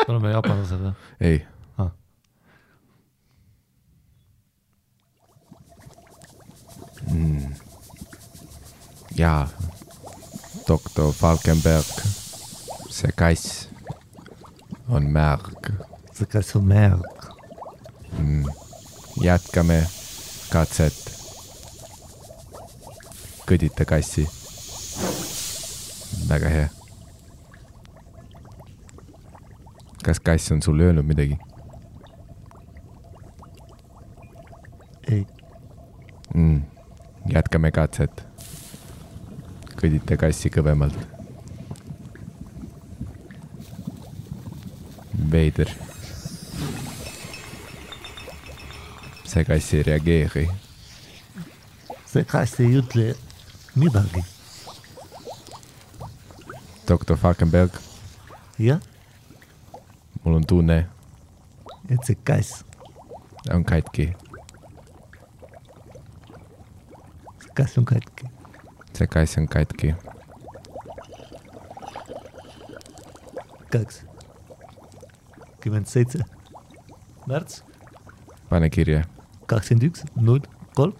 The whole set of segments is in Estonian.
oleme jaapanlased või? Ei. Jaa, doktor Falkenberg, see kass on märg. See kass on märg. Jätkame katset. Kõdita kassi. Väga hea. Kas kass on sul öelnud midagi? Ei. Jätkame katset. Kõdita kassi kõvemalt. Veider. See kass ei reageeri. See kass ei ütle midagi. Doktor Falkenberg. Jah? Mul on tunne. Et see kass on katki. See kass on katki. See kass on katki. 27. märts. Pane kirja. 21.03.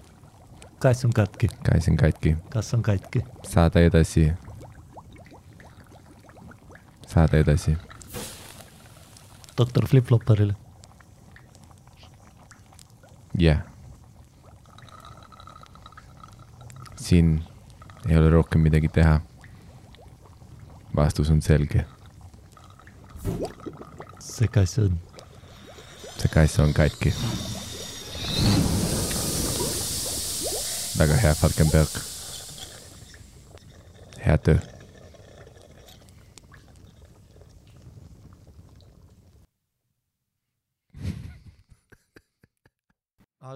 Kass on katki. Kass on katki. Kass on katki. Saada edasi. Saada edasi. Doktor Flip-Flopperile. Jah. Siin ei ole rohkem midagi teha. Vastus on selge. See kass on. See kass on katki. Väga hea, Falkenberg. Hea töö.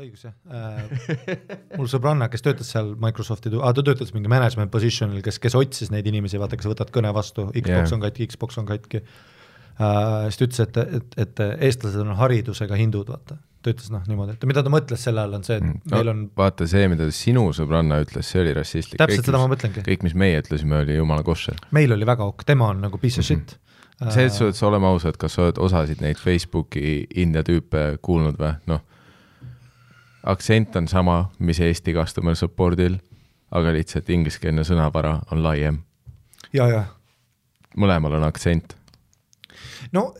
Õigus, jah. Mul sõbranna, kes töötas seal Microsofti, ta töötas mingi management positionil, kes otsis neid inimesi, vaata, kes võtad kõne vastu, Xbox on katki, Xbox on katki. Siis ta ütles, et eestlased on haridusega hindud, vaata. Ta ütles niimoodi, et mida ta mõtles selle all on see, et meil on... Vaata see, mida sinu sõbranna ütles, see oli rassistlik. Täpselt seda ma mõtlengi. Kõik, mis meie ütlesime, oli jumala koššer. Meil oli väga ok, tema on nagu piece of shit. See, et sa oleme ausad, kas sa oled osasid neid Facebooki India tüüpe kuulnud või? Noh, aktsent on sama, mis Eesti customer supportil, aga lihtsalt ingliskeelne sõnavara on laiem. Ja. Mõlemal on aktsent. No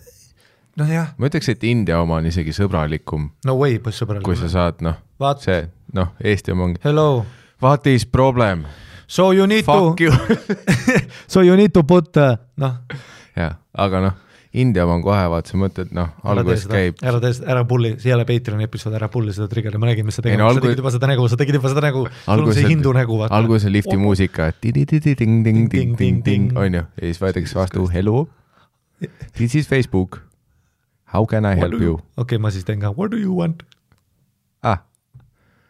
jah. Ma ütleks, et India oma on isegi sõbralikum. No way, sõbralikum. Kui sa saad, see, Eesti oma ongi. Hello. What is problem? So you need Fuck to... you. So you need to put... Ja, aga India on kohe, vaat sa mõtled, alguses käib... Ära pulli, siia Patreoni episood, ära pulli seda trigger'i, ma nägin, mis sa tegid. Sa tegid juba seda nägu, sul on see hindu nägu. Alguses on lifti muusika, ting-ting-ting-ting-ting-ting, on ju, ja siis võetakse vastu, hello, this is Facebook, how can I help you? Okei, ma siis teen ka, what do you want?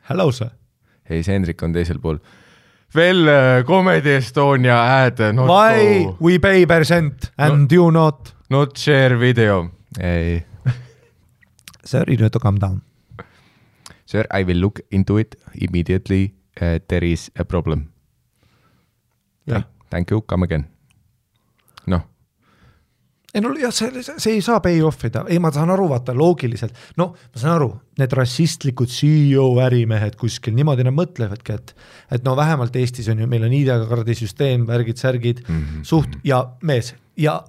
Hello, sir. Hei, see Hendrik on teisel pool. Veel Comedy Estonia ad, not why go. We pay percent and you not share video. Ei. Sir, you need to come down. Sir, I will look into it immediately. There is a problem. Yeah. Thank you, come again. See ei saa pay offida. Ei, ma saan aru, vaata, loogiliselt. Ma saan aru, need rassistlikud CEO ärimehed kuskil, niimoodi nad mõtlevadki, et vähemalt Eestis on ju, meil on ID-kaardi süsteem, värgid, särgid, suht ja mees. Ja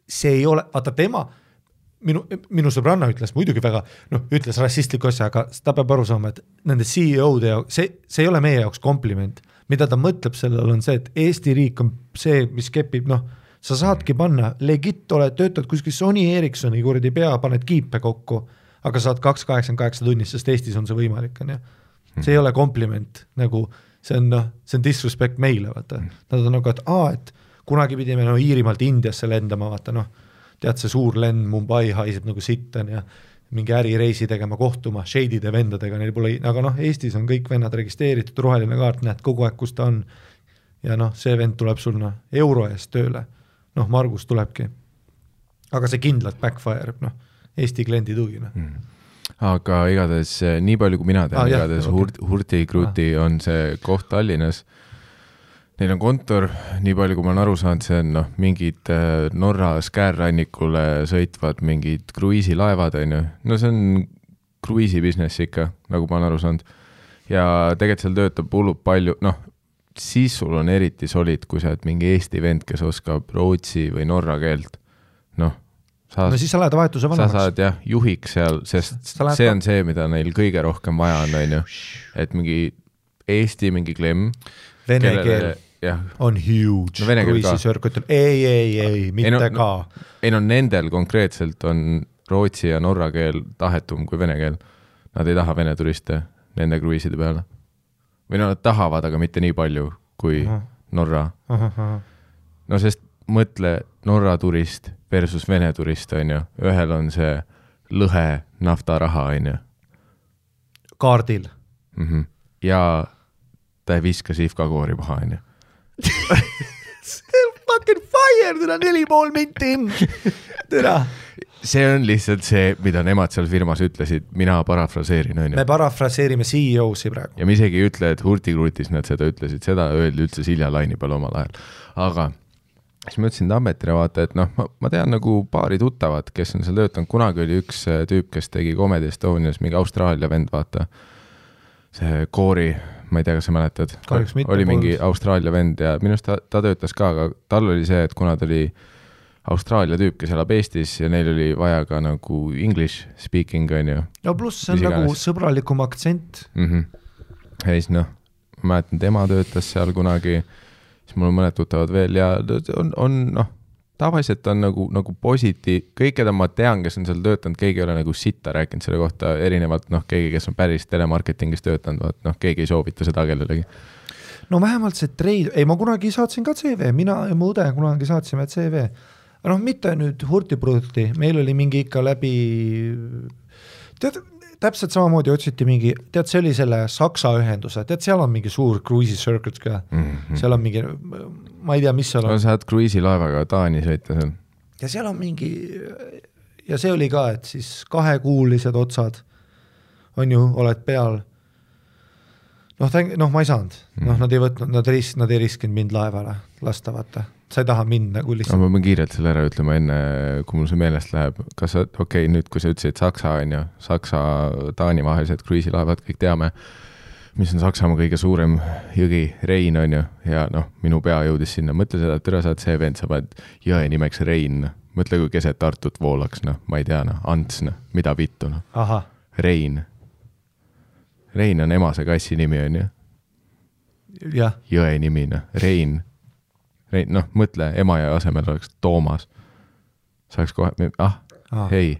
see ei ole, vaata tema, minu sõbranna ütles muidugi väga, ütles rassistliku asja, aga ta peab aru saama, et nende CEO-de jaoks, see ei ole meie jaoks kompliment. Mida ta mõtleb sellel on see, et Eesti riik on see, mis kepib, sa saadki panna, legit oled, töötad kuskil Sony Ericssoni kuradi pea, paned kiipe kokku, aga saad 288 tunnist, sest Eestis on see võimalik. On, ja? See ei ole kompliment, see on disrespect meile. Vaata. Nad on et kunagi pidime Iirimaalt Indiasse lendama, vaata, tead see suur lend Mumbai haiseb nagu sitten ja mingi ärireisi tegema kohtuma, shade'ide vendadega, neil pole, aga Eestis on kõik vennad registreeritud, roheline kaart, näed kogu aeg, kus ta on. Ja see vend tuleb sul euro eest tööle. Margus tulebki. Aga see kindlalt backfire, Eesti kliendi tugi. Aga igatahes, nii palju kui mina tean, igatahes Hurti Kruti on see koht Tallinnas. Neil on kontor, nii palju kui ma olen aru saanud, see on mingid Norra Skärrannikule sõitvad mingid kruiisilaevad, on ju. No see on kruiisi business ikka, nagu ma olen aru saanud. Ja tegelikult seal töötab hullult palju, siis sul on eriti solid, kui sa oled mingi Eesti vend, kes oskab rootsi või norra keelt. No siis sa lähed vahetuse vanemaks. Sa saad juhiks seal, sest see on see, mida neil kõige rohkem vaja on ju. Et mingi Eesti mingi klemm. Vene keel on huge. No, kruiisisörkutel. Ei, mitte ka. Ei, nendel konkreetselt on rootsi ja norra keel tahetum kui vene keel. Nad ei taha vene turiste nende kruiiside peale. Või nad tahavad, aga mitte nii palju kui Norra. No sest mõtle Norra turist versus vene turist, on ju. Ühel on see lõhe naftaraha, on ju. Kaardil. Ja ta ei viska sihvkakoori paha, on ju. Fucking fire, täna 4,5 minti. Täna. See on lihtsalt see, mida nemad seal firmas ütlesid, mina parafraseerin, on ju. Me parafraseerime CEO-si praegu. Ja me isegi ei ütle, et hurtikruutis nad seda ütlesid, seda öeldi üldse Silja Laini peal omal ajal. Aga siis ma ütlesin Tammetile vaata, et ma tean nagu paari tuttavat, kes on seal töötanud. Kunagi oli üks tüüp, kes tegi Comedy Estonias, mingi Austraalia vend, vaata. See Koori, ma ei tea, kas sa mäletad. Oli mingi Austraalia vend ja minust ta töötas ka, aga tal oli see, et kuna ta oli Austraalia tüüp, kes elab Eestis ja neil oli vaja ka nagu English speaking, on ju. No pluss see on nagu sõbralikum aktsent. Ja siis ma mäletan, tema töötas seal kunagi, siis mul on mõned tuttavad veel ja on tavaliselt on nagu kõik, keda ma tean, kes on seal töötanud, keegi ei ole nagu sitta rääkinud selle kohta, erinevalt keegi, kes on päris telemarketingis töötanud, keegi ei soovita seda kellelegi. No vähemalt see trade, ma kunagi saatsin ka CV, mina ja mu õde kunagi saatsime CV. Mitte nüüd hurtiprodukti, meil oli mingi ikka läbi, täpselt samamoodi otsiti mingi, see oli selle Saksa ühenduse, seal on mingi suur cruisi circuit ka, seal on mingi, ma ei tea, mis seal on. Sa oled cruisilaevaga Taani sõita seal. Ja seal on mingi, ja see oli ka, et siis 2-kuulised otsad on ju, oled peal. Ma ei saanud, nad ei võtnud, nad ei riskinud mind laevale lasta, vaata. Sa ei taha minna kui lihtsalt. Ma pean kiirelt selle ära ütlema enne, kui mul see meelest läheb. Kas nüüd kui sa ütlesid Saksa, on ju, Saksa-Taani vahelised kruiisilaevad, kõik teame, mis on Saksamaa kõige suurem jõgi, Rein, on ju, ja minu pea jõudis sinna. Mõtle seda, et üle saad see vend, sa paned jõe nimeks Rein. Mõtle, kui keset Tartut voolaks, ma ei tea, Ants, mida vittu. Rein. Rein on emase kassi nimi, on ju. Jõe nimi, Rein. Mõtle, ema ja asemel oleks Toomas. Saaks kohe, hei.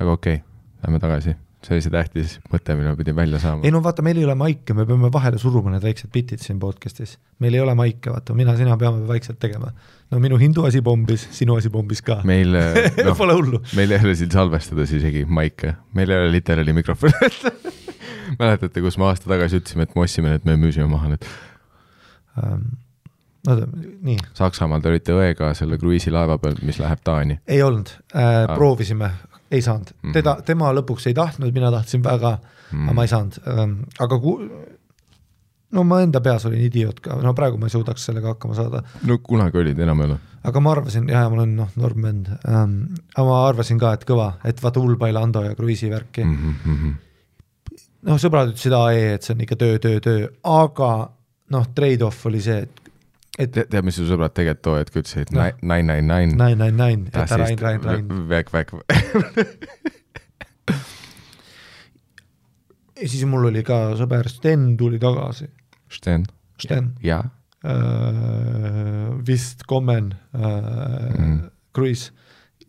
Aga okei, lähme tagasi. See oli see tähtis mõte, mille pidin välja saama. Ei vaata, meil ei ole maike, me peame vahele suruma need väiksed bitid siin podcastis. Meil ei ole maike, vaata, sina peame vaikselt tegema. Minu hindu asi bombis, sinu asi bombis ka. Meil, pole hullu. Meil ei ole siin salvestades isegi maike. Meil ei ole literaali mikrofon. Mäletate, kus me aasta tagasi ütlesime, et me ossime, et me müüsime maha nüüd. Nii. Saksamaal te olite õega selle kruiisilaeva peal, mis läheb Taani. Ei olnud, proovisime, ei saanud. Tema lõpuks ei tahtnud, mina tahtsin väga, aga ma ei saanud. Aga ma enda peas olin idioot ka, praegu ma ei suudaks sellega hakkama saada. Kunagi olid enam ei ole. Aga ma arvasin, ma olen normend, aga ma arvasin ka, et kõva, et vaata Ulbai Lando ja kruiisivärki. Sõbrad ütlesid et see on ikka töö, aga trade-off oli see, et tead, mis su sõbrad tegelikult too, et kui ütlesid 999. 999, jäta Rain. Väk. Ja siis mul oli ka sõber Sten tuli tagasi. Sten. Ja. Vist Kommen Cruise.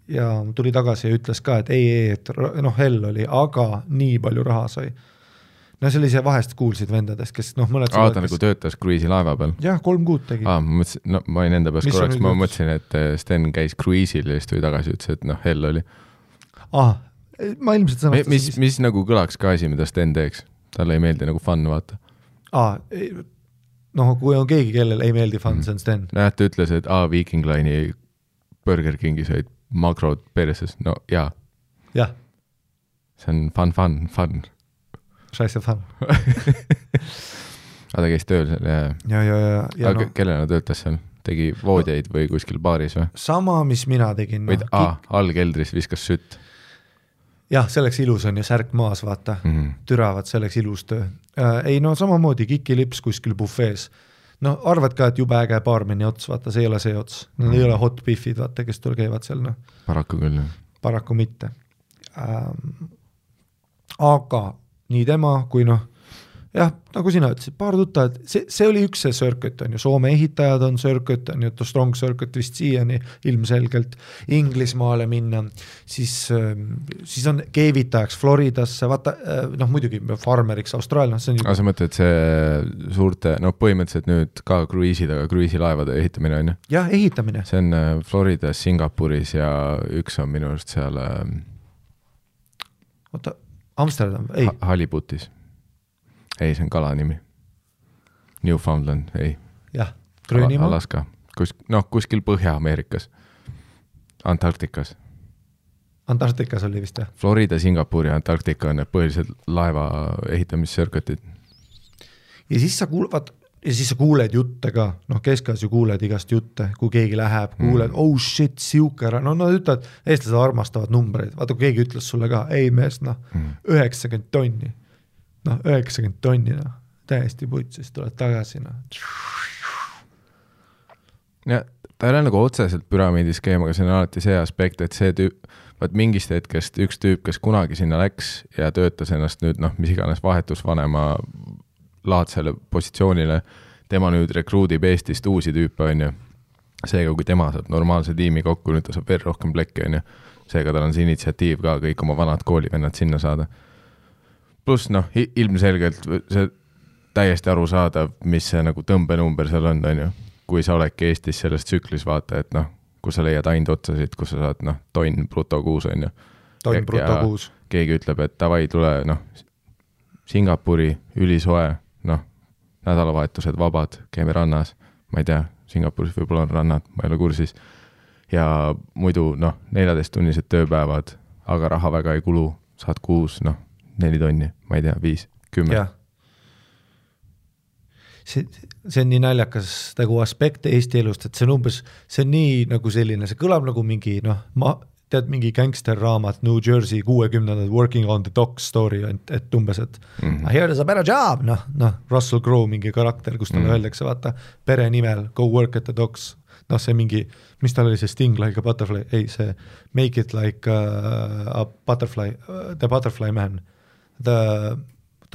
Ja tuli tagasi ja ütles ka, et et hell oli, aga nii palju raha sai. See oli see vahest kuulsid vendadest, kes mõned ta nagu töötas kruiisilaeva peal? Jah, 3 kuud tegi. Ma olin enda peas korraks, ma mõtlesin, et Sten käis kruiisil ja siis tuli tagasi, ütles, et hell oli. Ma ilmselt sõnastas. Mis nagu kõlaks ka asi, mida Sten teeks? Talle ei meeldi nagu fun, vaata. Kui on keegi, kellel ei meeldi fun, see on Sten. Ta ütles, et Viking Line'i Burger Kingi said makrod perses. Jaa. Jah. See on fun. Scheiße fun. ta käis tööl seal ja aga kellena töötas seal? Tegi voodjaid või kuskil baaris või? Sama, mis mina tegin. Või all keldris viskas sütt? Jah, selleks ilus on ja särk maas, vaata. Türavad selleks ilus töö. Ei no samamoodi kikilips kuskil bufees. No arvad ka, et jube äge baarmeni ots, vaata, see ei ole see ots. Need ei ole hot biffid, vaata, kes tul käivad seal. No. Paraku küll. Paraku mitte. Aga nii tema kui jah, nagu sina ütlesid, paar tuttavad, see oli üks see circuit on ju, Soome ehitajad on circuit, on ju, Strong Circuit vist siiani ilmselgelt Inglismaale minna, siis on keevitajaks Floridasse, vaata, muidugi farmeriks Austraalias. Aga sa mõtled see suurte, põhimõtteliselt nüüd ka kruiisilaevade ehitamine on ju? Jah, ehitamine. See on Floridas, Singapuris ja üks on minu arust seal Amsterdam, ei. Halibutis. Ei, see on kala nimi. Newfoundland, ei. Jah, Gröönimaa. Alaska. Kuskil Põhja-Ameerikas. Antarktikas. Antarktikas oli vist, jah? Florida, Singapur ja Antarktika on need põhilised laeva ehitamissirkutid. Ja siis sa kuuled jutte ka. Keskas ju kuuled igast jutte, kui keegi läheb, kuuled, oh shit, siuke ära. Nad ütlevad, eestlased armastavad numbreid. Vaata, kui keegi ütles sulle ka, ei mees, 90 tonni. 90 tonni, täiesti putt, siis tuled tagasi. Ja ta ei ole nagu otseselt püramiidiskeem, aga see on alati see aspekt, et see mingist hetkest üks tüüp, kes kunagi sinna läks ja töötas ennast nüüd, mis iganes vahetusvanema laadsele positsioonile, tema nüüd rekruudib Eestist uusi tüüpe, on ju. Seega, kui tema saab normaalse tiimi kokku, nüüd ta saab veel rohkem plekki, on ju. Seega tal on see initsiatiiv ka kõik oma vanad koolivennad sinna saada. Plus ilmselgelt see täiesti aru saadav, mis see nagu tõmbenumber seal on ju. Kui sa oledki Eestis selles tsüklis vaata, et kus sa leiad ainult otsasid, kus sa saad tonn bruto kuus on ju. Tonn bruto kuus. Keegi ütleb, et davai tule Singapuri ülisoe, nädalavahetused vabad, käime rannas, ma ei tea, Singapuris võib-olla on rannad, ma ei ole kursis. Ja muidu 14-tunnised tööpäevad, aga raha väga ei kulu, saad kuus, 4 tonni, ma ei tea, 5, 10. Ja. See on nii naljakas nagu aspekt Eesti elust, et see on nii nagu selline, see kõlab nagu mingi, tead mingi gangsterraamat New Jersey 60-ndad Working on the Docks story, et umbes, et here is a better job, Russell Crowe mingi karakter, kus talle öeldakse, vaata, pere nimel, go work at the docks, see mingi, mis tal oli see Sting like a butterfly, ei see make it like a butterfly, the butterfly man. Ta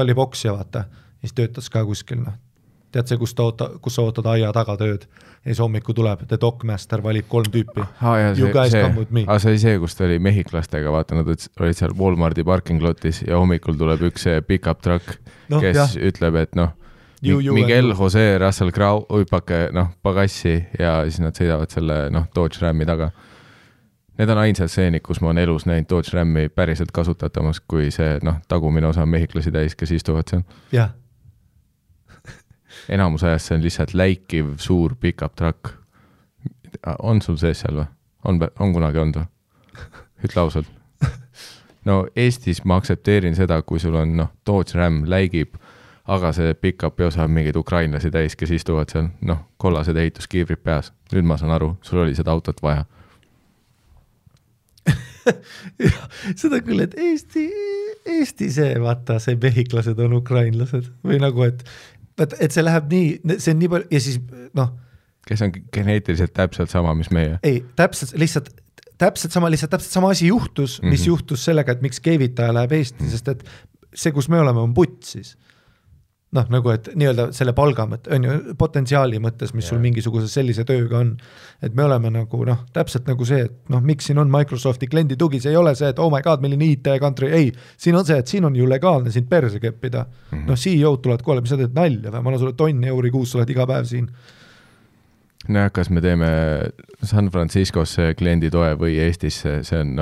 oli poksja, vaata, ja siis töötas ka kuskil, tead see, kus sa ootad aia taga tööd, ja siis hommiku tuleb, the dockmaster valib 3 tüüpi. You guys come with me. See oli see, kus ta oli mehhiklastega, vaata, nad olid seal Walmarti parking lotis ja hommikul tuleb üks pick-up truck, kes ütleb, et Miguel Jose Russell Crowe, uipake pagassi ja siis nad sõidavad selle Dodge Rammi taga. Need on ainsad seenid, kus ma on elus näinud Dodge Rammi päriselt kasutatamas, kui see tagumine osa mehhiklasi täis, kes istuvad seal. Jah. Enamus ajast see on lihtsalt läikiv suur pick-up truck. On sul sees seal või? On kunagi olnud või? Ütle ausalt. Eestis ma aktsepteerin seda, kui sul on Dodge Ram läigib, aga see pick-up osa on mingid ukrainlasi täis, kes istuvad seal, kollased ehituskiivrid peas. Nüüd ma saan aru, sul oli seda autot vaja. Seda küll, et Eesti see, vaata, see mehhiklased on ukrainlased või nagu, et see läheb nii, see on nii palju ja siis, kes on geneetiliselt täpselt sama, mis meie? Ei, täpselt sama asi juhtus, mis juhtus sellega, et miks keevitaja läheb Eesti, sest et see, kus me oleme, on putt siis. Nagu, et nii-öelda selle palga mõtte, on ju, potentsiaali mõttes, mis sul mingisuguse sellise tööga on, et me oleme nagu, täpselt nagu see, et miks siin on Microsofti kliendi tugi, see ei ole see, et oh my god, milline IT-country, ei, siin on see, et siin on ju legaalne siin perse keppida, CEO-d tulevad koole, mis sa teed nalja või ma olen sulle tonni euri kuus, sa oled iga päev siin. Kas me teeme San Franciscosse kliendi toe või Eestisse, see on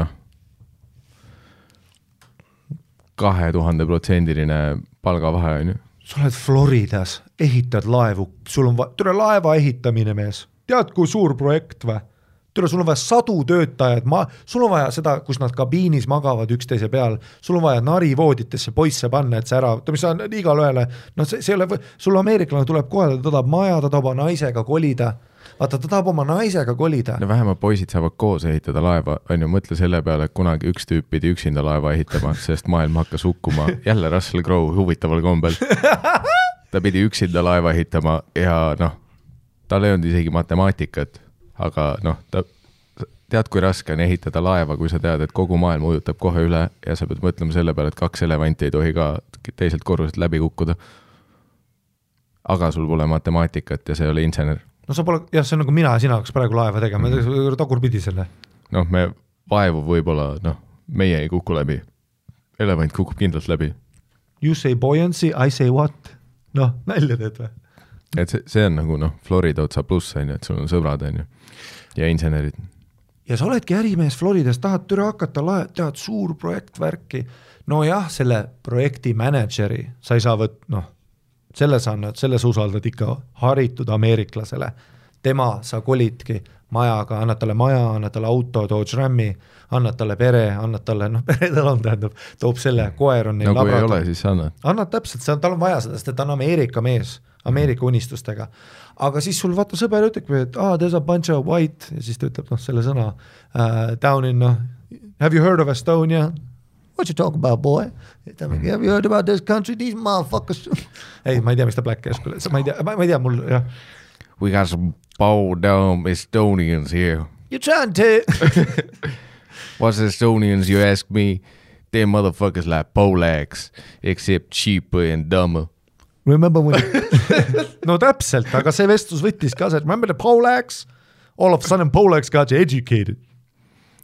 2000% palgavahe on ju. Sa oled Floridas, ehitad laevu, sul on laeva ehitamine mees. Tead, kui suur projekt või? Türa, sul on vaja 100 töötajad, sul on vaja seda, kus nad kabiinis magavad üksteise peal, sul on vaja narivooditesse poisse panna, et see ära, mis on igal ühele, no see ei ole, sul ameeriklane tuleb kohale, ta tahab maja, ta tahab naisega kolida, vaata, ta tahab oma naisega kolida. No vähemalt poisid saavad koos ehitada laeva, on ju, mõtle selle peale, et kunagi üks tüüp pidi üksinda laeva ehitama, sest maailm hakkas hukkuma, jälle Russell Crowe huvitaval kombel. Ta pidi üksinda laeva ehitama ja noh, tal ei olnud isegi matemaatikat, aga noh, tead, kui raske on ehitada laeva, kui sa tead, et kogu maailm ujutab kohe üle ja sa pead mõtlema selle peale, et 2 elevanti ei tohi ka teiselt korruselt läbi kukkuda. Aga sul pole matemaatikat ja see oli insener. No sa pole, jah, see on nagu mina ja sina hakkas praegu laeva tegema, tagurpidi selle. Noh, me vaevu võib-olla, noh, meie ei kuku läbi. Elevant kukub kindlalt läbi. You say buoyancy, I say what? Noh, nälja teed või? Et see on nagu, noh, Florida otsa pluss, on ju, et sul on sõbrad, on ju, ja insenerid. Ja sa oledki ärimees Floridas, tahad türa hakata, tead suur projektvärki. No jah, selle projekti manageri sa ei saa noh, selle sa usaldad ikka haritud ameeriklasele. Tema sa kolidki majaga, annad talle maja, annad talle auto, Dodge Rammi, annad talle pere, annad talle, noh, pere tal on, tähendab, toob selle, koer on neil no kui ei ole, siis annad. Annad täpselt, tal on vaja seda, sest et ta on Ameerika mees, Ameerika unistustega. Aga siis sul vaata sõber ütleb, et there's a bunch of white, ja siis ta ütleb, noh, selle sõna down in, have you heard of Estonia? What you talk about, boy? Have you heard about this country? These motherfuckers. Ei, ma ei tea, mis ta Black Ash, ma ei tea, mul, jah. We got some bow down Estonians here. You trying to... What's Estonians, you ask me? Them motherfuckers like Polacks, except cheaper and dumber. Remember when... No täpselt, aga see vestlus võttis ka see, remember the Polacks? All of a sudden Polacks got you educated.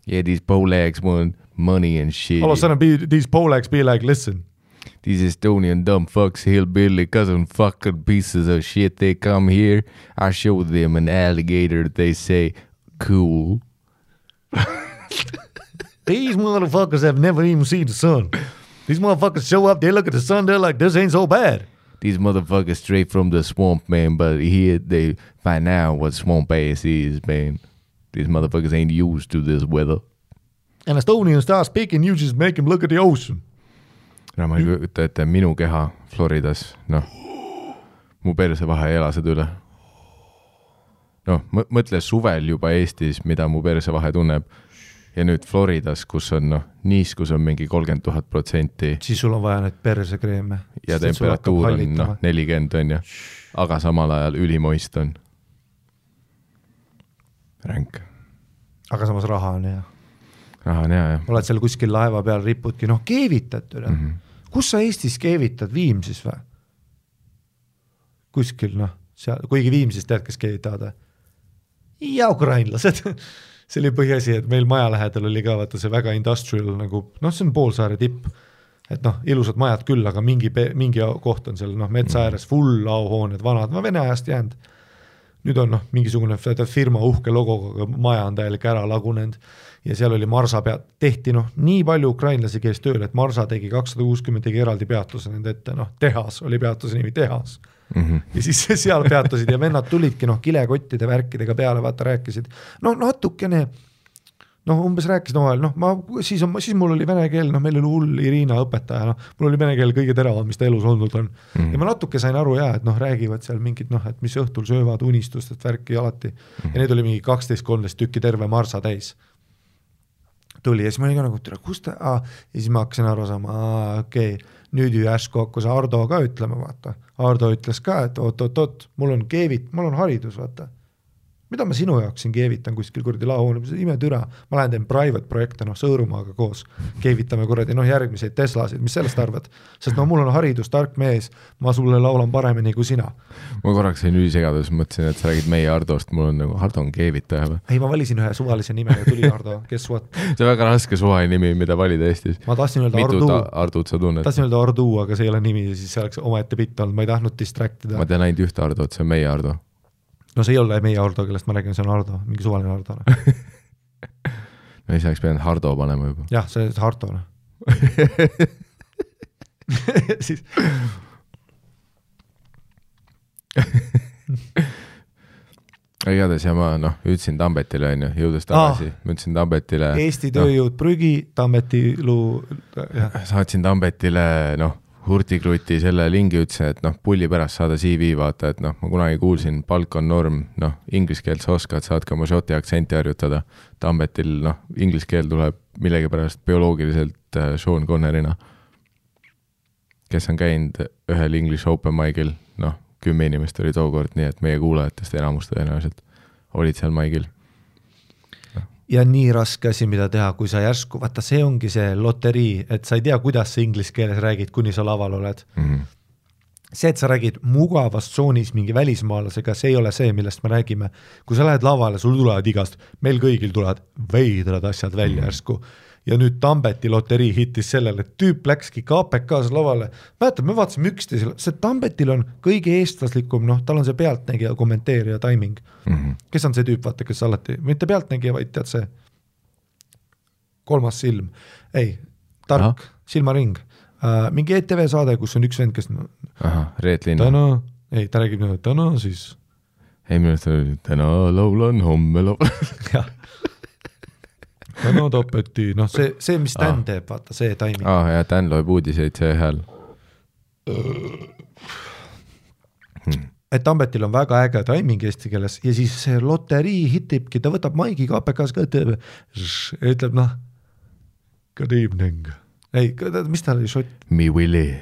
Yeah, these Polacks want money and shit. All of a sudden these Polacks be like, listen. These Estonian dumb fucks, hillbilly cousin fucking pieces of shit, they come here, I show them an alligator, they say, cool. These motherfuckers have never even seen the sun. These motherfuckers show up, they look at the sun, they're like, this ain't so bad. These motherfuckers straight from the swamp, man, but here they find out what swamp ass is, man. These motherfuckers ain't used to this weather. And Estonian start speaking, you just make him look at the ocean. No ma ei kujuta ette minu keha Floridas, noh, mu perse vahe ei ela seda üle. Noh, mõtle suvel juba Eestis, mida mu perse vahe tunneb, ja nüüd Floridas, kus on, noh, niiskus on mingi 30,000%. Siis sul on vaja need persekreeme. Ja temperatuur on, noh, 40 on ja, aga samal ajal ülimoist on. Ränk. Aga samas raha on hea. Raha on hea, jah. Oled seal kuskil laeva peal, ripudki, noh, keevitad üle. Kus sa Eestis keevitad? Viimsis või? Kuskil, noh, seal, kuigi Viimsis tead, kes keevitavad? Ja ukrainlased. See oli põhiasi, et meil maja lähedal oli ka vaata see väga industrial, nagu, noh, see on poolsaare tipp, et noh, ilusad majad küll, aga mingi koht on seal, noh, metsa ääres, full auhooned, vanad, Vene ajast jäänud. Nüüd on, noh, mingisugune firma uhke logoga, maja on täielik ära lagunenud ja seal oli Marsa tehti, noh, nii palju ukrainlasi käis tööl, et Marsa tegi 260 tegi eraldi peatuse nende ette, noh, tehas oli peatuse nimi tehas. Ja siis seal peatusid ja vennad tulidki, noh, kilekottide värkidega peale, vaata, rääkisid, noh, natukene, noh, umbes rääkisid omavahel, noh, siis mul oli vene keel, noh, meil oli hull Irina õpetaja, noh, mul oli vene keel kõige teravad, mis ta elus olnud on. Ja ma natuke sain aru, et noh, räägivad seal mingid, noh, et mis õhtul söövad unistustest värki alati. Ja need oli mingi 12-13 tükki terve Marsa täis. Tuli ja siis ma olin ka nagu, kus ta, ja siis ma hakkasin aru saama, okei, nüüd ju järsku hakkas Ardo ka ütlema, vaata. Ardo ütles ka, et oot, mul on haridus, vaata. Mida ma sinu jaoks siin keevitan kuskil kuradi laohoone, ime türa, ma lähen teen private projekte, noh, Sõõrumaaga koos, keevitame kuradi, noh, järgmiseid Teslasid, mis sellest arvad? Sest no mul on haridus, tark mees, ma sulle laulan paremini kui sina. Ma korraks sain ülisegadus, mõtlesin, et sa räägid meie Ardost, mul on nagu Ardo on keevitaja. Ei, ma valisin ühe suvalise nime ja tuli Ardo, guess what? See on väga raske suvaline nimi, mida valida Eestis. Ma tahtsin öelda Ardu. Mitut Ardut sa tunned? Tahtsin öelda Ardu, aga see ei ole nimi ja siis see oleks omaette pitt olnud, ma ei tahtnud distractida. Ma tean ainult ühte Ardot, see on meie Ardo. No see ei ole meie Ardo, kellest ma räägin, see on Ardo, mingi suvaline Ardo. No ei saaks pidanud Hardo panema juba. Jah, see on Hardo. Siis... igatahes ja ma ütlesin Tambetile on ju, jõudes tagasi, ma ütlesin Tambetile Eesti tööjõud prügi, Tambeti luu saatsin Tambetile hurtikruti selle lingi, ütlesin, et pulli pärast saada CV vaata, et ma kunagi kuulsin, palk on norm, inglise keelt sa oskad, saadki oma šoti aktsenti harjutada. Tambetil inglise keel tuleb millegipärast bioloogiliselt Sean Connerina, kes on käinud ühel English Open Mic'il, 10 inimest oli tookord, nii et meie kuulajatest enamus tõenäoliselt olid seal Mic'il. Ja nii raske asi, mida teha, kui sa järsku, vaata see ongi see loterii, et sa ei tea, kuidas sa inglise keeles räägid, kuni sa laval oled. See, et sa räägid mugavas tsoonis mingi välismaalasega, see ei ole see, millest me räägime. Kui sa lähed lavale, sul tulevad igast, meil kõigil tulevad veidrad asjad välja järsku. Ja nüüd Tambeti loterii hittis sellele, et tüüp läkski KPK-s lavale. Mäletad, me vaatasime üksteisele, see Tambetil on kõige eestlaslikum, tal on see pealtnägija, kommenteerija, timing. Kes on see tüüp, vaata, kes alati, mitte pealtnägija, vaid tead see kolmas silm. Ei, tark, silmaring. Mingi ETV saade, kus on üks vend, kes Reet Linna. Ta räägib täna siis. Ei, minust oli täna laulan, homme laulan. Jah. Täna Tambeti, see, mis Dan teeb, vaata, see timing. Ja Dan loeb uudiseid see hääl. Et Tambetil on väga äge timing eesti keeles ja siis see loterii hitibki, ta võtab maigi KPK-s ka, ütleb good evening. Ei, mis ta oli, šot? Me Willy.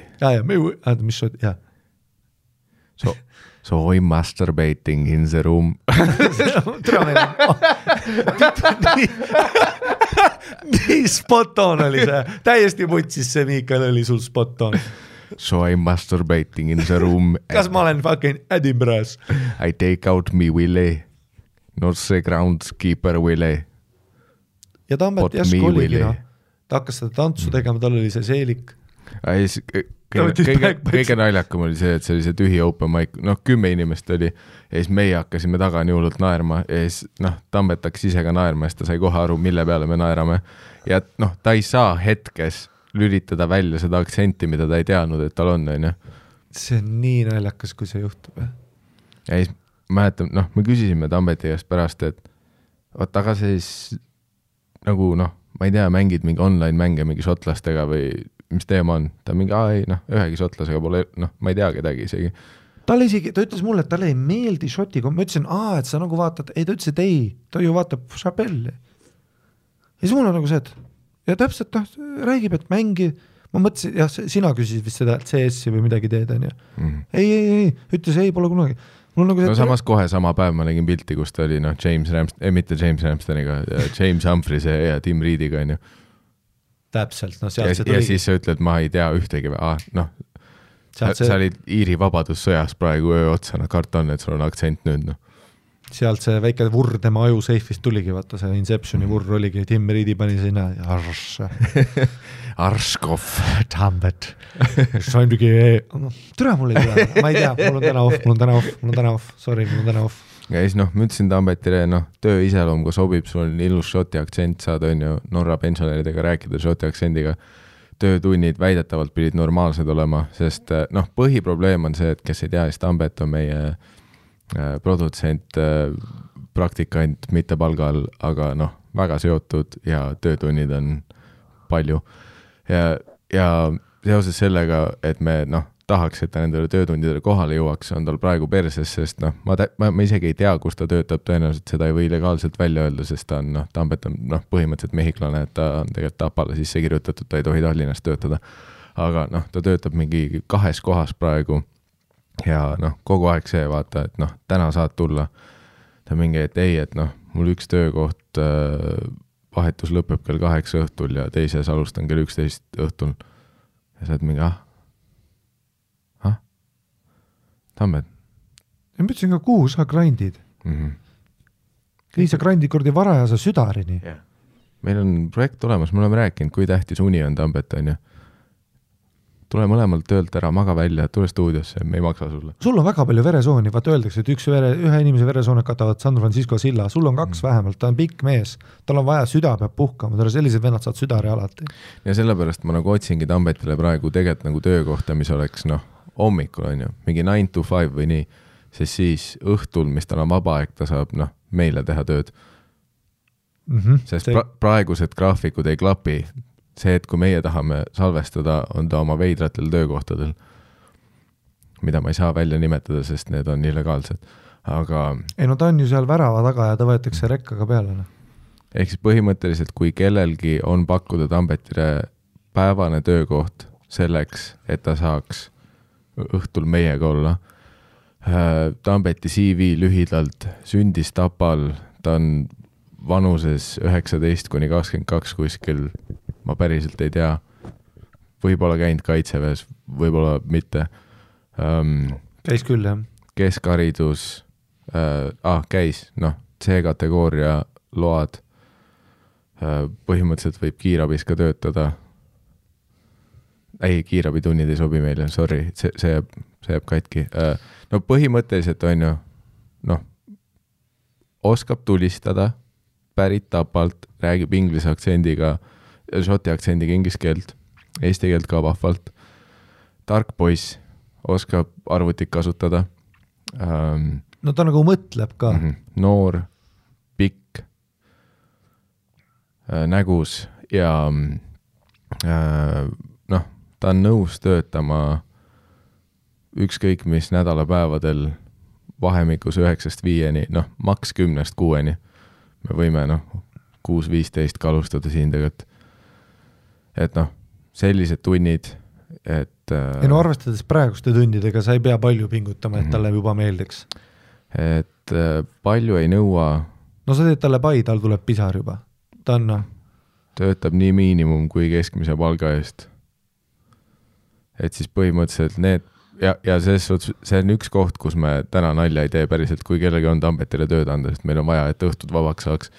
Mis šot, jah. So I'm masturbating in the room. Nii spot on oli see. Täiesti mutsis see Miikael oli sul spot on. So I'm masturbating in the room. Kas ma olen fucking Edinburgh's? I take out me Willy. Not see groundskeeper Willy. Ja Tambet järsku oligi. Ta hakkas seda tantsu tegema, tal oli see seelik. Kõige naljakam oli see, et see oli see tühi open mic, 10 inimest oli ja siis meie hakkasime taga nii hullult naerma ja siis Tambet hakkas ise ka naerma ja siis ta sai kohe aru, mille peale me naerame ja ta ei saa hetkes lülitada välja seda aktsenti, mida ta ei teadnud, et tal on. See on nii naljakas, kui see juhtub. Ja siis mäletan, me küsisime Tambeti käest pärast, et aga siis ma ei tea, mängid mingi online mänge mingi šotlastega või mis teema on, ta mingi, ühegi šotlasega pole, ma ei tea kedagi isegi. Ta ütles mulle, et talle ei meeldi šotiga, ma ütlesin, et sa vaatad, ei, ta ütles, et ei, ta ju vaatab Chappelli. Ja siis mul on see, et ja täpselt räägib, et mängi, ma mõtlesin, jah, sina küsisid vist seda CS-i või midagi teed, on ju. Ei, ütles ei, pole kunagi. Samas kohe sama päev ma nägin pilti, kus ta oli, mitte James Ramstoniga, James Humphries ja Tim Reediga, on ju. Täpselt, sealt see tuligi. Ja siis sa ütled, ma ei tea ühtegi, sa olid Iiri vabadussõjas praegu öö otsa, karton, et sul on aktsent nüüd. Sealt see väike vurr tema aju seifist tuligi, vaata see Inceptioni vurr oligi, Tim Reedi pani sinna Arskov. Tambet. Türa mul ei tule, ma ei tea, mul on täna off, sorry, mul on täna off. Ja siis ma ütlesin Tambetile, töö iseloom, kui sobib, sul on ilus šoti aktsent, saad on ju Norra pensionäridega rääkida šoti aktsendiga. Töötunnid väidetavalt pidid normaalsed olema, sest põhiprobleem on see, et kes ei tea, siis Tambet on meie produtsent, praktikant, mitte palgal, aga väga seotud ja töötunnid on palju. Ja seoses sellega, et me tahaks, et ta nendele töötundidele kohale jõuaks, on tal praegu perses, sest ma isegi ei tea, kus ta töötab, tõenäoliselt seda ei või legaalselt välja öelda, sest ta on, Tambet on põhimõtteliselt mehiklane, et ta on tegelikult Tapale sisse kirjutatud, ta ei tohi Tallinnas töötada. Aga ta töötab mingi 2 kohas praegu ja kogu aeg see vaata, et täna saad tulla. Ta mingi, et ei, et mul üks töökoht vahetus lõpeb kell 8 õhtul ja teises alustan kell 11 õhtul. Ja sa oled mingi, Tambet. Ja ma ütlesin ka, kuhu sa grindid? Ei, sa grindid kordi varajase südarini. Yeah. Meil on projekt olemas, me oleme rääkinud, kui tähtis uni on Tambet, on ju. Tule mõlemalt töölt ära, maga välja, tule stuudiosse, me ei maksa sulle. Sul on väga palju veresooni, vaata öeldakse, et ühe inimese veresooned katavad San Francisco silla, sul on 2 vähemalt, ta on pikk mees, tal on vaja süda peab puhkama, tal on sellised vennad saad südari alati. Ja sellepärast ma otsingi Tambetile praegu tegelikult töökohta, mis oleks hommikul on ju, mingi 9 to 5 või nii, sest siis õhtul, mis tal on vaba aeg, ta saab meile teha tööd. Sest praegused graafikud ei klapi. See, et kui meie tahame salvestada, on ta oma veidratel töökohtadel, mida ma ei saa välja nimetada, sest need on illegaalsed. Aga ei no ta on ju seal värava taga ja ta võetakse rekkaga peale. Ehk siis põhimõtteliselt, kui kellelgi on pakkuda Tambetile päevane töökoht selleks, et ta saaks õhtul meiega olla. Tambeti CV lühidalt sündis Tapal, ta on vanuses 19–22 kuskil, ma päriselt ei tea, võib-olla käinud kaitseväes, võib-olla mitte. Käis küll, jah. Keskharidus, käis, C-kategooria load, põhimõtteliselt võib kiirabis ka töötada. Ei, kiirabitunnid ei sobi meile, sorry, see jääb katki. No põhimõtteliselt on ju, oskab tulistada, pärit Tapalt, räägib inglise aktsendiga, šoti aktsendiga inglise keelt, eesti keelt ka vahvalt. Tark poiss, oskab arvutit kasutada. No ta nagu mõtleb ka. Noor, pikk, nägus ja ta on nõus töötama ükskõik mis nädalapäevadel vahemikus 9–5, maks 10–6. Me võime 6–15 kalustada siin tegelikult. Et sellised tunnid, et ei no arvestades praeguste tundidega sa ei pea palju pingutama, et talle juba meeldiks. Et palju ei nõua. No sa teed talle pai, tal tuleb pisar juba. Ta on töötab nii miinimum kui keskmise palga eest. Et siis põhimõtteliselt need ja see on üks koht, kus me täna nalja ei tee päriselt, kui kellegi on Tambetile tööd anda, sest meil on vaja, et õhtud vabaks saaks.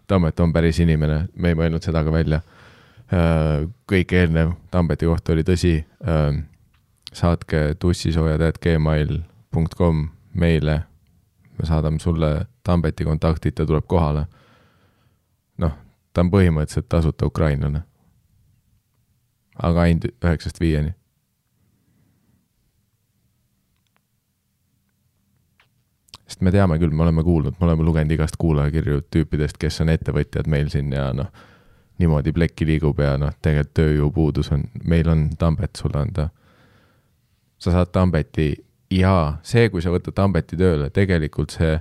Tambet on päris inimene, me ei mõelnud seda ka välja. Kõik eelnev Tambeti kohta oli tõsi. Saatke tussisoojad@gmail.com meile. Me saadame sulle Tambeti kontaktid, ta tuleb kohale. Ta on põhimõtteliselt tasuta ukrainlane. Aga ainult 9–5. Sest me teame küll, me oleme kuulnud, me oleme lugenud igast kuulajakirju tüüpidest, kes on ettevõtjad meil siin ja niimoodi plekki liigub ja tegelikult tööjõupuudus on, meil on Tambet sulle anda. Sa saad Tambeti ja see, kui sa võtad Tambeti tööle, tegelikult sa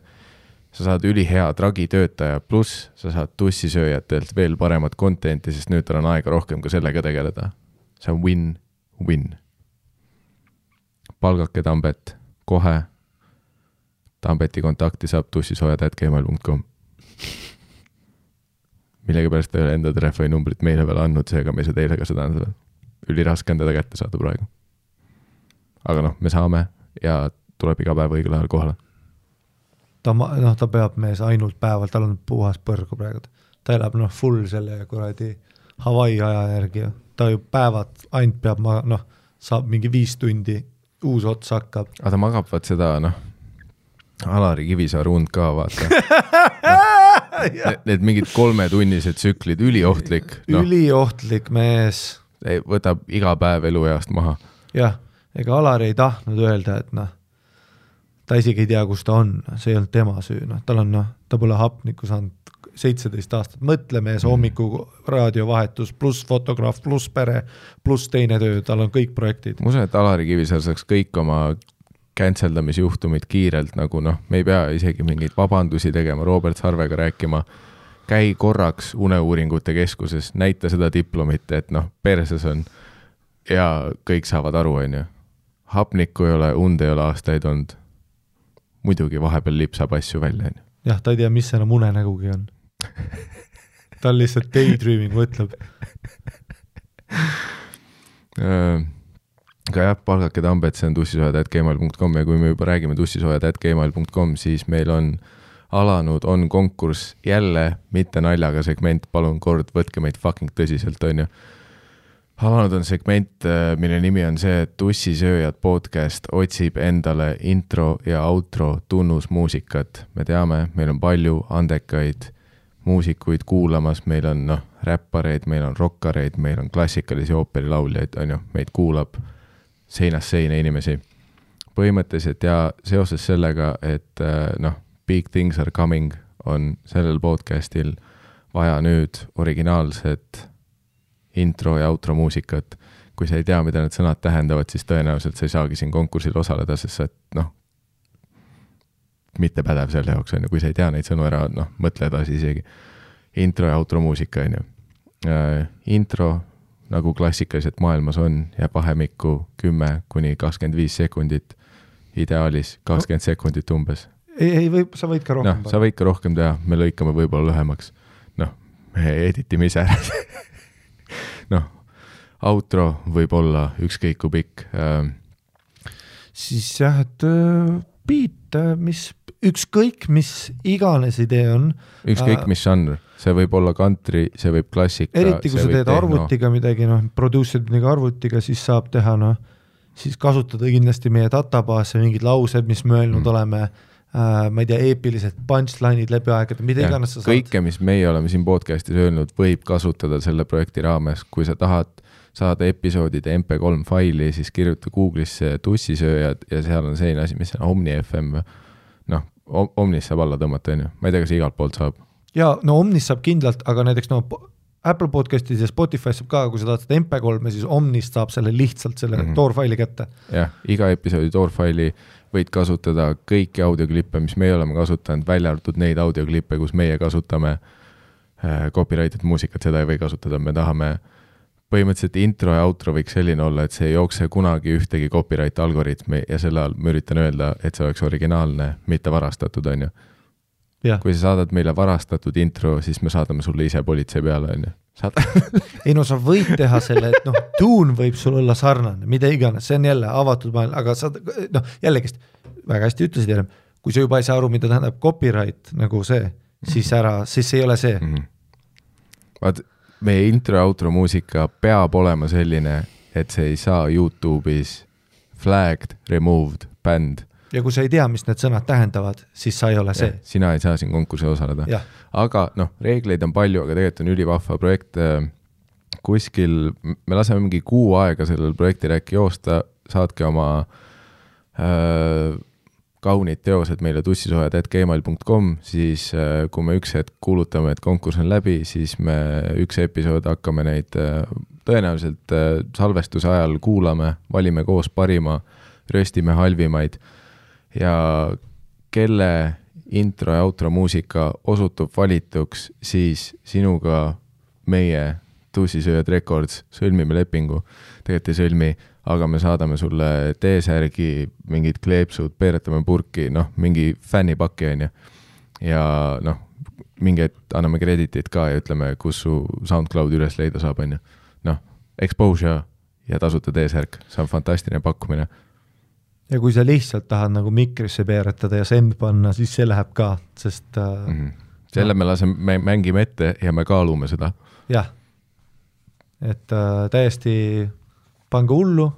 saad ülihea tragitöötaja, pluss sa saad tussisööjatelt veel paremat contenti, sest nüüd tal on aega rohkem ka sellega tegeleda. See on win-win. Palgake Tambet kohe. Tambeti kontakti saab tussisoojad@gmail.com. Millegi pärast ei ole enda telefoninumbrit meile veel andnud, seega me ei saa teile ka seda anda. Üliraske on teda kätte saada praegu. Aga me saame ja tuleb iga päev õigel ajal kohale. Ta peab mees ainult päeval, tal on puhas põrgu praegu. Ta elab full selle kuradi Hawaii aja järgi. Ta ju päevad ainult peab, saab mingi 5 tundi, uus ots hakkab. Aga ta magab vaat seda, Alari Kivisaar und ka, vaata. Need mingid 3-tunnised tsüklid, üliohtlik. Üliohtlik mees. Võtab iga päev elueast maha. Jah, ega Alari ei tahtnud öelda, et ta isegi ei tea, kus ta on. See ei olnud tema süü. Ta pole hapnikku saanud 17 aastat. Mõtle mees hommiku raadiovahetus, pluss fotograaf, pluss pere, pluss teine töö. Tal on kõik projektid. Ma usun, et Alari Kivisaar saaks kõik oma canceldamisjuhtumid kiirelt, me ei pea isegi mingeid vabandusi tegema, Robert Sarvega rääkima, käi korraks uneuuringute keskuses, näita seda diplomit, et perses on ja kõik saavad aru, on ju. Hapnikku ei ole, und ei ole aastaid olnud. Muidugi vahepeal lipsab asju välja, on ju. Jah, ta ei tea, mis enam unenägugi on. Ta on lihtsalt daydreaming, mõtleb. Aga jah, palgake Tambet, see on tussisoojad@gmail.com ja kui me juba räägime tussisoojad@gmail.com, siis meil on alanud, on konkurss jälle, mitte naljaga segment, palun kord, võtke meid fucking tõsiselt, on ju. Alanud on segment, mille nimi on see, et Tussisööjad podcast otsib endale intro ja outro tunnusmuusikat. Me teame, meil on palju andekaid muusikuid kuulamas, meil on räppareid, meil on rockareid, meil on klassikalisi ooperilauljaid, on ju, meid kuulab seinast seina inimesi. põhimõtteliselt ja seoses sellega, et Big Things Are Coming on sellel podcastil vaja nüüd originaalset intro ja outro muusikat. Kui sa ei tea, mida need sõnad tähendavad, siis tõenäoliselt sa ei saagi siin konkursil osaleda, sest sa mitte pädev selle jaoks on ju, kui sa ei tea neid sõnu ära, mõtle edasi isegi. Intro ja outro muusika on ju. Intro, nagu klassikaliselt maailmas on, jääb vahemikku 10-25 sekundit, ideaalis 20 sekundit umbes. Ei, sa võid ka rohkem. Sa võid ka rohkem teha, me lõikame võib-olla lühemaks. Me editime ise ära. Outro võib olla ükskõik kui pikk. Siis jah, et beat, ükskõik mis iganes idee on. Ükskõik mis žanr, see võib olla country, see võib klassika. Eriti kui sa teed arvutiga midagi, producer'id midagi arvutiga, siis saab teha, siis kasutada kindlasti meie databaase, mingid laused, mis me öelnud oleme, ma ei tea, eepilised punchline'id läbi aegade, mida iganes sa saad. Kõike, mis meie oleme siin podcastis öelnud, võib kasutada selle projekti raames. Kui sa tahad saada episoodide MP3 faili, siis kirjuta Google'isse tussisööjad ja seal on selline asi, mis on Omni FM. Omnis saab alla tõmmata, on ju. Ma ei tea, kas igalt poolt saab. Ja, Omnis saab kindlalt, aga näiteks Apple podcastis ja Spotify saab ka, kui sa tahad seda MP3, siis Omnist saab selle lihtsalt selle toorfaili kätte. Jah, iga episoodi toorfaili võid kasutada kõiki audioklippe, mis meie oleme kasutanud, välja arvatud neid audioklippe, kus meie kasutame copyrighted muusikat, seda ei või kasutada. Me tahame põhimõtteliselt intro ja outro võiks selline olla, et see ei jookse kunagi ühtegi copyright algoritmi ja selle all ma üritan öelda, et see oleks originaalne, mitte varastatud, on ju. Ja. Kui sa saadad meile varastatud intro, siis me saadame sulle ise politsei peale, on ju. Ei sa võid teha selle, et tuun võib sul olla sarnane, mida iganes, see on jälle avatud maailm, aga sa, jällegi väga hästi ütlesid jälle, kui sa juba ei saa aru, mida tähendab copyright, nagu see, siis see ei ole see. Vaat, meie intro ja outro muusika peab olema selline, et see ei saa YouTube'is flagged, removed, banned. Ja kui sa ei tea, mis need sõnad tähendavad, siis sa ei ole see. Ja, sina ei saa siin konkursi osaleda. Ja. Aga reegleid on palju, aga tegelikult on ülivahva projekt. Kuskil, me laseme mingi kuu aega sellel projektil äkki joosta, saatke oma kaunid teosed meile tussisojad@gmail.com, siis kui me üks hetk kuulutame, et konkurss on läbi, siis me üks episood hakkame neid tõenäoliselt salvestuse ajal kuulame, valime koos parima, röstime halvimaid ja kelle intro ja outro muusika osutub valituks, siis sinuga meie Tussisööjad Records sõlmime lepingu. Tegelikult ei sõlmi, aga me saadame sulle T-särgi, mingid kleepsud, peeretame purki, mingi fännipakki on ju. Ja mingi anname kreditit ka ja ütleme, kus su SoundCloud üles leida saab on ju. Exposure ja tasuta T-särk, see on fantastiline pakkumine. Ja kui sa lihtsalt tahad nagu mikrisse peeretada ja send panna, siis see läheb ka, sest selle me mängime ette ja me kaalume seda. Jah, et täiesti pange hullu.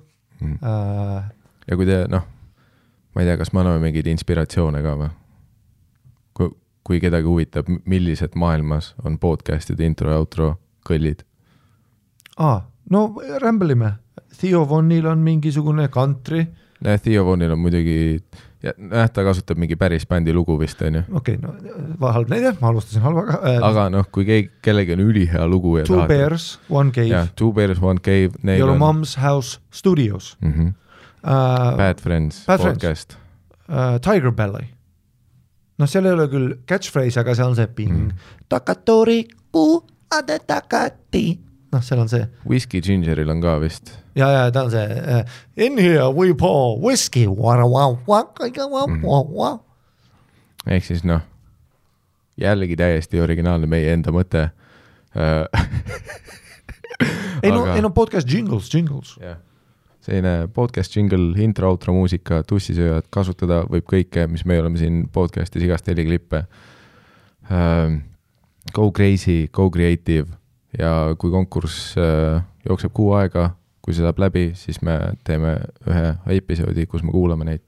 Ja kui te, ma ei tea, kas me anname mingeid inspiratsioone ka või? Kui kedagi huvitab, millised maailmas on podcastide intro ja outro kõllid? Rämbelime. Theo Vonil on mingisugune country. Theo Vonil on muidugi, ta kasutab mingi päris bändi lugu vist, on ju. Okei, halb näide, ma alustasin halvaga. Aga kui kellegi on ülihea lugu ja Two Bears, One Cave. Ja, Two Bears, One Cave. Your Mom's House Studios. Bad Friends podcast. Tiger Belly. Seal ei ole küll catchphrase, aga seal on see ping. Takatori kuu ade takati. Seal on see. Whiskey Gingeril on ka vist. Ja ta on see in here we pour whiskey. Ehk siis jällegi täiesti originaalne meie enda mõte. Podcast jingles. Yeah. Selline podcast jingle, intro, outro muusika, tussisööjad, kasutada võib kõike, mis me oleme siin podcastis igast heliklippe. Go crazy, go creative ja kui konkurss jookseb kuu aega, kui see saab läbi, siis me teeme ühe episoodi, kus me kuulame neid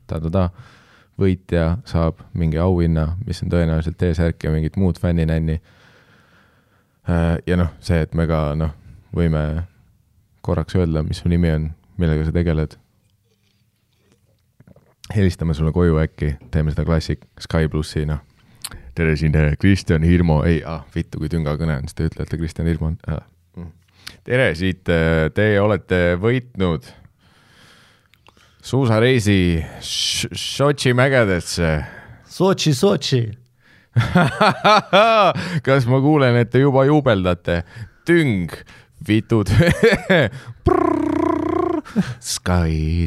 võitja saab mingi auhinna, mis on tõenäoliselt T-särk ja mingit muud fänninänni. Ja see, et me ka võime korraks öelda, mis su nimi on, millega sa tegeled. helistame sulle koju äkki, teeme seda klassik Sky plussi, noh. Tere siin Kristjan Hirmo, vittu kui tünga kõne on, siis te ütlete Kristjan Hirmo. Tere siit, te olete võitnud suusareisi Sotši mägedesse. Sotši. Kas ma kuulen, et te juba juubeldate? Tüng, vitud. Sky.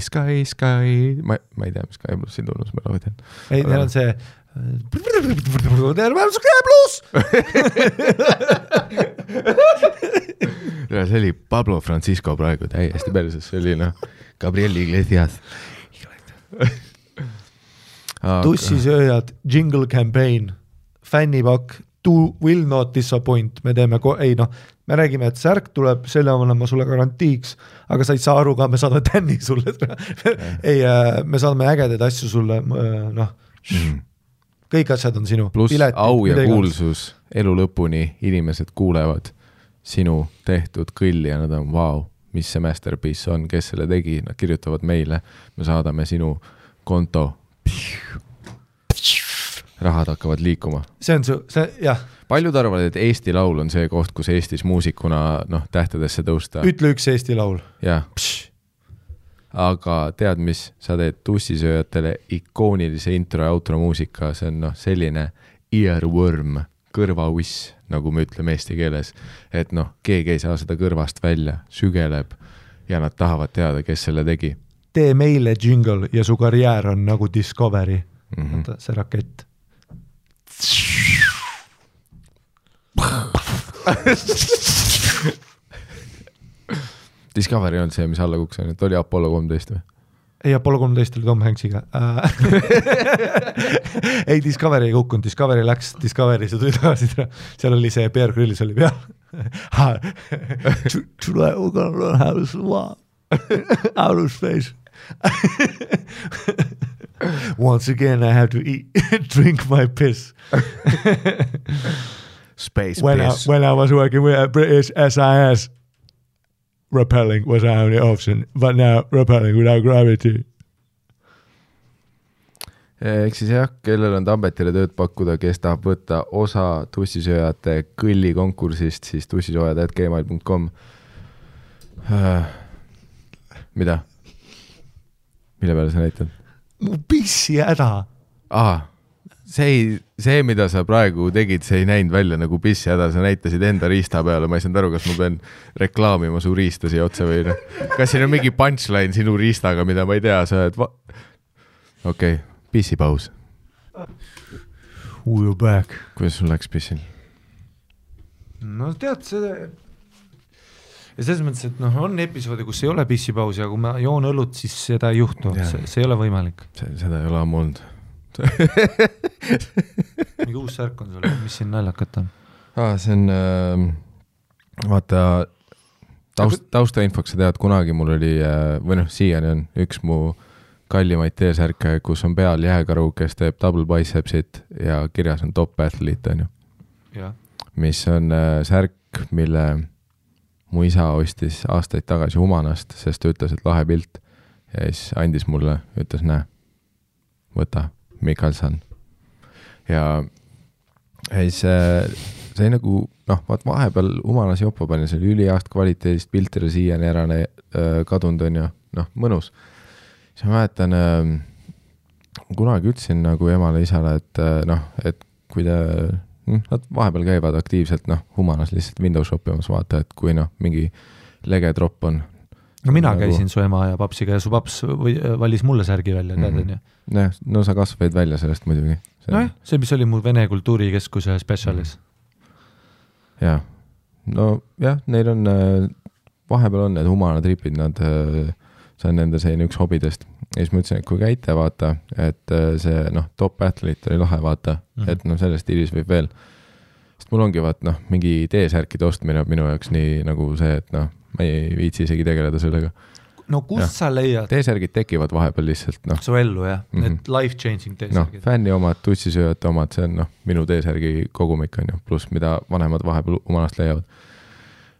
Ma ei tea, mis Sky plussi tunnus me laudan. Ei, neil on see Sky pluss! See oli Pablo Francisco praegu täiesti perses, see oli Gabriel Iglesias. Tussisööjad, jingle campaign, fännipakk, will not disappoint, me teeme, me räägime, et särk tuleb, selle olema sulle garantiiks, aga sa ei saa aru ka, me saadame tänni sulle. Ei, me saadame ägedaid asju sulle, kõik asjad on sinu. Plus au ja kuulsus, elu lõpuni inimesed kuulevad sinu tehtud kõlli ja nad on, vau, mis see masterpiece on, kes selle tegi, nad kirjutavad meile, me saadame sinu konto. Rahad hakkavad liikuma. See on jah. Paljud arvavad, et Eesti laul on see koht, kus Eestis muusikuna tähtedesse tõusta. Ütle üks Eesti laul. Jah. Aga tead, mis sa teed tussisööjatele ikoonilise intro ja outro muusika, see on selline earworm, kõrvauiss, nagu me ütleme eesti keeles, et keegi ei saa seda kõrvast välja, sügeleb ja nad tahavad teada, kes selle tegi. Tee meile jingle ja su karjäär on nagu Discovery. Vaata, see rakett. Discovery on see, mis alla kuks on, et oli Apollo 13 või? Ei, Apollo 13 oli Tom Hanksiga. Ei, Discovery ei kukkunud, Discovery läks Discovery, see tuli tagasi, seal oli see Bear Grylls oli peal. Today we're gonna learn how to survive outer space. Once again I have to drink my piss. Space piss. When I was working with British SAS, repelling was our only option, but now repelling without gravity. Eks siis jah, kellel on Tambetile tööd pakkuda, kes tahab võtta osa tussisööjate kõlli konkursist, siis tussisoojad@gmail.com. Mida? Mille peale sa näitad? Mu pissi häda. See, mida sa praegu tegid, see ei näinud välja nagu pissi häda, sa näitasid enda riista peale, ma ei saanud aru, kas ma pean reklaamima su riista siia otsa või kas siin on mingi punchline sinu riistaga, mida ma ei tea, sa oled Okei, pissipaus. We're back. Kuidas sul läks pissil? No tead, ja selles mõttes, et on episoodi, kus ei ole pissipausi, aga kui ma joon õlut, siis seda ei juhtu, see ei ole võimalik. Seda ei ole ammu olnud. Mingi uus särk on sul, mis siin naljakat on? See on, vaata, taustainfoks sa tead, kunagi mul oli, või siiani on üks mu kallimaid T-särke, kus on peal jääkaru, kes teeb double bicepsit ja kirjas on top athlete, on ju. Ja. Mis on särk, mille mu isa ostis aastaid tagasi Humanast, sest ta ütles, et lahe pilt ja siis andis mulle, ütles, näe, võta, Mikkelson. Ja siis see nagu, vaat vahepeal Humanas jopa pani, see oli üliaast kvaliteedist piltile siiani ära kadunud on ju, mõnus. Siis ma mäletan, kunagi ütlesin nagu emale isale, et kui nad vahepeal käivad aktiivselt, Humanas lihtsalt Windows shopimas vaata, et kui mingi lege drop on. No mina käisin su ema ja papsiga ja su paps valis mulle särgi välja, tead on ju? No sa kasvaid välja sellest muidugi. See, mis oli mu Vene kultuurikeskuse spetsialis. Jaa. No jah, neil on, vahepeal on need Humana tripid, see on nende selline üks hobidest. Ja siis ma ütlesin, et kui käite vaata, et see top athlete oli lahe vaata, et sellest stiilis võib veel. Sest mul ongi mingi T-särkide ostmine minu jaoks nii nagu see, et ma ei viitsi isegi tegeleda sellega. No kust sa leiad? T-särgid tekivad vahepeal lihtsalt. Su ellu jah, need life-changing T-särgid. Fänni omad, tussisööjate omad, see on minu T-särgi kogumik on ju, pluss mida vanemad vahepeal Humanast leiavad.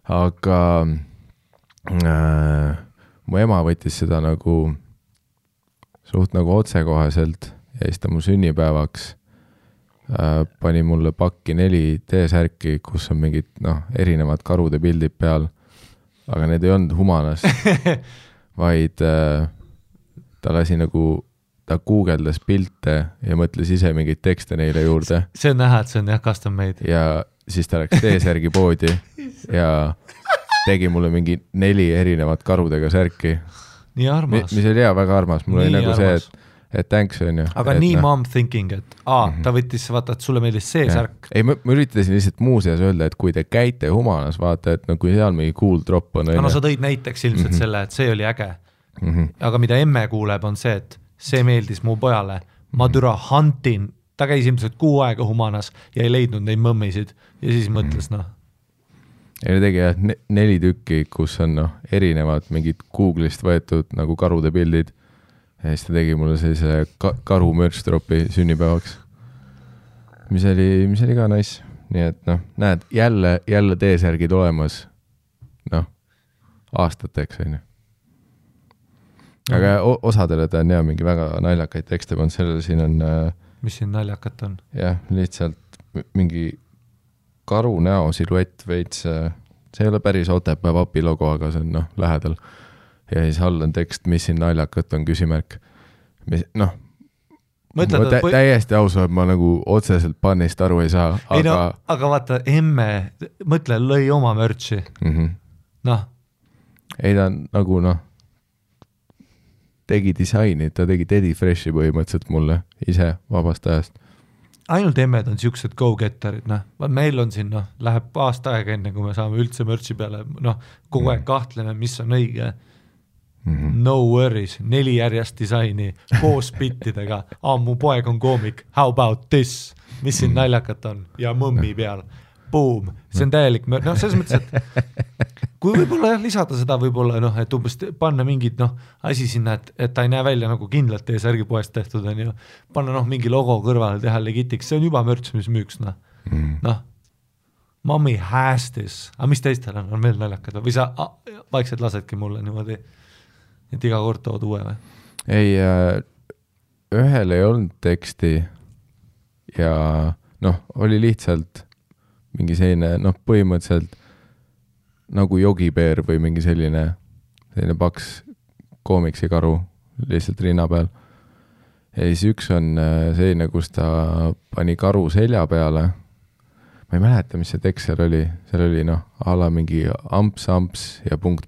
Aga mu ema võttis seda nagu suht nagu otsekoheselt ja siis ta mu sünnipäevaks pani mulle pakki 4 T-särki, kus on mingid erinevad karude pildid peal, aga need ei olnud Humanas, vaid ta lasi nagu, ta guugeldas pilte ja mõtles ise mingeid tekste neile juurde. See on näha, et see on custom made. Ja siis ta läks T-särgi poodi ja tegi mulle mingi 4 erinevat karudega särki. Nii armas. Mis oli väga armas. Mul oli nagu armas. Et thanks on ju. Aga nii mom thinking, et ta võttis, vaata, et sulle meeldis see särk. Ei, ma üritasin lihtsalt muuseas öelda, et kui te käite Humanas, vaata, et kui seal mingi cool drop on. No sa tõid näiteks ilmselt selle, et see oli äge. Aga mida emme kuuleb, on see, et see meeldis mu pojale. Ma türa huntin, ta käis ilmselt 6 aega Humanas ja ei leidnud neid mõmmisid ja siis mõtles, Ja tegi 4 tükki, kus on erinevad mingid Google'ist võetud nagu karude pildid. Ja siis ta tegi mulle sellise karu merch-dropi sünnipäevaks, mis oli ka nice. Nii et näed, jälle T-särgid olemas aastateks on ju. Aga osadele ta on mingi väga naljakaid tekste pannud, sellele siin on mis siin naljakat on? Jah, lihtsalt mingi karu näo siluett veits, see ei ole päris Otepää vapi logo, aga see on lähedal. Ja siis all on tekst, mis siin naljakat on küsimärk. Täiesti ausalt, ma nagu otseselt pannist aru ei saa. Aga vaata, emme, mõtle, lõi oma mörtsi. Ei ta nagu tegi disaini, ta tegi Teddy Freshi põhimõtteliselt mulle ise vabast ajast. Ainult emmed on siuksed go-getterid, meil on siin, läheb aasta aega enne, kui me saame üldse mörtsi peale, kogu aeg kahtleme, mis on õige. No worries, 4 järjest disaini koos bittidega. Mu poeg on koomik, how about this? Mis siin naljakat on? Ja mõmmi peal. Boom, see on täielik selles mõttes, et kui võib-olla lisada seda võib-olla, et umbes panna mingid asi sinna, et ta ei näe välja nagu kindlalt T-särgi poest tehtud on ju, panna mingi logo kõrvale, teha legitiks, see on juba mörts, mis müüks mommy has this, aga mis teistel on veel naljakad või sa vaikselt lasedki mulle niimoodi, et iga kord tood uue või? Ei, ühel ei olnud teksti ja oli lihtsalt mingi selline, põhimõtteliselt nagu jogipeer või mingi selline paks koomiksi karu lihtsalt rinna peal. Ja siis üks on selline, kus ta pani karu selja peale. Ma ei mäleta, mis see tekst seal oli. Seal oli ala mingi amps ja punkt.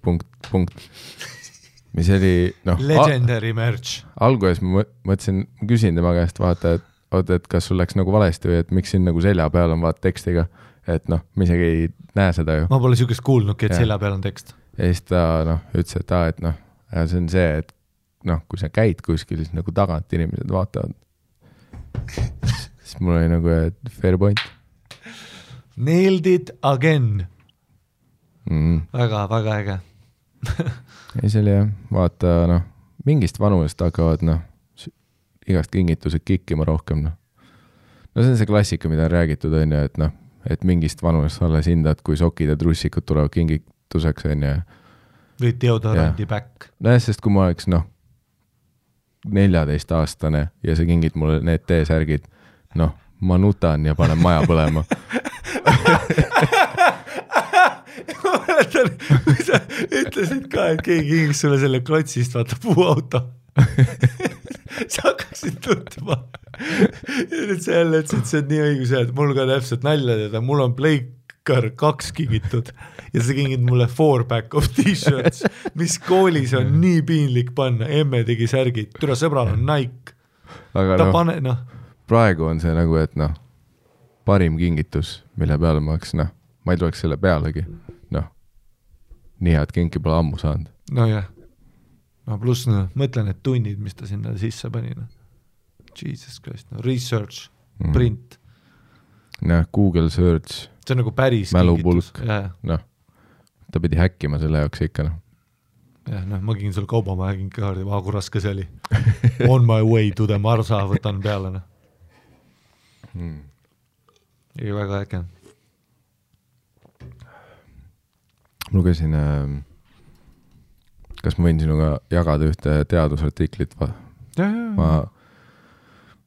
Mis oli legendary merch. Alguses ma mõtlesin, küsin tema käest vaata, et kas sul läks nagu valesti või et miks siin nagu selja peal on vaata tekstiga. Et ma isegi ei näe seda ju. Ma pole siukest kuulnudki, et selja peal on tekst. Ja siis ta ütles, et see on see, et kui sa käid kuskil, siis nagu tagant inimesed vaatavad. Siis mul oli nagu fair point. Nailed it again. Väga, väga äge. Ei, see oli jah, vaata, mingist vanusest hakkavad, igast kingitused kikkima rohkem, see on see klassika, mida on räägitud, on ju, et mingist vanusest alles hindad, kui sokid ja trussikud tulevad kingituseks, on ju. Või deodorandi back. Sest kui ma oleks, 14-aastane ja sa kingid mulle need T-särgid, ma nutan ja panen maja põlema. Ma mäletan, kui sa ütlesid ka, et keegi kingis sulle selle klotsist, vaata puuauto. Sa hakkaksid tundma. Ja nüüd sa jälle ütlesid, see on nii õigus, et mul ka täpselt nalja teada, mul on Pleikar 2 kingitud ja sa kingid mulle 4-pack of t-shirts, mis koolis on nii piinlik panna, emme tegi särgid, türa sõbral on Nike. Aga ta praegu on see nagu, et parim kingitus, mille peale ma oleks, ma ei tuleks selle pealegi, nii head kinki pole ammu saanud. Jah. Pluss mõtlen, et tunnid, mis ta sinna sisse pani. Jesus Christ, research, print. Google search. See on nagu päris mälupulk. Ta pidi häkkima selle jaoks ikka. Ma kingin sulle kaubamaja kinkikaardi, kui raske see oli. On my way to the Marsa, võtan peale. Ei, väga äge. Lugesin, kas ma võin sinuga jagada ühte teadusartiklit ma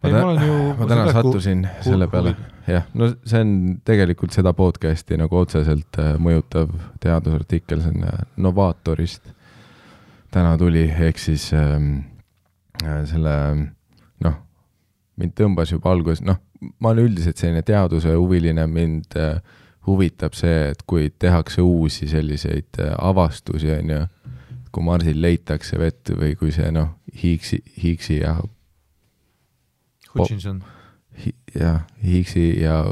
täna sattusin selle peale. Jah, no see on tegelikult seda podcasti nagu otseselt mõjutav teadusartikkel, see on Novaatorist. Täna tuli, ehk siis selle, mind tõmbas juba alguses, ma olen üldiselt selline teaduse huviline, mind huvitab see, et kui tehakse uusi selliseid avastusi, kui Marsil leitakse vett või kui see Higgsi ja Hutchinson. Higgsi ja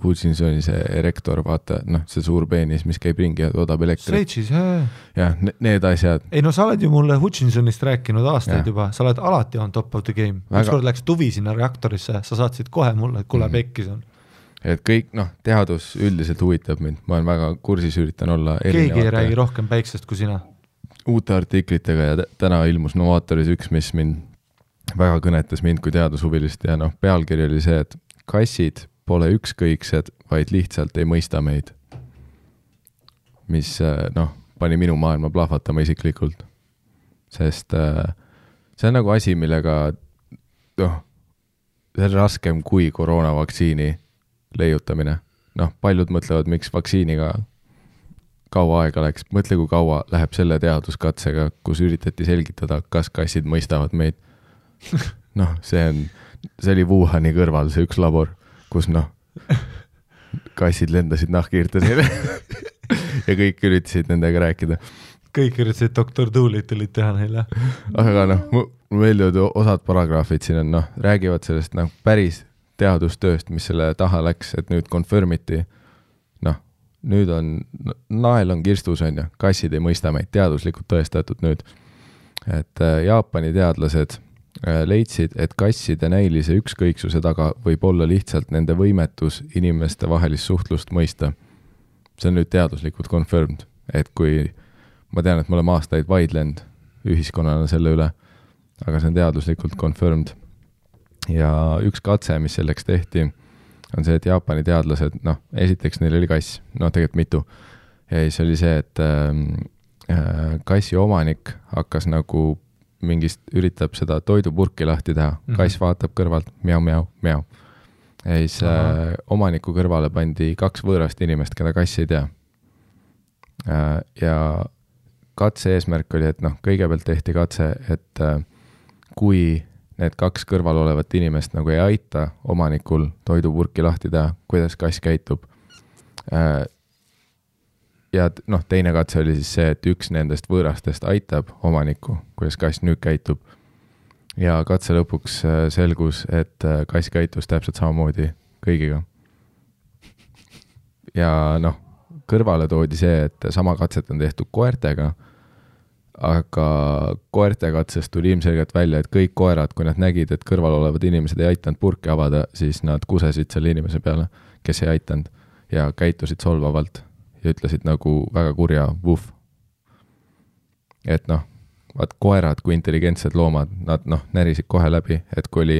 Hutchinsoni see erektor, vaata, see suur peenis, mis käib ringi ja toodab elektrit. Sveitsis, jah. Jah, need asjad. Ei, sa oled ju mulle Hutchinsonist rääkinud aastaid juba, sa oled alati on top of the game. Ükskord läks tuvi sinna reaktorisse, sa saatsid kohe mulle, et kuule pekkis on. Et kõik, teadus üldiselt huvitab mind, ma olen väga kursis, üritan olla erinevate. Keegi ei räägi rohkem päiksest kui sina. Uute artiklitega ja täna ilmus Novaatoris üks, mis mind väga kõnetas mind kui teadushuvilist ja pealkiri oli see, et kassid pole ükskõiksed, vaid lihtsalt ei mõista meid. Mis pani minu maailma plahvatama isiklikult. Sest see on nagu asi, millega see on raskem kui koroonavaktsiini leiutamine. Paljud mõtlevad, miks vaktsiiniga kaua aega läks. Mõtle, kui kaua läheb selle teaduskatsega, kus üritati selgitada, kas kassid mõistavad meid. See oli Wuhani kõrval see üks labor, kus kassid lendasid nahkhiirtesele ja kõik üritasid nendega rääkida. Kõik üritasid Dr. Doolittle'it teha neile. Aga mul meeldivad osad paragraafid siin on, räägivad sellest päris teadustööst, mis selle taha läks, et nüüd confirmiti. Nüüd on, nael on kirstus on ja kassid ei mõista meid, teaduslikult tõestatud nüüd. Et Jaapani teadlased leidsid, et kasside näilise ükskõiksuse taga võib olla lihtsalt nende võimetus inimeste vahelist suhtlust mõista. See on nüüd teaduslikult confirmed, et kui ma tean, et me oleme aastaid vaidlenud ühiskonnana selle üle, aga see on teaduslikult confirmed. Ja üks katse, mis selleks tehti, on see, et Jaapani teadlased, esiteks neil oli kass, tegelikult mitu. Ja siis oli see, et kassi omanik hakkas nagu mingist üritab seda toidupurki lahti teha. Kass vaatab kõrvalt, miau, miau, miau. Ja siis omaniku kõrvale pandi 2 võõrast inimest, keda kass ei tea. Ja katse eesmärk oli, et kõigepealt tehti katse, et kui need 2 kõrval olevat inimest nagu ei aita omanikul toidupurki lahti teha, kuidas kass käitub. Ja teine katse oli siis see, et üks nendest võõrastest aitab omanikku, kuidas kass nüüd käitub. Ja katse lõpuks selgus, et kass käitus täpselt samamoodi kõigiga. Ja kõrvale toodi see, et sama katset on tehtud koertega, aga koerte katsest tuli ilmselgelt välja, et kõik koerad, kui nad nägid, et kõrval olevad inimesed ei aitanud purki avada, siis nad kusesid selle inimese peale, kes ei aitanud ja käitusid solvavalt. Ja ütlesid nagu väga kurja vuff. Et vaat koerad kui intelligentsed loomad, nad närisid kohe läbi, et kui oli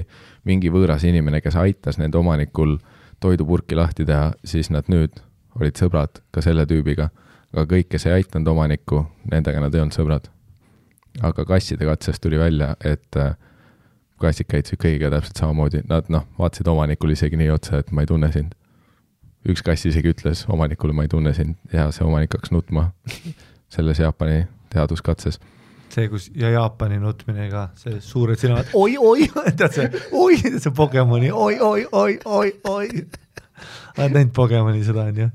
mingi võõras inimene, kes aitas nende omanikul toidupurki lahti teha, siis nad nüüd olid sõbrad ka selle tüübiga. Aga kõik, kes ei aitanud omanikku, nendega nad ei olnud sõbrad. Aga kasside katsest tuli välja, et kassid käitusid kõigiga täpselt samamoodi. Nad vaatasid omanikul isegi nii otsa, et ma ei tunne sind. Üks kass isegi ütles omanikule, ma ei tunne sind ja see omanik hakkas nutma selles Jaapani teaduskatses. See, kus ja Jaapani nutmine ka, see suured silmad, oi, tead see Pokemoni, oi. Oled näinud Pokemoni seda on ju?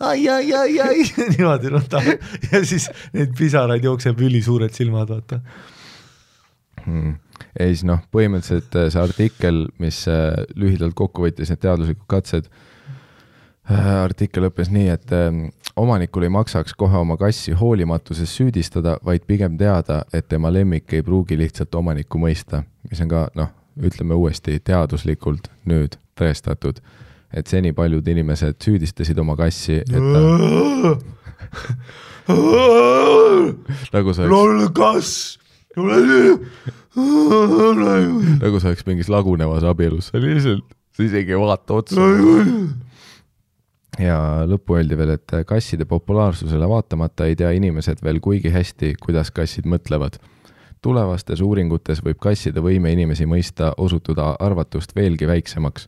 Ai, niimoodi nutta. Ja siis need pisaraid jookseb üli suured silmad, vaata. Ja siis põhimõtteliselt see artikkel, mis lühidalt kokku võttis need teaduslikud katsed, artikkel õppes nii, et omanikul ei maksaks kohe oma kassi hoolimatuses süüdistada, vaid pigem teada, et tema lemmik ei pruugi lihtsalt omanikku mõista, mis on ka, ütleme uuesti teaduslikult nüüd tõestatud, et seni paljud inimesed süüdistasid oma kassi, et nagu sa oleks mingis lagunevas abielus, sa isegi ei vaata otsa. Ja lõppu öeldi veel, et kasside populaarsusele vaatamata ei tea inimesed veel kuigi hästi, kuidas kassid mõtlevad. Tulevastes uuringutes võib kasside võime inimesi mõista osutuda arvatust veelgi väiksemaks,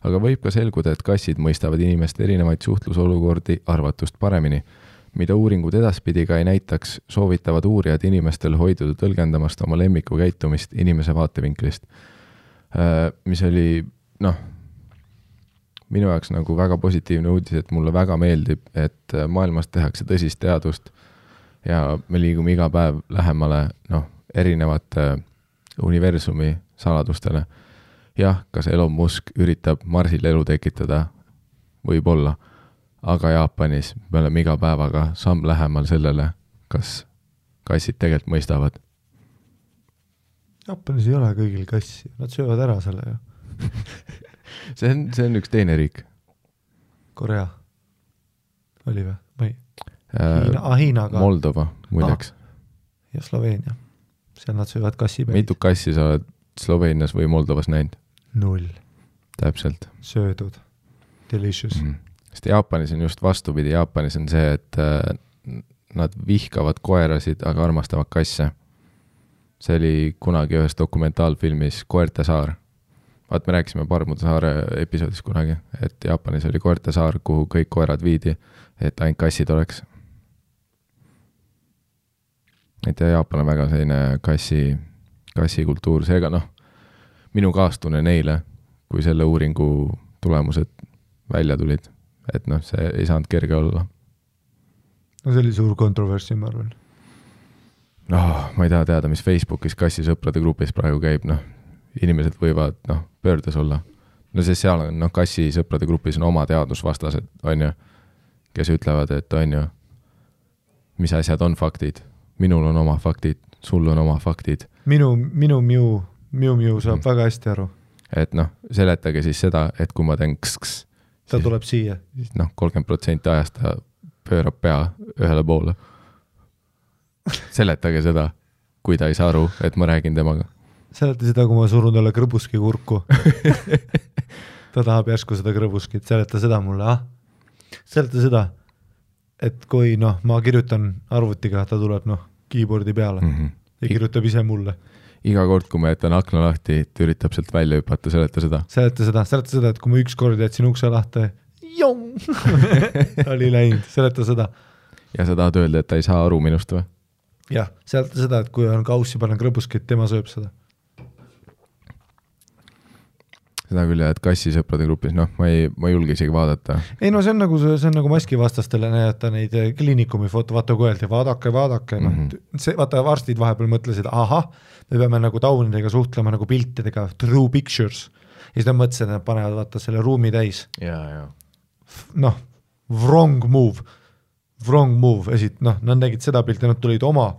aga võib ka selguda, et kassid mõistavad inimeste erinevaid suhtlusolukordi arvatust paremini. Mida uuringud edaspidi ka ei näitaks, soovitavad uurijad inimestel hoiduda tõlgendamast oma lemmiku käitumist inimese vaatevinklist. Mis oli, minu jaoks nagu väga positiivne uudis, et mulle väga meeldib, et maailmas tehakse tõsist teadust ja me liigume iga päev lähemale, erinevate universumi saladustele. Jah, kas Elon Musk üritab Marsil elu tekitada? Võib-olla. Aga Jaapanis me oleme iga päevaga samm lähemal sellele, kas kassid tegelikult mõistavad. Jaapanis ei ole kõigil kassi, nad söövad ära selle ju. see on üks teine riik. Korea oli või? Või? Hiinaga. Moldova, muideks. Ja Sloveenia. Seal nad söövad kassi päid. Mitu kassi sa oled Sloveenias või Moldovas näinud? 0. Täpselt. Söödud. Delicious. Sest Jaapanis on just vastupidi. Jaapanis on see, et nad vihkavad koerasid, aga armastavad kasse. See oli kunagi ühes dokumentaalfilmis Koerte saar. Vaat me rääkisime Parmude saare episoodis kunagi, et Jaapanis oli Koerte saar, kuhu kõik koerad viidi, et ainult kassid oleks. Et Jaapan on väga selline kassikultuur, seega minu kaastunne neile, kui selle uuringu tulemused välja tulid, et see ei saanud kerge olla. No see oli suur kontroversi, ma arvan. Ma ei taha teada, mis Facebookis kassisõprade grupis praegu käib, inimesed võivad pöördes olla. See seal on, kassisõprade grupis on oma teadusvastased, on ju, kes ütlevad, et on ju, mis asjad on faktid. Minul on oma faktid, sul on oma faktid. Miu saab väga hästi aru. Et seletage siis seda, et kui ma teen kss, ta tuleb siia. 30% ajast ta pöörab pea ühele poole. Seletage seda, kui ta ei saa aru, et ma räägin temaga. Seleta seda, kui ma surun talle krõbuski kurku. Ta tahab järsku seda krõbuskit. Seleta seda mulle, Seleta seda, et kui ma kirjutan arvutiga, ta tuleb keyboardi peale ja kirjutab ise mulle. Iga kord, kui ma jätan akna lahti, ta üritab sealt välja hüpata, seleta seda. Seleta seda, et kui ma üks kord jätsin ukse lahti, oli läinud, seleta seda. Ja sa tahad öelda, et ta ei saa aru minust või? Jah, seleta seda, et kui on kaussi panen krõbuskit, tema sööb seda. Seda küll, et kassisõprade grupis, ma ei julge isegi vaadata. Ei see on nagu maskivastastele näidata neid kliinikumi foto, vaata kui öeldi, vaadake. Vaata varstid vahepeal mõtlesid, me peame nagu taunidega suhtlema nagu piltidega, true pictures. Ja siis nad mõtlesid, et nad panevad vaata selle ruumi täis. Ja. Wrong move. Nad nägid seda pilti, nad tulid oma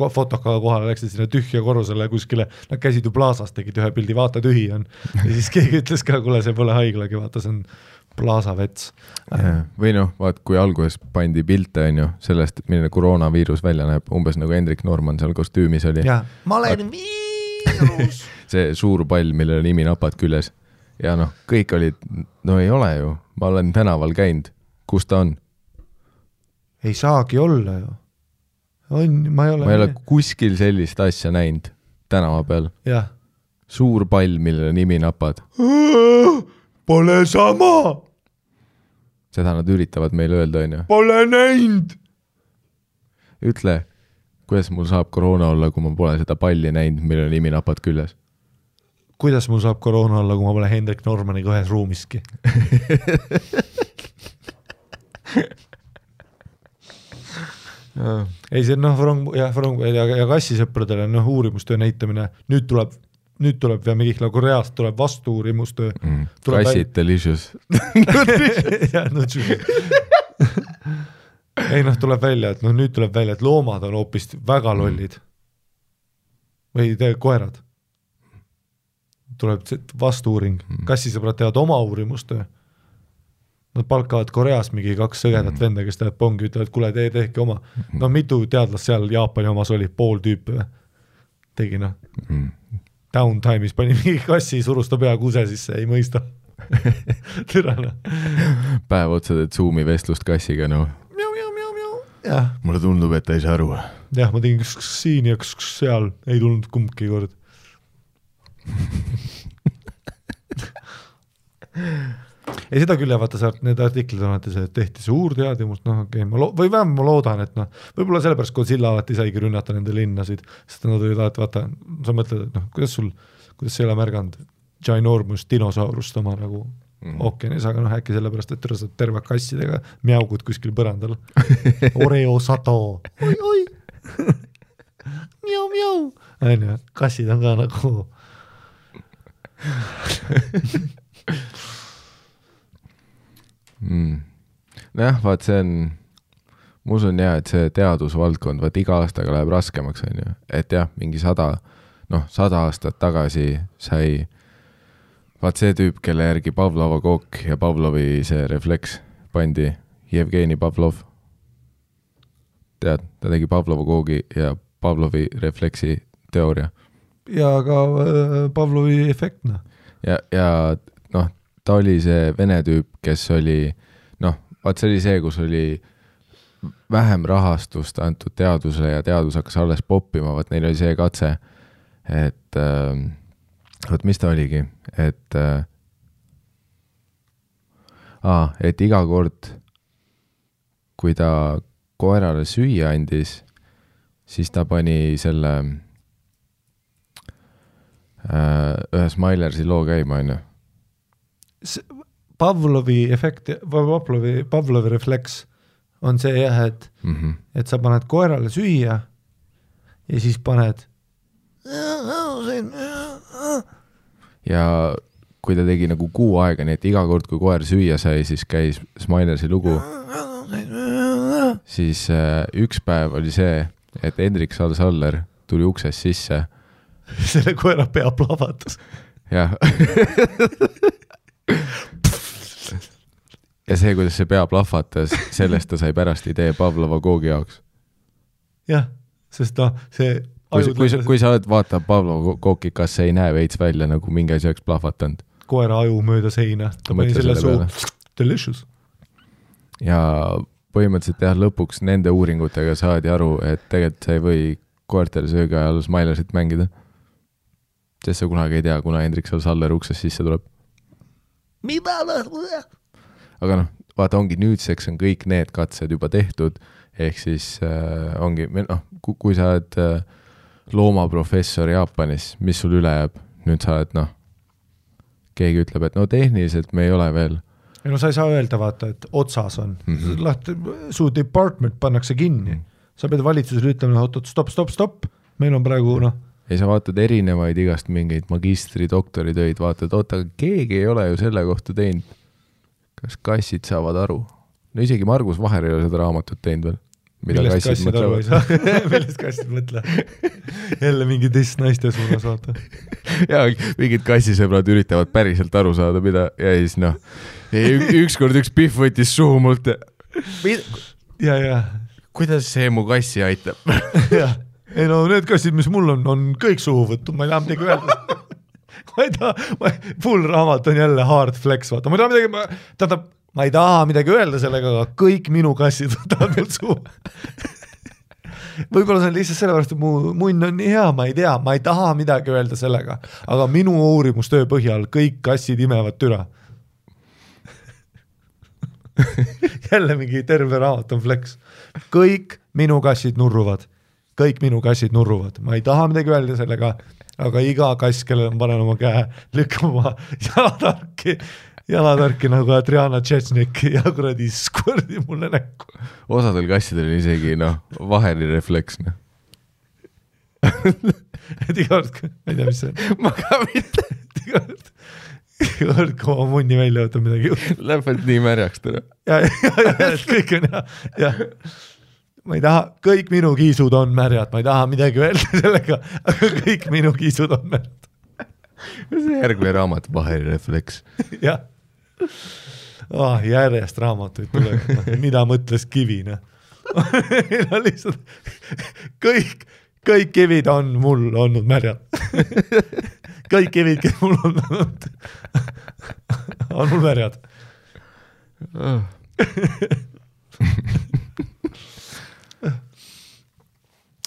fotokaga kohale, läksid sinna tühja korrusele kuskile, nad käisid ju plaasas, tegid ühe pildi, vaata tühi on. Ja siis keegi ütles ka, kuule, see pole haiglagi, vaata, see on plaasa vets. Või vaat, kui alguses pandi pilte, on ju, sellest, milline koroonaviirus välja näeb, umbes nagu Hendrik Norman seal kostüümis oli. Ja, ma olen viirus. See suur pall, millel nimi napad küljes. Ja kõik olid, ei ole ju, ma olen tänaval käinud. Kus ta on? Ei saagi olla ju. Ma ei ole kuskil sellist asja näinud tänava peal. Jah. Suur pall, millele nimi napad. Pole sama! Seda nad üritavad meile öelda, on ju. Pole näinud! Ütle, kuidas mul saab koroona olla, kui ma pole seda palli näinud, millele nimi napad küljes? Kuidas mul saab koroona olla, kui ma pole Hendrik Normaniga ühes ruumiski? Ei see ja kassisõpradele uurimustöö näitamine, nüüd tuleb ja Mihkla Koreast tuleb vastu uurimustöö. Kassid delicious. Ei tuleb välja, et nüüd tuleb välja, et loomad on hoopis väga lollid. Või koerad. Tuleb vastu uuring. Kassisõbrad teevad oma uurimustöö. Nad palkavad Koreas mingi 2 sõgedat venda, kes teevad pongi, ütlevad, kuule, tehke oma. Mitu teadlast seal Jaapani omas oli, pool tüüpi või? Tegi downtime'is pani mingi kassi, surus ta pea kuse sisse, ei mõista. Türana. Päev otsa teed Zoomi vestlust kassiga, Mulle tundub, et ta ei saa aru. jah, ma tegin siin ja seal, ei tulnud kumbki kord. Ei seda küll, vaata saart, need artiklid on, et see tehti suur teadimust, noh okei, või vähem ma loodan, et noh, võib-olla sellepärast Godzilla alati saigi rünnata nende linnasid, sest nad olid alati, vaata, sa mõtled, et noh, kuidas sa ei ole märganud ginormus dinosaurust oma nagu ookeanis, aga noh, äkki sellepärast, et saad terve kassidega mjaugud kuskil põrandal. Oreo sato. Oi. Mjau. Kassid on ka nagu Nojah, vaat see on, ma usun jah, et see teadusvaldkond, vaat iga aastaga läheb raskemaks, on ju, et jah, mingi 100 aastat tagasi sai vaat see tüüp, kelle järgi Pavlova kook ja Pavlovi see refleks pandi, Jevgeni Pavlov. Tead, ta tegi Pavlova koogi ja Pavlovi refleksi teooria. Ja ka Pavlovi efektna. Ja noh, ta oli see vene tüüp, kes oli, noh, vaat see oli see, kus oli vähem rahastust antud teadusele ja teadus hakkas alles poppima, vaat neil oli see katse, et vaat mis ta oligi, et iga kord, kui ta koerale süüa andis, siis ta pani selle ühe Smilersi loo käima, on ju. Pavlovi efekt, Pavlovi refleks on see jah, et sa paned koerale süüa ja siis paned ja kui ta tegi nagu kuu aega, nii et iga kord, kui koer süüa sai, siis käis Smilersi lugu, siis üks päev oli see, et Hendrik Saller tuli uksest sisse. Selle koera pea plahvatas. Jah. Ja see, kuidas see pea plahvatas, sellest ta sai pärast idee Pavlova koogi jaoks. Jah, sest see kui sa oled vaata Pavlova kooki, kas see ei näe veits välja, nagu mingi asi oleks plahvatanud? Koera aju mööda seina, ta pani selle suu. Delicious. Ja põhimõtteliselt jah, lõpuks nende uuringutega saadi aru, et tegelikult sa ei või koertel söögi ajal Smilersit mängida. Sest sa kunagi ei tea, kuna Hendrik Saller uksest sisse tuleb. Aga noh, vaata ongi nüüdseks on kõik need katsed juba tehtud, ehk siis ongi, noh, kui sa oled loomaprofessor Jaapanis, mis sul üle jääb, nüüd sa oled, noh, keegi ütleb, et no tehniliselt me ei ole veel. Ja no sa ei saa öelda, vaata, et otsas on. Su department pannakse kinni. Sa pead valitsusele ütlema, stop, meil on praegu, noh. Ja sa vaatad erinevaid igast mingeid magistri, doktoritöid, vaatad, aga keegi ei ole ju selle kohta teinud. Kas kassid saavad aru? No isegi Margus Vaher ei ole seda raamatut teinud veel. Millest kassid aru ei saa? Millest kassid mõtle? Jälle mingi teist naiste suunas vaata. Ja mingid kassisõbrad üritavad päriselt aru saada, mida ja siis noh, ükskord üks pihv võttis suhu mult. Ja. Kuidas see mu kassi aitab? Jah. Ei no need kassid, mis mul on kõik suhu võttu, ma ei taha midagi öelda. Full raamat on jälle hard flex, vaata. Ma ei taha midagi öelda sellega, aga kõik minu kassid võtavad mul suhu. Võib-olla see on lihtsalt sellepärast, et mu munn on nii hea, ma ei tea, ma ei taha midagi öelda sellega, aga minu uurimustöö põhjal kõik kassid imevad türa. Jälle mingi terve raamat on flex. Kõik minu kassid nurruvad. Ma ei taha midagi öelda sellega, aga iga kass, kellel on panen oma käe, lükkama jalatarki nagu Adriana Tšetšnik ja kuradi skordi mulle näkku. Osadel kassidel isegi, Vaheri refleks. Et iga kord, ma ei tea, mis see on. Ma ka mitte. Iga kord, kui oma munni välja võtta midagi. Läheb nii märjaks täna. Ja, kõik on ja. Ma ei taha, kõik minu kiisud on märjad, ma ei taha midagi öelda sellega, aga kõik minu kiisud on märjad. See järgmine raamat, Vaheri refleks. Jah. Järjest raamatuid tuleb, mida mõtles kivina. Kõik kivid on mul olnud märjad. Kõik kivid, kes mul on mul märjad.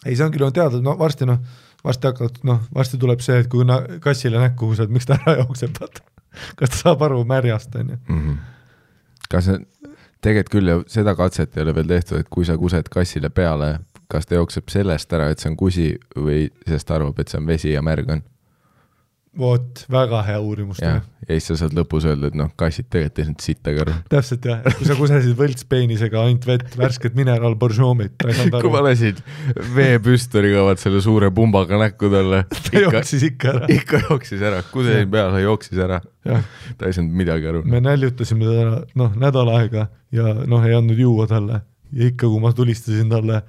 ei, see on küll teada, varsti hakkavad, varsti tuleb see, et kui kassile näkku kused, miks ta ära jookseb, kas ta saab aru märjast, on ju. Kas tegelikult küll ja seda katset ei ole veel tehtud, et kui sa kused kassile peale, kas ta jookseb sellest ära, et see on kusi või sest arvab, et see on vesi ja märg on? Vot, väga hea uurimus. Ja siis sa saad lõpus öelda, et kassid tegelikult ei saanud sittagi aru. Täpselt jah, kui sa kusesid võltspeenisega ainult vett, värsket mineral boržoomit. Kui ma lasid veepüstoriga selle suure pumbaga näkku talle. Ta jooksis ikka ära. Ikka jooksis ära, kusesin peale, jooksis ära. Ta ei saanud midagi aru. Me näljutasime ta nädal aega ja ei andnud juua talle. Ja ikka, kui ma tulistasin talle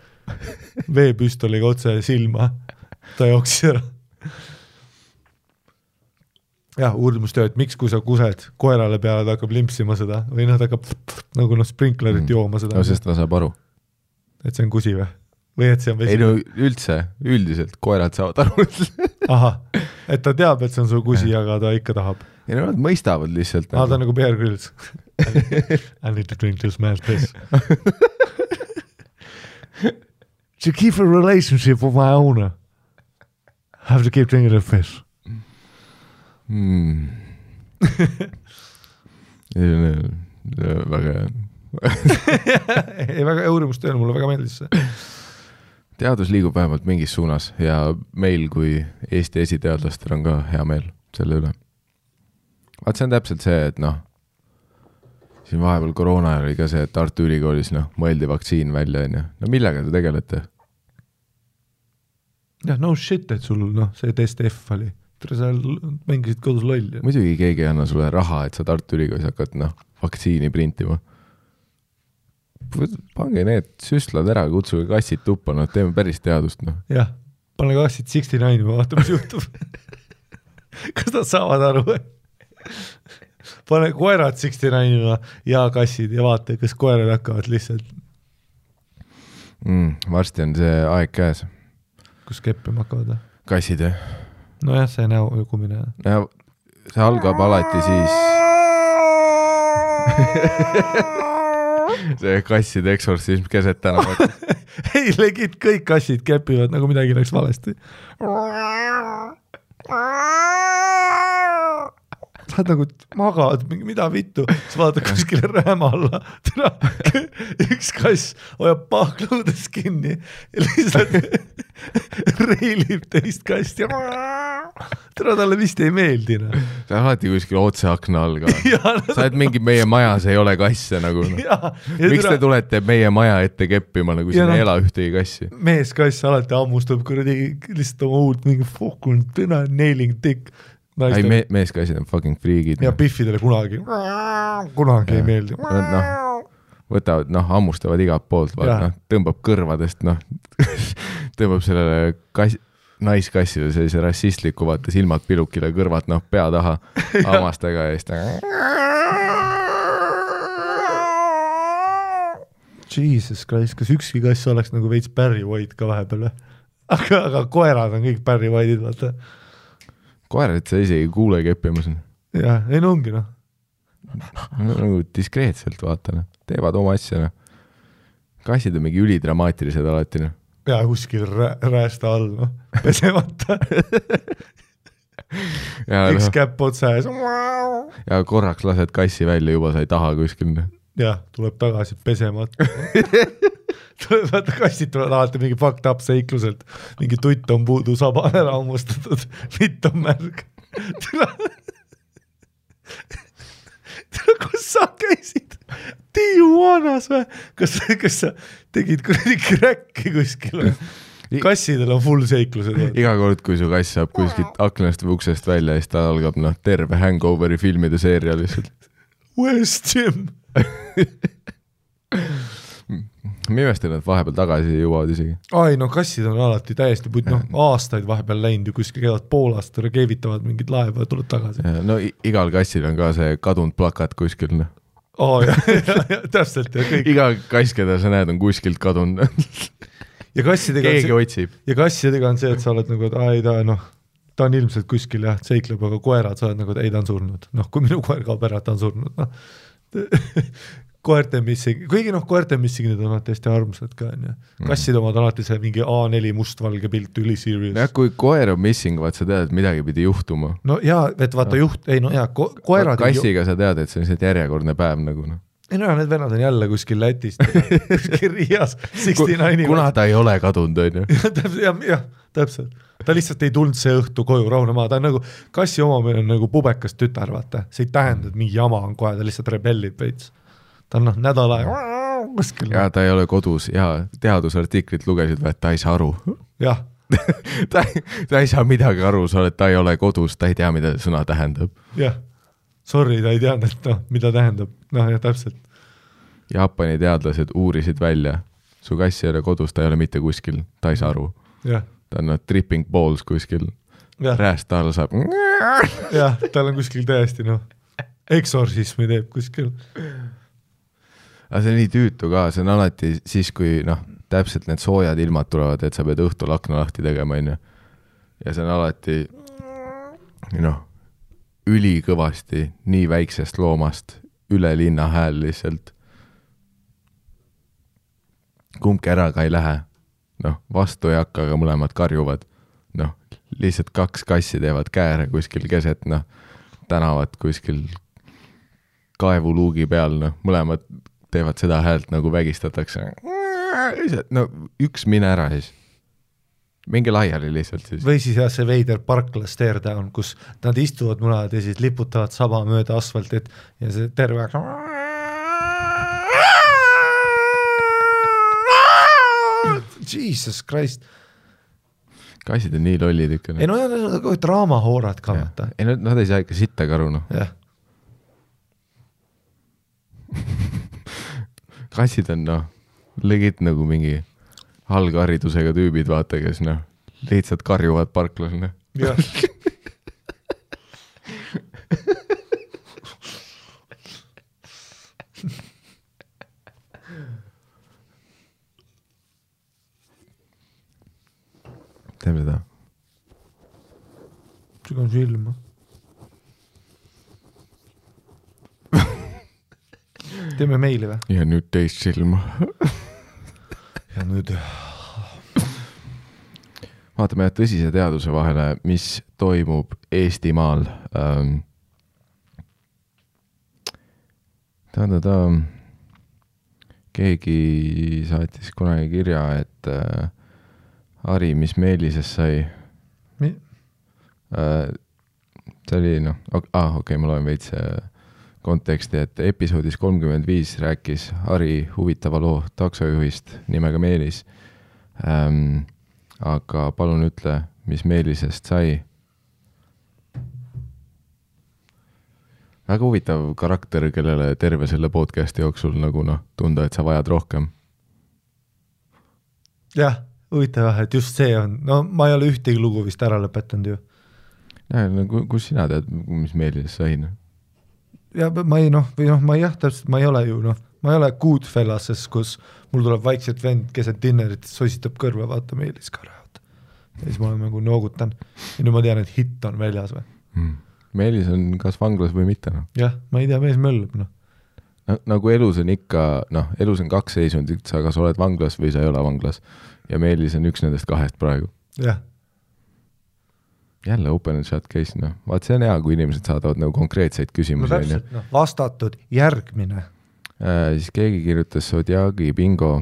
veepüstoliga otse silma, ta jooksis ära. Jah, uurimustöö, et miks kui sa kused koerale peale, ta hakkab limpsima seda või ta hakkab nagu sprinklerit jooma seda. No sest ta saab aru. Et see on kusi või et see on vesi? Ei no üldiselt koerad saavad aru. Aha, et ta teab, et see on su kusi, aga ta ikka tahab. Ei no nad mõistavad lihtsalt. Ta on nagu Bear Grylls. I need to drink this man's piss. To keep a relationship with my owner, I have to keep drinking the piss. Väga ei, väga uurimustööl, mulle väga meeldis see. Teadus liigub vähemalt mingis suunas ja meil kui Eesti esiteadlastel on ka hea meel selle üle. Vaat see on täpselt see, et siin vahepeal koroona oli ka see, et Tartu Ülikoolis mõeldi vaktsiin välja. No millega te tegelete? Jah, no shit, et sul see test F oli. Sa mängisid kodus lolli. Muidugi keegi ei anna sulle raha, et sa Tartu Ülikoolis hakkad vaktsiini printima. Pange need süstlad ära, kutsuge kassid tuppa, teeme päris teadust. Jah, pane kassid 69 või vaata, mis juhtub. Kas nad saavad aru? Pane koerad 69 ja kassid ja vaata, kas koerad hakkavad lihtsalt. Varsti on see aeg käes. Kus keppima hakkavad? Kassid, jah? No jah, see näo jõgumine. Ja see algab alati siis. See kasside eksorsism keset tänavat. Ei, legit kõik kassid kepivad, nagu midagi läks valesti. Sa oled nagu magad, mida vittu, sa vaatad kuskile rääma alla. Üks kass hoiab pahklõudes kinni ja lihtsalt reilib teist kast ja talle vist ei meeldi. Sa alati kuskil otse akna all ka. Sa oled mingi meie majas ei ole kasse nagu. Miks te tulete meie maja ette keppima, nagu siin ei ela ühtegi kassi? Mees kass alati ammustab kuradi lihtsalt oma uut mingi fokun tõna nailing dick. Ei, meeskassid on fucking freegid. Ja piffidele kunagi ei meeldi. Võtavad, ammustavad igalt poolt, tõmbab kõrvadest, tõmbab sellele naiskassile sellise rassistliku, vaata silmad pilukile, kõrvad pea taha hammastega ja Jesus Christ, kas ükski kass oleks nagu veits Barry White ka vahepeal? Aga koerad on kõik Barry White'id, vaata. Koerad sa isegi kuule keppimas. Jah, ei ongi nagu diskreetselt vaata, teevad oma asja. Kassid on mingi ülidramaatilised alati. Ja kuskil räästa all, pesemata. Üks käpp otsa ees. Ja korraks lased kassi välja, juba sa ei taha kuskil. Jah, tuleb tagasi pesemata. Kassid tulevad alati mingi fucked up seikluselt, mingi tutt on puudu, saba on ära ammustatud, vitt on märg. Kus sa käisid? Tijuanas või? Kas sa tegid kuradi kräkki kuskil? Kassidel on full seiklused. Iga kord, kui su kass saab kuskilt aknast või uksest välja, siis ta algab terve Hangoveri filmide seeria lihtsalt. Where's Jim? Mimestan, et vahepeal tagasi jõuavad isegi. Ai, kassid on alati täiesti aastaid vahepeal läinud ja kuskil käivad poolast, keevitavad mingid laeva ja tuled tagasi. No igal kassil on ka see kadunud plakat kuskil. Täpselt. Iga kass, keda sa näed, on kuskilt kadunud. Keegi otsib. Ja kassidega on see, et sa oled nagu, et ta on ilmselt kuskil seikleb, aga koerad sa oled nagu, et ei, ta on surnud. Kui minu koer kaob ära, ta on surnud. koerte missing, kuigi koerte missingid on alati hästi armsad ka, kassid omad alati see mingi A4 mustvalge pilt, üli serious. Ja, kui koer on missing, vaat sa tead, et midagi pidi juhtuma. No jaa, et vaata koerad... Kassiga sa tead, et see on see järjekordne päev nagu. Ei no, need vennad on jälle kuskil Lätist, kuskil Riias, 69. Kuna ta ei ole kadunud, on ju? jah, täpselt. Ta lihtsalt ei tulnud see õhtu koju rahunema, ta on nagu, kassi omamine on nagu pubekas tütar, vaata. See ei tähenda, et mingi jama on kohe, ta lihtsalt rebellib veits. Ta on nädala kuskil. Ja ta ei ole kodus ja teadusartiklit lugesid, et ta ei saa aru. Jah. ta ei saa midagi aru, sa oled, ta ei ole kodus, ta ei tea, mida sõna tähendab. Jah, sorry, ta ei teadnud, et mida tähendab. Ja täpselt. Jaapani teadlased uurisid välja, su kass ei ole kodus, ta ei ole mitte kuskil, ta ei saa aru. Jah. Ta on tripping balls kuskil, rääst all saab. Jah, tal on kuskil täiesti, eksorsismi teeb kuskil. Aga see on nii tüütu ka, see on alati siis, kui täpselt need soojad ilmad tulevad, et sa pead õhtul akna lahti tegema, ja see on alati ülikõvasti nii väiksest loomast üle linna hääl lihtsalt. Kumbki ära ka ei lähe. Vastu ei hakka, aga mõlemad karjuvad. Lihtsalt 2 kassi teevad kääre kuskil keset, tänavat kuskil kaevuluugi peal, mõlemad teevad seda häält nagu vägistatakse. Üks mine ära siis. Mingi laiali lihtsalt siis. Või siis see veider Parkla stare down, kus nad istuvad munad ja siis liputavad saba mööda asfaltit ja see terve Jesus Christ. Kassid on nii lollid ikka. Ei draamahoorad ka. Ei, nad ei saa ikka sitta karu. Jah. Kassid on legit nagu mingi algharidusega tüübid, vaata, kes lihtsalt karjuvad parklas. Jah. Teeme seda. Sügan silma. Teeme meili või? Ja nüüd teist silma. Ja nüüd... Vaatame tõsise teaduse vahele, mis toimub Eestimaal. Keegi saatis kunagi kirja, et Ari, mis Meelises sai? See oli, okei, ma loen veits konteksti, et episoodis 35 rääkis Ari huvitava loo taksojuhist nimega Meelis. Aga palun ütle, mis Meelisest sai? Väga huvitav karakter, kellele terve selle podcasti jooksul nagu tunda, et sa vajad rohkem. Jah, huvitav, et just see on. Ma ei ole ühtegi lugu vist ära lõpetanud ju. Kus sina tead, mis Meelisest sai? Ja ma ei, täpselt, ma ei ole ju, ma ei ole Goodfellases, kus mul tuleb vaikselt vend keset dinnerit, sositab kõrva, vaata Meelis ka räävad. Ja siis ma olen nagu noogutan. Ja nüüd ma tean, et hitt on väljas või. Meelis on kas vanglas või mitte. Jah, ma ei tea, mees möllub. Nagu elus on ikka, elus on 2 seisundit, sa kas oled vanglas või sa ei ole vanglas. Ja Meelis on üks nendest 2 praegu. Jah. Jälle open and shut case, Vaat see on hea, kui inimesed saadavad nagu konkreetseid küsimusi. Täpselt, vastatud järgmine. Siis keegi kirjutas Zodiagi bingo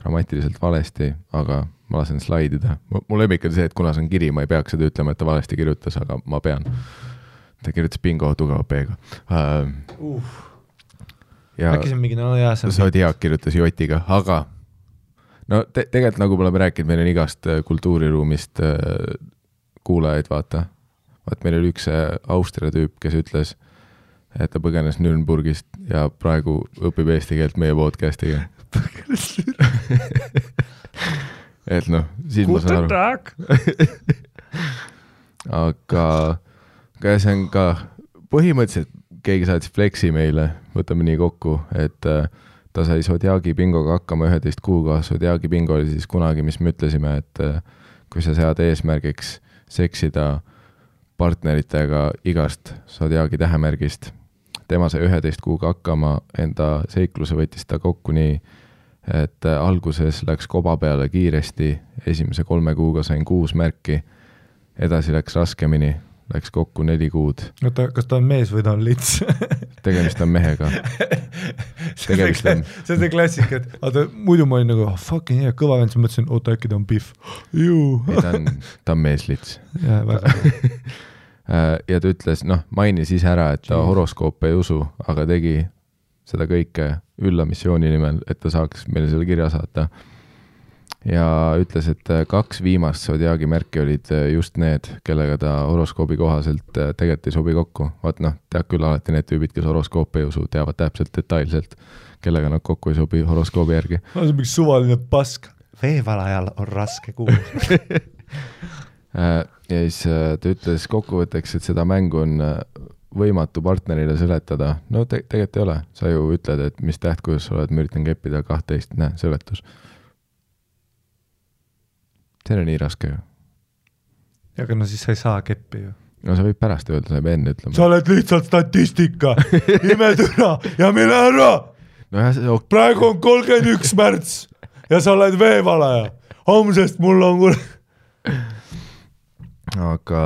grammatiliselt valesti, aga ma lasen slaidida. Mu lemmik on see, et kuna see on kiri, ma ei peaks seda ütlema, et ta valesti kirjutas, aga ma pean. Ta kirjutas bingo tugeva P-ga. Äkki see on mingi jääsem. Zodiak kirjutas Jotiga, aga tegelikult nagu me oleme rääkinud, meil on igast kultuuriruumist kuulajaid, vaata. Vaat meil oli üks Austria tüüp, kes ütles, et ta põgenes Nürnburgist ja praegu õpib eesti keelt meie podcastiga. Põgenes Nürnburgist. Et siis ma saan aru. Aga see on ka põhimõtteliselt keegi saatis flexi meile, võtame nii kokku, et ta sai Zodiagi bingoga hakkama 11 kuuga. Zodiagi bingo oli siis kunagi, mis me ütlesime, et kui sa sead eesmärgiks seksida partneritega igast Zodiagi tähemärgist, tema sai 11 kuuga hakkama, enda seikluse võttis ta kokku nii, et alguses läks koba peale kiiresti, esimese 3 kuuga sain 6 märki, edasi läks raskemini, läks kokku 4 kuud. Oota, kas ta on mees või ta on lits? Tegemist on mehega. See on see klassik, et muidu ma olin nagu, fucking hea, kõva vend, siis mõtlesin, oota, äkki ta on Biff. Ta on meeslits. Ja, väga. Ja ta ütles, mainis ise ära, et ta horoskoope ei usu, aga tegi seda kõike üllamissiooni nimel, et ta saaks meile selle kirja saata. Ja ütles, et 2 viimast Zodiaagi märki olid just need, kellega ta horoskoobi kohaselt tegelikult ei sobi kokku. Vaat tead küll alati need tüübid, kes horoskoope ei usu, teavad täpselt detailselt, kellega nad kokku ei sobi horoskoobi järgi. See on mingi suvaline pask. Veevalajal on raske kuulda. Ja siis ta ütles kokkuvõtteks, et seda mängu on võimatu partnerile seletada. No tegelikult ei ole. Sa ju ütled, et mis täht, kuidas sa oled, ma üritan keppida 12, seletus. See on nii raske ju. Aga siis sa ei saa keppi ju. No sa võid pärast öelda, sa ei pea enne ütlema. Sa oled lihtsalt statistika, imetüna ja mine ära! Praegu on 31 märts ja sa oled veevalaja. Homsest mul on Aga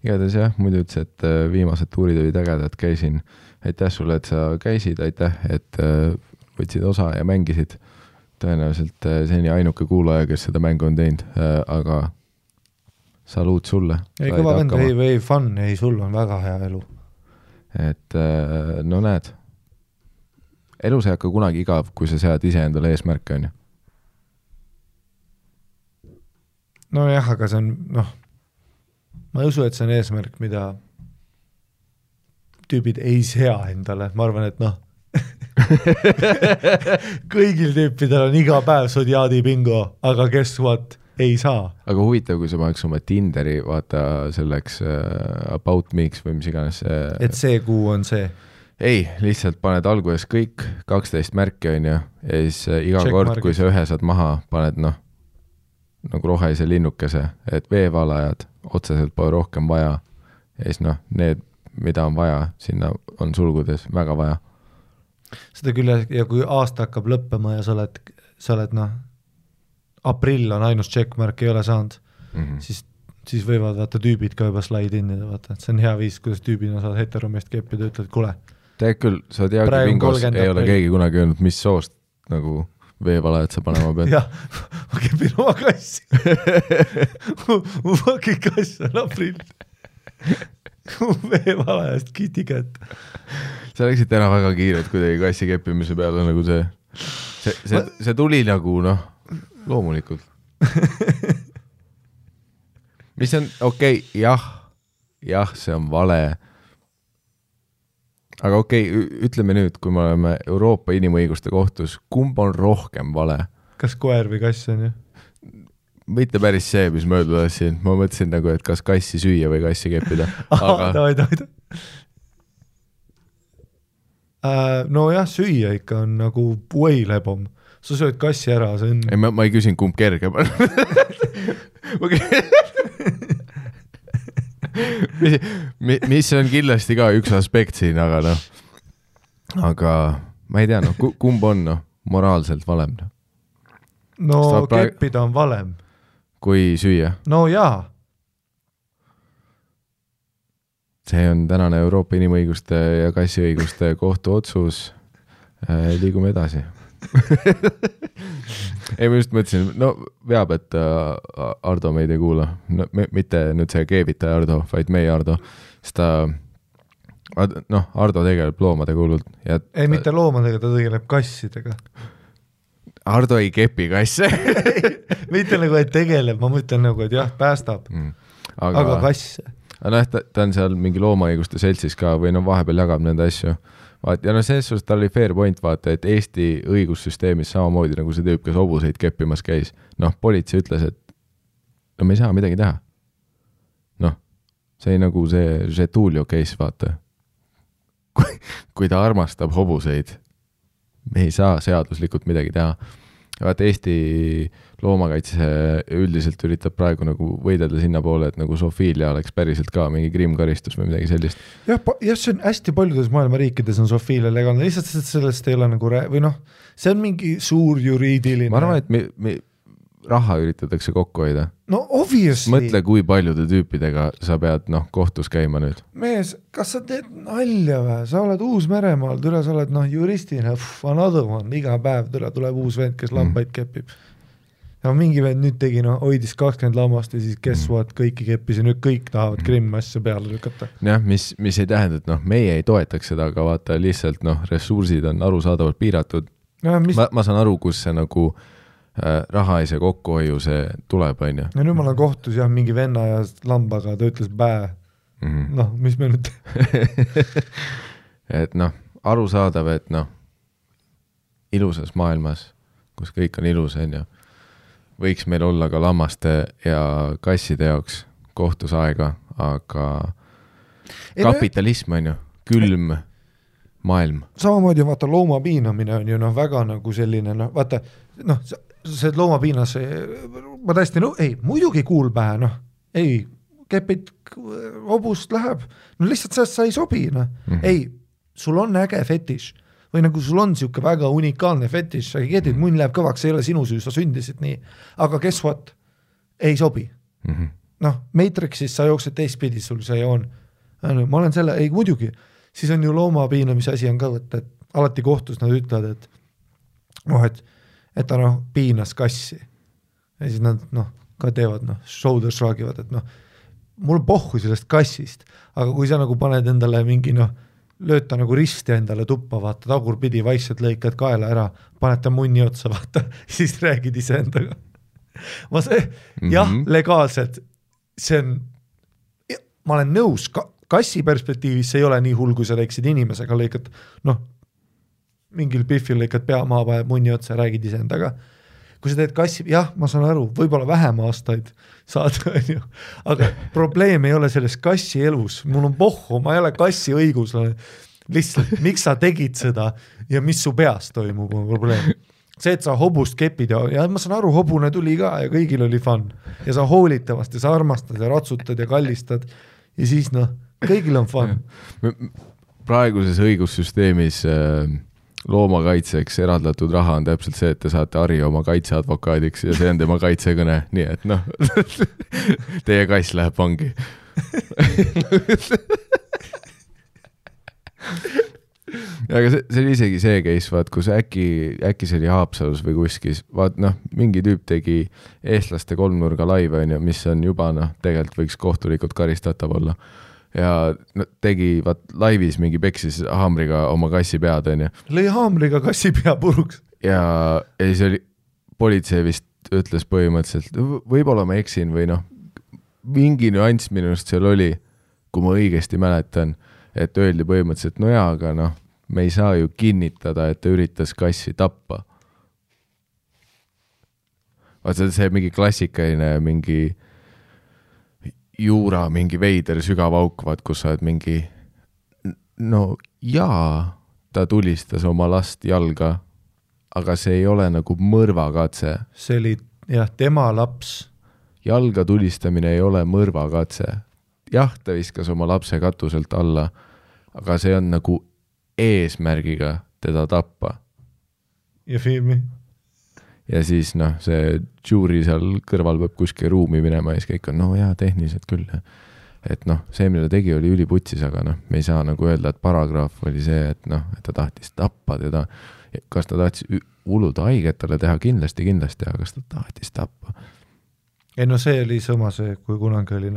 igatahes jah, muidu ütles, et viimased tuurid olid ägedad, käisin. Aitäh sulle, et sa käisid, aitäh, et võtsid osa ja mängisid. Tõenäoliselt seni ainuke kuulaja, kes seda mängu on teinud, aga saluut sulle. Ei, kõva vend, ei fun, ei, sul on väga hea elu. Et näed, elus ei hakka kunagi igav, kui sa sead ise endale eesmärke, on ju. No jah, aga see on, ma ei usu, et see on eesmärk, mida tüübid ei sea endale. Ma arvan, et kõigil tüüpidel on iga päev Zodiaadi bingo, aga guess what? Ei saa. Aga huvitav, kui sa paneks oma Tinderi, vaata selleks about me'iks või mis iganes. Et see kuu on see? Ei, lihtsalt paned alguses kõik 12 märki on ju, ja siis iga check kord, markis. Kui sa ühe saad maha, paned nagu rohelise linnukese, et veevalajad otseselt pole rohkem vaja, ja siis need, mida on vaja, sinna on sulgudes väga vaja. Seda küll, ja kui aasta hakkab lõppema ja sa oled aprill on ainus checkmark ei ole saanud, siis võivad vaata tüübid ka juba slide innida, vaata, et see on hea viis, kuidas tüübina saad heteromest keppida, ütled, kule. Tead küll, sa tead bingos ei ole keegi kunagi öelnud, mis soost nagu veevalajad sa panema pead. Jah, ma kepin oma kassi. mu fucking kass on aprill. Veevalajast kiti kätt. Sa läksid täna väga kiiret kuidagi kassi keppimise peale nagu see tuli nagu loomulikult. Mis on okei, jah, see on vale. Aga ütleme nüüd, kui me oleme Euroopa inimõiguste kohtus, kumb on rohkem vale? Kas koer või kass on ju? Mitte päris see, mis ma öelda tahtsin. Ma mõtlesin nagu, et kas kassi süüa või kassi keppida. Davai. No jah, süüa ikka on nagu way lebom. Sa sööd kassi ära, see on... Ei, ma ei küsin, kumb kerge. mis on kindlasti ka üks aspekt siin, aga ma ei tea, kumb on moraalselt valem? No keppida on valem. Kui süüa? No jaa. See on tänane Euroopa inimõiguste ja kassiõiguste kohtu otsus. Liigume edasi. Ei, ma just mõtlesin, veab, et Ardo meid ei kuula. Mitte nüüd see keevitaja Ardo, vaid meie Ardo. Sest Ardo tegeleb loomade kuulult. Ei, mitte loomadega, ta tegeleb kassidega. Ardo ei kepi kasse. Mitte nagu, et tegeleb, ma mõtlen nagu, et jah, päästab. Aga kasse. Ta on seal mingi loomaõiguste seltsis ka või vahepeal jagab nende asju. Ja selles suhtes tal oli fair point, vaata, et Eesti õigussüsteemis samamoodi nagu see tüüp, kes hobuseid keppimas käis. Politsei ütles, et me ei saa midagi teha. See ei nagu see Tuulio case, vaata. Kui ta armastab hobuseid, me ei saa seaduslikult midagi teha. vaata Eesti loomakaitse üldiselt üritab praegu nagu võidelda sinna poole, et nagu sofiilia oleks päriselt ka mingi kriimkaristus või midagi sellist. Jah, see on hästi paljudes maailma riikides on sofiilia legaalne, lihtsalt sellest ei ole nagu või noh, see on mingi suur juriidiline. Ma arvan, et raha üritatakse kokku hoida. No obviously. Mõtle, kui paljude tüüpidega sa pead kohtus käima nüüd. Mees, kas sa teed nalja või? Sa oled Uus-Meremaal, tule sa oled juristina, another one, iga päev tuleb uus vend, kes lampaid kepib. Ja mingi vend nüüd tegi, hoidis 20 lammast ja siis kes what, kõiki keppis ja nüüd kõik tahavad Krimmi asja peale lükata. Jah, mis ei tähenda, et meie ei toetaks seda, aga vaata lihtsalt ressursid on arusaadavalt piiratud. Ja, ma saan aru, kus see nagu raha ei see kokkuhoiu, see tuleb, on ju. Ja nüüd ma olen kohtus mingi venna ja lambaga, ta ütles bää. Mis me nüüd et arusaadav, et ilusas maailmas, kus kõik on ilus, on ju, võiks meil olla ka lammaste ja kasside jaoks kohtusaega, aga kapitalism on ju, külm maailm. Samamoodi vaata loomapiinamine on ju väga nagu selline, vaata, see loomapiinas, ma täiesti, muidugi kuul pähe, ei, kepid hobust läheb, lihtsalt sa ei sobi, ei, sul on äge fetiš, või nagu sul on siuke väga unikaalne fetiš, sa kedid, munn läheb kõvaks, see ei ole sinu süü, sa sündisid nii, aga guess what, ei sobi. Matrixis sa jooksed teistpidi, sul see on, ma olen selle, ei muidugi, siis on ju loomapiinamise asi on ka võtta, et alati kohtus nad ütlevad, et ta piinas kassi ja siis nad ka teevad shoulder shrugivad, et mul pohhu sellest kassist, aga kui sa nagu paned endale mingi lööd ta nagu risti endale tuppa, vaata tagurpidi vaikselt lõikad kaela ära, paned ta munni otsa, vaata, siis räägid ise endaga. Jah, legaalselt see on, ma olen nõus, kassi perspektiivis see ei ole nii hull, kui sa teeksid inimesega, lõikad mingil pihvil lõikad pea maa paneb munni otsa ja räägid ise endaga. Kui sa teed kassi, jah, ma saan aru, võib-olla vähem aastaid saad, aga probleem ei ole selles kassi elus, mul on pohhu, ma ei ole kassi õigus, lihtsalt miks sa tegid seda ja mis su peas toimub, on probleem. See, et sa hobust kepid ja ma saan aru, hobune tuli ka ja kõigil oli fun ja sa hoolid temast ja sa armastad ja ratsutad ja kallistad ja siis kõigil on fun. Praeguses õigussüsteemis loomakaitseks eraldatud raha on täpselt see, et te saate Harri oma kaitseadvokaadiks ja see on tema kaitsekõne, nii et teie kass läheb vangi. Aga see oli isegi see case, vaat, kus äkki see oli Haapsalus või kuskis, vaat mingi tüüp tegi eestlaste kolmnurga laive, mis on juba tegelikult võiks kohtulikult karistatav olla. Ja tegi laivis mingi peksis haamriga oma kassi pead, on ju. Lõi haamriga kassi pea puruks. Ja siis oli, politsei vist ütles põhimõtteliselt, võib-olla ma eksin või mingi nüanss minust seal oli, kui ma õigesti mäletan, et öeldi põhimõtteliselt, aga me ei saa ju kinnitada, et ta üritas kassi tappa. Vaata, see mingi klassikaline mingi juura, mingi veider sügav aukvad, kus sa oled mingi ta tulistas oma last jalga, aga see ei ole nagu mõrvakatse. See oli, tema laps. Jalga tulistamine ei ole mõrvakatse. Jah, ta viskas oma lapse katuselt alla, aga see on nagu eesmärgiga teda tappa. Ja filmi. Ja siis see juuri seal kõrval peab kuskil ruumi minema ja siis kõik on, tehniliselt küll. Et see, mille tegi, oli üliputsis, aga me ei saa nagu öelda, et paragraaf oli see, et ta tahtis tappa teda. Kas ta tahtis uluda haiget talle teha? Kindlasti, aga kas ta tahtis tappa? Ei, see oli sama see, kui kunagi oli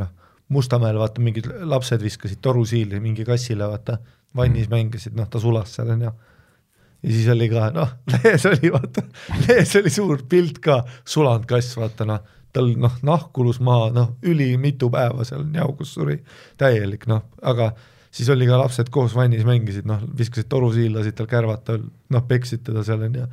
Mustamäel, vaata, mingid lapsed viskasid torusiili mingi kassile, vaata, vannis mängisid, ta sulas seal ja siis oli ka, lehes oli suur pilt ka, sulanud kass, vaata, tal nahkulus maa, üli mitu päeva seal njaugus suri, täielik, aga siis oli ka lapsed koos vannis mängisid, viskasid torusiil, lasid tal kärvata, peksid teda seal ja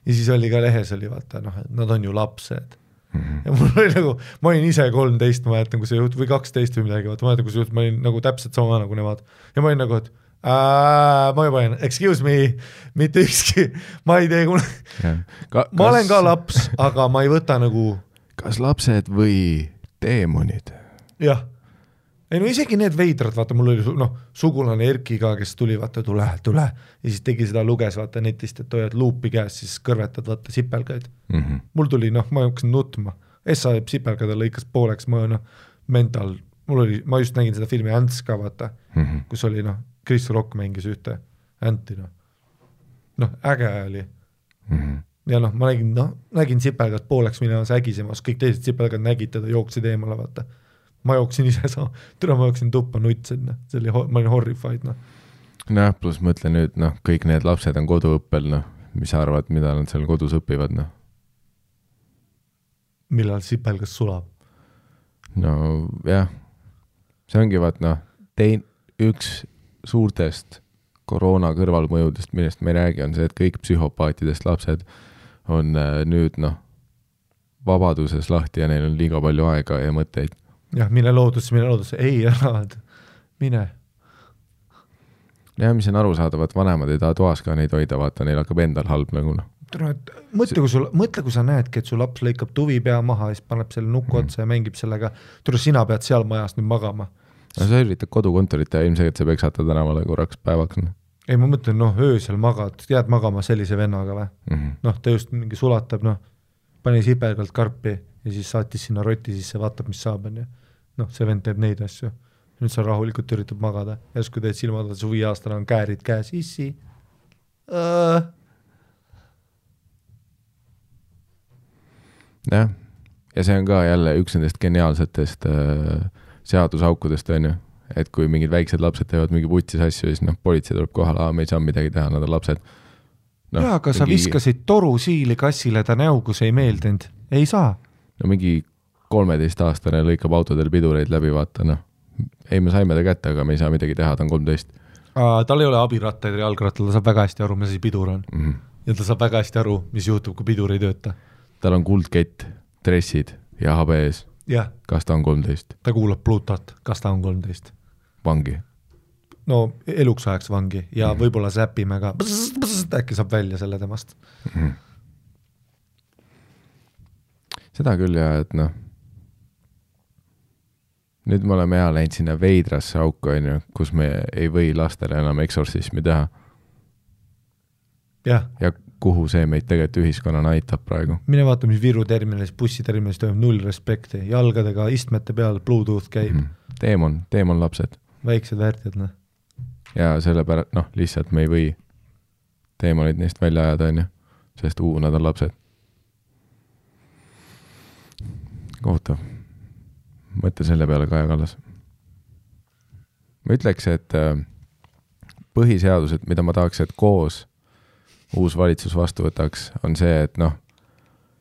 siis oli ka lehes oli, vaata, nad on ju lapsed. Ja mul oli nagu, ma olin ise 13, ma jätan, kui see juht, või 12 või midagi, vaata, ma jätan, kui see juht, ma olin nagu täpselt sama nagu nemad ja ma olin nagu, et Ma juba olen, excuse me, mitte ükski, ma ei tee ma olen ka laps, aga ma ei võta nagu kas lapsed või teemonid? Jah. Ei no isegi need veidrad, vaata, mul oli sugulane Erki ka, kes tuli, vaata, tule, ja siis tegi seda, luges, vaata, netist, et hoiad luupi käes, siis kõrvetad, vaata, sipelgaid. Mul tuli, ma jooksin nutma. Essa sipelgada lõikas pooleks, mental, ma just nägin seda filmi Ants ka, vaata, kus oli, Chris Rock mängis ühte Anti, äge oli. Ja ma nägin sipelgad pooleks minemas ägisemas, kõik teised sipelgad nägid teda, jooksid eemale, vaata. Ma jooksin ise ma jooksin tuppa nutsen, ma olin horrified. Noh, pluss mõtle nüüd, kõik need lapsed on koduõppel, mis arvad, mida nad seal kodus õpivad, Millal sipelgas sulab? No jah, see ongi vaat, üks suurtest koroona kõrvalmõjudest, millest me ei räägi, on see, et kõik psühhopaatidest lapsed on nüüd, vabaduses lahti ja neil on liiga palju aega ja mõtteid. Jah, mine loodusse, ei ära, mine. Ja mis on aru saada, vaat vanemad ei taha toas ka neid hoida, vaata, neil hakkab endal halb nagu. Mõtle, kui sa näedki, et su laps lõikab tuvi pea maha ja siis paneb selle nuku otsa ja mängib sellega, sina pead seal majas nüüd magama. No sa üritad kodukontorit ja ilmselt sa peksata tänavale korraks päevaks. Ei, ma mõtlen, öösel magad, jääd magama sellise vennaga või? Ta just mingi sulatab, pani sipelgalt karpi ja siis saatis sinna roti sisse, vaatab, mis saab. See vend teeb neid asju. Nüüd sa rahulikult üritab magada. Järsku teed silmad, su 5 aastane on käärid käes. Issi. Jah. Ja see on ka jälle üks nendest geniaalsetest seadusaukudest, on ju. Et kui mingid väiksed lapsed teevad mingi putsis asju, siis politsei tuleb kohale, me ei saa midagi teha, nad on lapsed. Aga sa viskasid toru siili kassile ta näu, kus ei meeldinud. Ei saa. Mingi 13-aastane lõikab autodel pidureid läbi, vaata, Ei, me saime ta kätte, aga me ei saa midagi teha, ta on 13. Tal ei ole abirattaid ja jalgrattal, ta saab väga hästi aru, mis asi pidur on. Ja ta saab väga hästi aru, mis juhtub, kui pidur ei tööta. Tal on kuldkett, dressid ja HBS. Jah. Kas ta on 13? Ta kuulab Plutot, kas ta on 13? Vangi. No eluks ajaks vangi ja võib-olla säpime ka, äkki saab välja selle temast. Seda küll ja, et nüüd me oleme läinud sinna veidrasse auku, kus me ei või lastele enam eksorsismi teha. Ja kuhu see meid tegelikult ühiskonnana aitab praegu. Mine vaata, mis Viru terminalis, bussiterminalis toimub 0 respekti. Jalgadega istmete peal Bluetooth käib. Teemon lapsed. Väiksed väärtjad, Ja sellepärast, lihtsalt me ei või teemonid neist välja ajada, on ju. Sest nad on lapsed. Kohutav. Mõtle selle peale Kaja Kallas. Ma ütleks, et põhiseadused, mida ma tahaks, et koos uus valitsus vastu võtaks, on see, et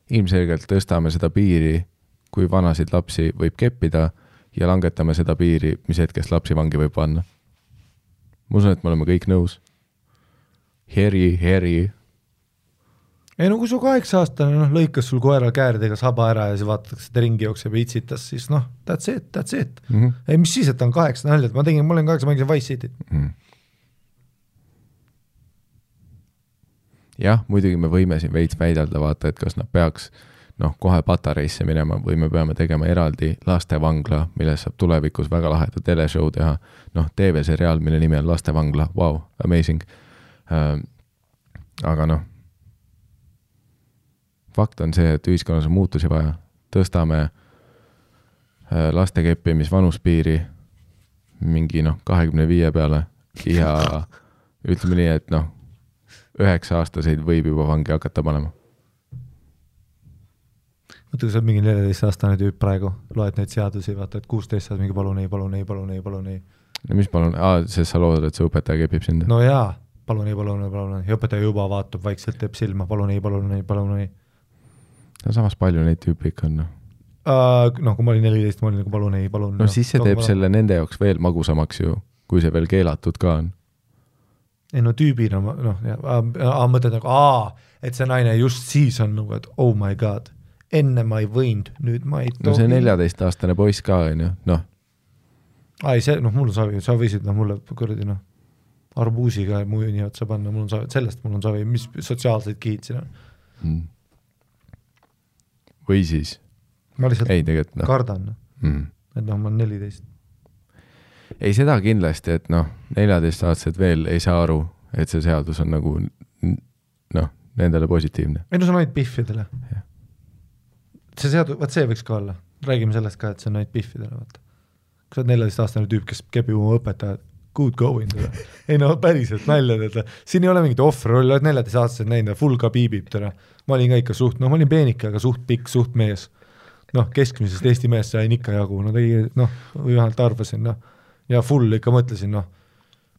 ilmselgelt tõstame seda piiri, kui vanasid lapsi võib keppida ja langetame seda piiri, mis hetkest lapsi vangi võib panna. Ma usun, et me oleme kõik nõus. Heri. Ei kui su 8-aastane lõikas sul koera kääridega saba ära ja siis vaatatakse, et ringi jookseb ja itsitas, siis that's it. Ei, mis siis, et ta on 8 näljad, ma olen 8, mängisin Vice Cityt. Jah, muidugi me võime siin veits väidelda, vaata, et kas nad peaks kohe patareisse minema või me peame tegema eraldi lastevangla, milles saab tulevikus väga laheda teleshow teha. TV-seriaal, mille nimi on Lastevangla, wow, amazing. Aga fakt on see, et ühiskonnas on muutusi vaja. Tõstame laste keppimis vanuspiiri mingi 25 peale ja ütleme nii, et 9-aastaseid võib juba vangi hakata panema. Mõtle, kui sa mingi 14-aastane tüüp praegu, loed neid seadusi, vaata, et 16 saad mingi palun ei. No mis palun? Sest sa loodad, et see õpetaja kepib sind? No jaa, palun ei. Ja õpetaja juba vaatab, vaikselt teeb silma, palun ei. No samas palju neid tüüpi ikka on. Kui ma olin 14, ma olin nagu palun ei. No siis see teeb selle nende jaoks veel magusamaks ju, kui see veel keelatud ka on. Ei tüübina, mõtled et see naine just siis on nagu, et oh my god, enne ma ei võinud, nüüd ma ei tohi. No see 14-aastane poiss ka on ju, Ei, see, mul sa võisid mulle kuradi, arbuusiga muu nii otsa panna, sellest mul on savi, mis sotsiaalseid kihid siin on. Või siis? Ma lihtsalt kardan, et ma olen 14. Ei, seda kindlasti, et 14-aastased veel ei saa aru, et see seadus on nagu nendele positiivne. Ei, see on ainult piffidele. Ja. See seadus, see võiks ka olla. Räägime sellest ka, et see on ainult piffidele. Vaata. Kui sa oled 14-aastane tüüp, kes kepib oma õpetajad, good going. Ei päriselt nalja. Siin ei ole mingit ohverolli, oled 14-aastased näinud, full ka piibib. Ma olin ka ikka suht, ma olin peenike, aga suht pikk, suht mees. Keskmisest Eesti meest sain ikka jagu. Või vähemalt arvasin, ja full ikka mõtlesin,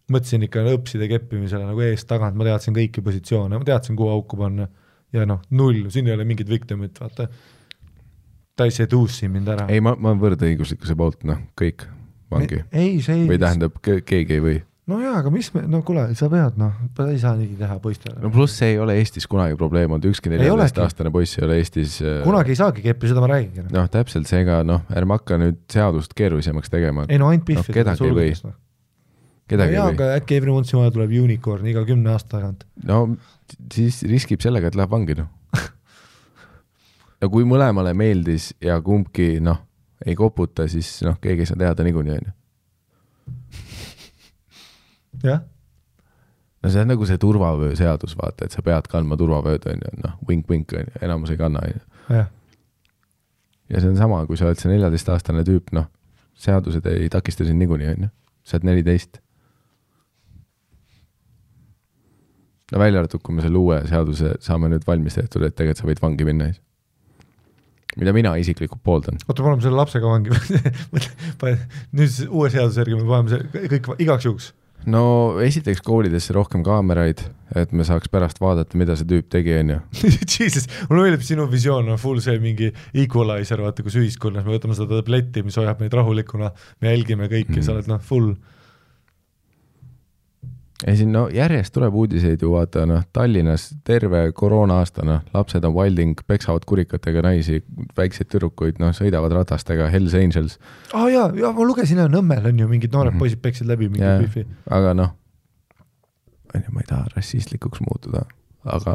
mõtlesin ikka õpside keppimisele nagu eest tagant, ma teadsin kõiki positsioone, ma teadsin, kuhu auku panna ja null, siin ei ole mingid victimit, vaata. Ta ei seduusi mind ära. Ei, ma võrdõiguslikkuse poolt, kõik vangi. Ei, see ei. Või tähendab, keegi ei või. No jaa, aga mis me, kuule, sa pead, ei saa nii teha poistele. Pluss see ei ole Eestis kunagi probleem, on ükski 14-aastane poiss ei ole Eestis. Kunagi ei saagi keppi, seda ma räägin. Täpselt seega, ärme hakka nüüd seadust keerulisemaks tegema. Ei, ainult piffid. Kedagi ei või. Kedagi ei või. Aga äkki every once in a while tuleb unicorn iga 10 aasta tagant. Siis riskib sellega, et läheb vangi, Ja kui mõlemale meeldis ja kumbki, ei koputa, siis keegi ei saa teada niikuinii, jah. See on nagu see turvavöö seadus, vaata, et sa pead kandma turvavööd, wink-wink, enamus ei kanna. Ja see on sama, kui sa oled see 14-aastane tüüp, seadused ei takista siin niikuinii, sa oled 14. Välja arvatud, kui me selle uue seaduse saame nüüd valmis tehtud, et tegelikult sa võid vangi minna. Mida mina isiklikult pooldan. Oota, paneme selle lapsega vangi. Nüüd uue seaduse järgi me paneme see kõik igaks juhuks. Esiteks koolidesse rohkem kaameraid, et me saaks pärast vaadata, mida see tüüp tegi, Jesus, mul meeldib sinu visioon, full see mingi equalizer, vaata, kus ühiskonnas me võtame seda tabletti, mis hoiab meid rahulikuna, me jälgime kõiki, sa oled full. Ei siin, järjest tuleb uudiseid ju vaata, Tallinnas terve koroona aasta, lapsed on wilding, peksavad kurikatega naisi, väikseid tüdrukuid, sõidavad ratastega, Hells Angels. Ja ma lugesin, Nõmmel on ju mingid noored poisid peksid läbi mingi bifi. Aga ma ei taha rassistlikuks muutuda, aga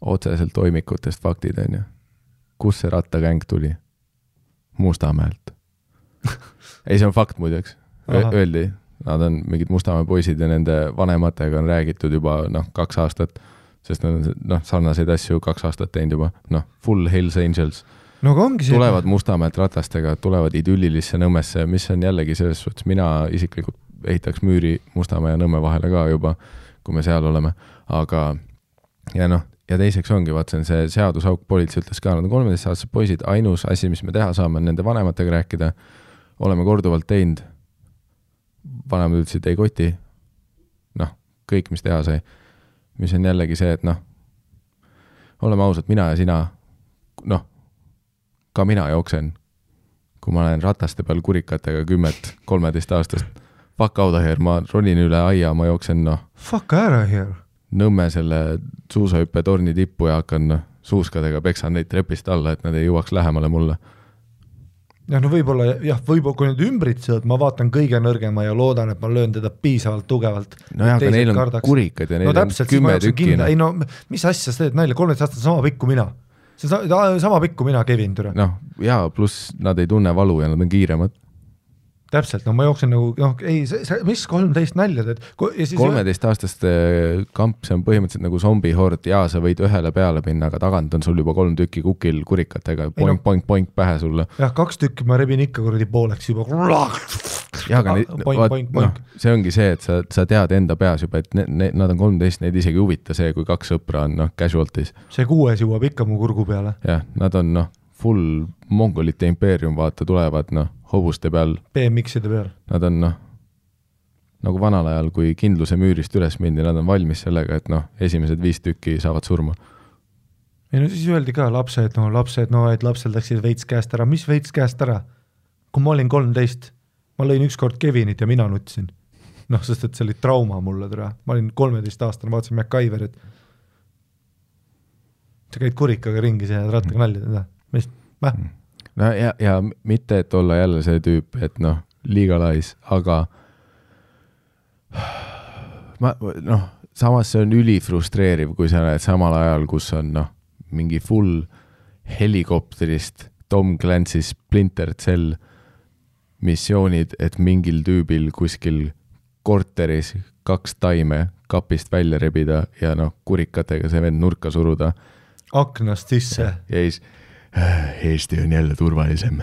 otseselt toimikutest faktid, kus see rattakäng tuli? Mustamäelt. Ei, see on fakt muideks. Öeldi. Nad on mingid Mustamäe poisid ja nende vanematega on räägitud juba 2 aastat, sest nad on sarnaseid asju 2 aastat teinud juba, full Hells Angels. Tulevad Mustamäelt ratastega, tulevad idüllilisse Nõmmesse, mis on jällegi selles suhtes, mina isiklikult ehitaks müüri Mustamäe ja Nõmme vahele ka juba, kui me seal oleme, aga ja teiseks ongi, see on see seadusauk, politsei ütles ka, nad on 13-aastased poisid, ainus asi, mis me teha saame, nende vanematega rääkida, oleme korduvalt teinud, vanemad ütlesid ei koti, kõik, mis teha sai, mis on jällegi see, et oleme ausad, mina ja sina, ka mina jooksen, kui ma olen rataste peal kurikatega 10-13 aastast, fuck out of here, ma ronin üle aia, ma jooksen, fuck out of here. Nõmme selle suusahüppe torni tippu ja hakkan suuskadega peksan neid trepist alla, et nad ei jõuaks lähemale mulle. Ja võib-olla, kui need ümbritsevad, ma vaatan kõige nõrgema ja loodan, et ma löön teda piisavalt tugevalt. Aga neil on kurikad ja neil on 10 tükki. Ei, mis asja sa teed neile? 13 aastat sama pikku mina. See sama pikku mina, Kevin, türa. Pluss nad ei tunne valu ja nad on kiiremad. Täpselt, ma jooksen nagu, mis 13 näljad, et 13-aastaste kamp, see on põhimõtteliselt nagu zombihord ja sa võid ühele peale minna, aga tagant on sul juba 3 tükki kukil kurikatega, poink pähe sulle. 2 tükki ma rebin ikka kuradi pooleks juba. Aga see ongi see, et sa tead enda peas juba, et nad on 13, neid isegi huvita see, kui 2 sõpra on casualties. See 6 jõuab ikka mu kurgu peale. Jah, nad on full mongolite impeerium, vaata, tulevad hobuste peal. BMX-ide peal. Nad on nagu vanal ajal, kui kindluse müürist üles mindi, nad on valmis sellega, et esimesed 5 tükki saavad surma. Ei siis öeldi ka lapsed, et lapsel läksid veits käest ära. Mis veits käest ära? Kui ma olin 13, ma lõin ükskord Kevinit ja mina nutsin. Sest et see oli trauma mulle türa. Ma olin 13 aastane, vaatasin MacGyverit. Sa käid kurikaga ringi ja rattaga nalja. ja mitte, et olla jälle see tüüp, et legalize, aga samas see on ülifrustreeriv, kui sa näed samal ajal, kus on mingi full helikopterist Tom Clancy's Splinter Cell missioonid, et mingil tüübil kuskil korteris 2 taime kapist välja rebida ja kurikatega see vend nurka suruda. Aknast sisse. Ja siis, Eesti on jälle turvalisem.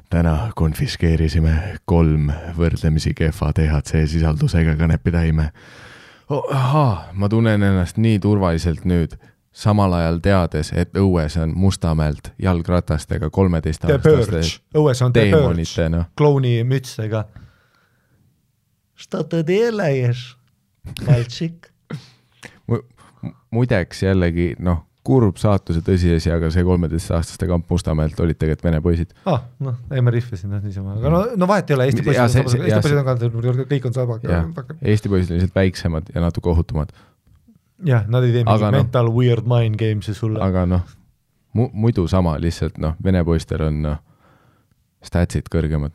Täna konfiskeerisime 3 võrdlemisi kehva THC sisaldusega kanepitäime. Ma tunnen ennast nii turvaliselt nüüd, samal ajal teades, et õues on Mustamäelt jalgratastega 13-aastaste õues on deemonite. Klouni mütsega. Что ты делаешь, мальчик? Muideks jällegi, kurb saatuse tõsiasi, aga see 13-aastaste kamp Mustamäelt olid tegelikult vene poisid. Ei ma rihvasin niisama, aga vahet ei ole, Eesti poisid on ka, kõik on sama. Eesti poisid on lihtsalt väiksemad ja natuke ohutumad. Jah, nad ei tee mingi mental weird mind games'i sulle. Aga muidu sama, lihtsalt vene poistel on statsid kõrgemad.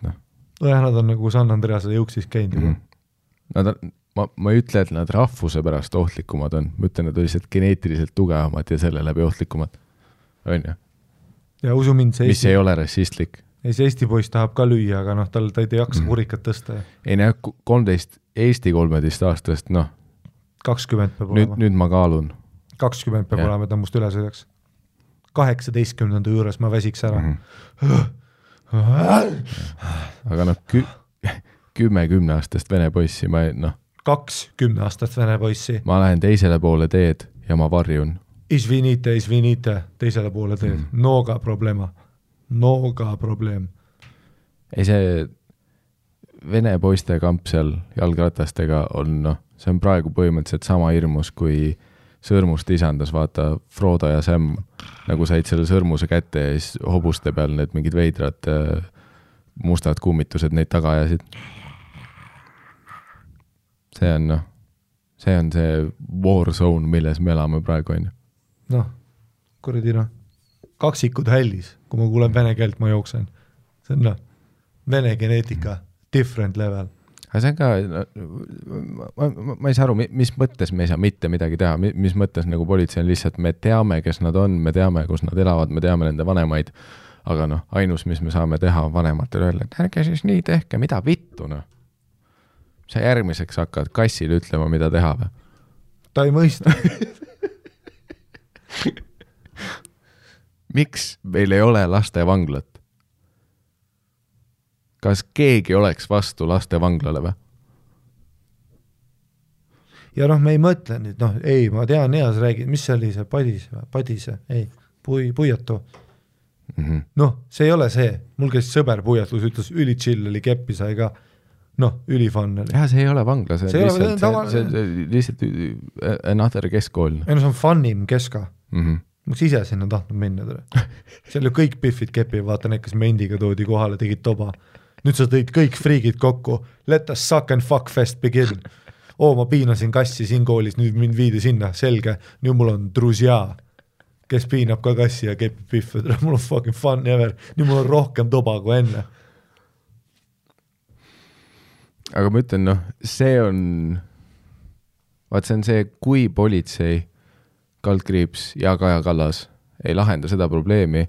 Nad on nagu San Andreasele jõuksis käinud. Ma ei ütle, et nad rahvuse pärast ohtlikumad on. Ma ütlen, et nad lihtsalt geneetiliselt tugevamad ja selle läbi ohtlikumad. On ju? Ja usu mind, see mis ei ole rassistlik. See Eesti poiss tahab ka lüüa, aga ta ei jaksa kurikat tõsta. Ei 13, Eesti 13 aastast, 20 peab olema. Nüüd ma kaalun. 20 peab olema, et must üle sõidaks. 18. juures ma väsiks ära. Aga 10-aastast vene poissi, 20 aastast vene poissi. Ma lähen teisele poole teed ja ma varjun. Izvinite, teisele poole teed. Noga problema. Ei see vene poiste kamp seal jalgratastega on, see on praegu põhimõtteliselt sama hirmus, kui sõrmust isandas, vaata Frodo ja Sam nagu said selle sõrmuse kätte ja siis hobuste peal need mingid veidrad mustad kummitused neid taga ajasid. See on see war zone, milles me elame praegu on. Kuradi kaksikud hällis, kui ma kuulen vene keelt, ma jooksen. See on vene geneetika, different level. Aga see on ka, ma ei saa aru, mis mõttes me ei saa mitte midagi teha, mis mõttes nagu politsei on lihtsalt, me teame, kes nad on, me teame, kus nad elavad, me teame nende vanemaid, aga ainus, mis me saame teha vanematele öelda, et ärge siis nii tehke, mida vittu, Sa järgmiseks hakkad kassile ütlema, mida teha või? Ta ei mõista. Miks meil ei ole lastevanglat? Kas keegi oleks vastu lastevanglale või? Ja me ei mõtle nüüd, ei, ma tean, Eas räägid, mis see oli see Padise, ei, Puiatu. See ei ole see, mul käis sõber Puiatlus, ütles üli chill oli keppi sai ka, ülifann oli. See ei ole vangla, see on lihtsalt another keskkool. Ei see on funnim keska. Ma ise sinna tahtnud minna. Seal ju kõik piffid kepi, vaata need, kes mendiga toodi kohale, tegid toba. Nüüd sa tõid kõik friigid kokku, let us suck and fuck fest begin. Ma piinasin kassi siin koolis, nüüd mind viidi sinna, selge, nüüd mul on drusja, kes piinab ka kassi ja kepib piffe, mul on fucking fun ever, nüüd mul on rohkem toba kui enne. Aga ma ütlen, see on see, kui politsei, kaldkriips ja Kaja Kallas ei lahenda seda probleemi,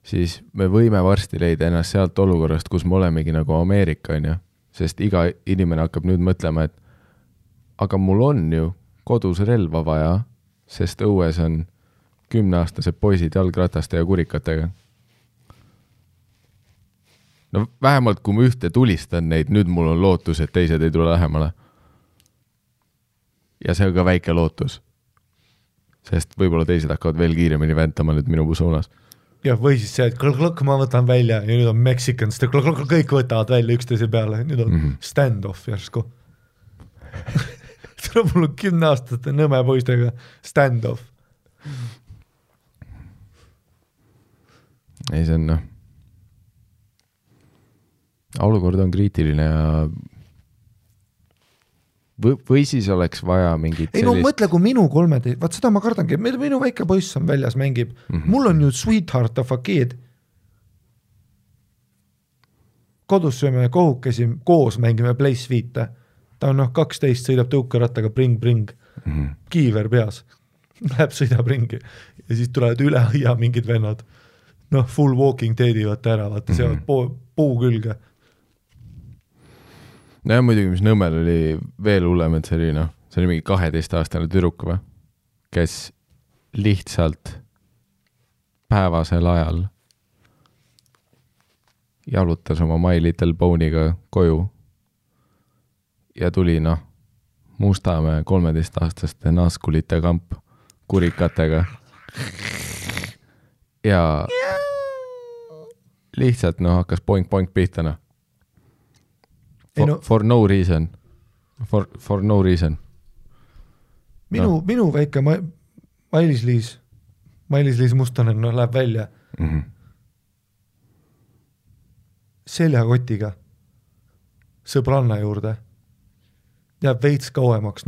siis me võime varsti leida ennast sealt olukorrast, kus me olemegi nagu Ameerika, sest iga inimene hakkab nüüd mõtlema, et aga mul on ju kodus relva vaja, sest õues on 10-aastased poisid jalgrataste ja kurikatega. Vähemalt kui ma ühte tulistan neid, nüüd mul on lootus, et teised ei tule lähemale. Ja see on ka väike lootus. Sest võib-olla teised hakkavad veel kiiremini väntama nüüd minu suunas. Ja või siis see, et klõk ma võtan välja ja nüüd on Mexicans, kõik võtavad välja üksteise peale, nüüd on stand-off järsku. Mul on 10-aastaste nõme poistega stand-off. Ei, see on olukord on kriitiline ja või siis oleks vaja mingit sellist... mõtle, kui minu 13, vaat seda ma kardangi, minu väike poiss on väljas, mängib, mul on ju sweetheart of a kid. Kodus sööme kohukesi, koos mängime Place 5. ta on 12, sõidab tõukerattaga bring, kiiver peas, läheb sõidab ringi ja siis tulevad üle aia mingid vennad, full walking teedivad ta ära, vaata seavad puu külge. No ja muidugi, mis Nõmmel oli veel hullem, et see oli mingi 12-aastane tüdruk või, kes lihtsalt päevasel ajal jalutas oma My Little Pony'ga koju ja tuli Mustamäe 13-aastaste naaskulite kamp kurikatega ja lihtsalt hakkas poink pihta For no reason. For no reason. Minu väike Mailis-Liis Mustonen läheb välja seljakotiga sõbranna juurde. Jääb veits kauemaks,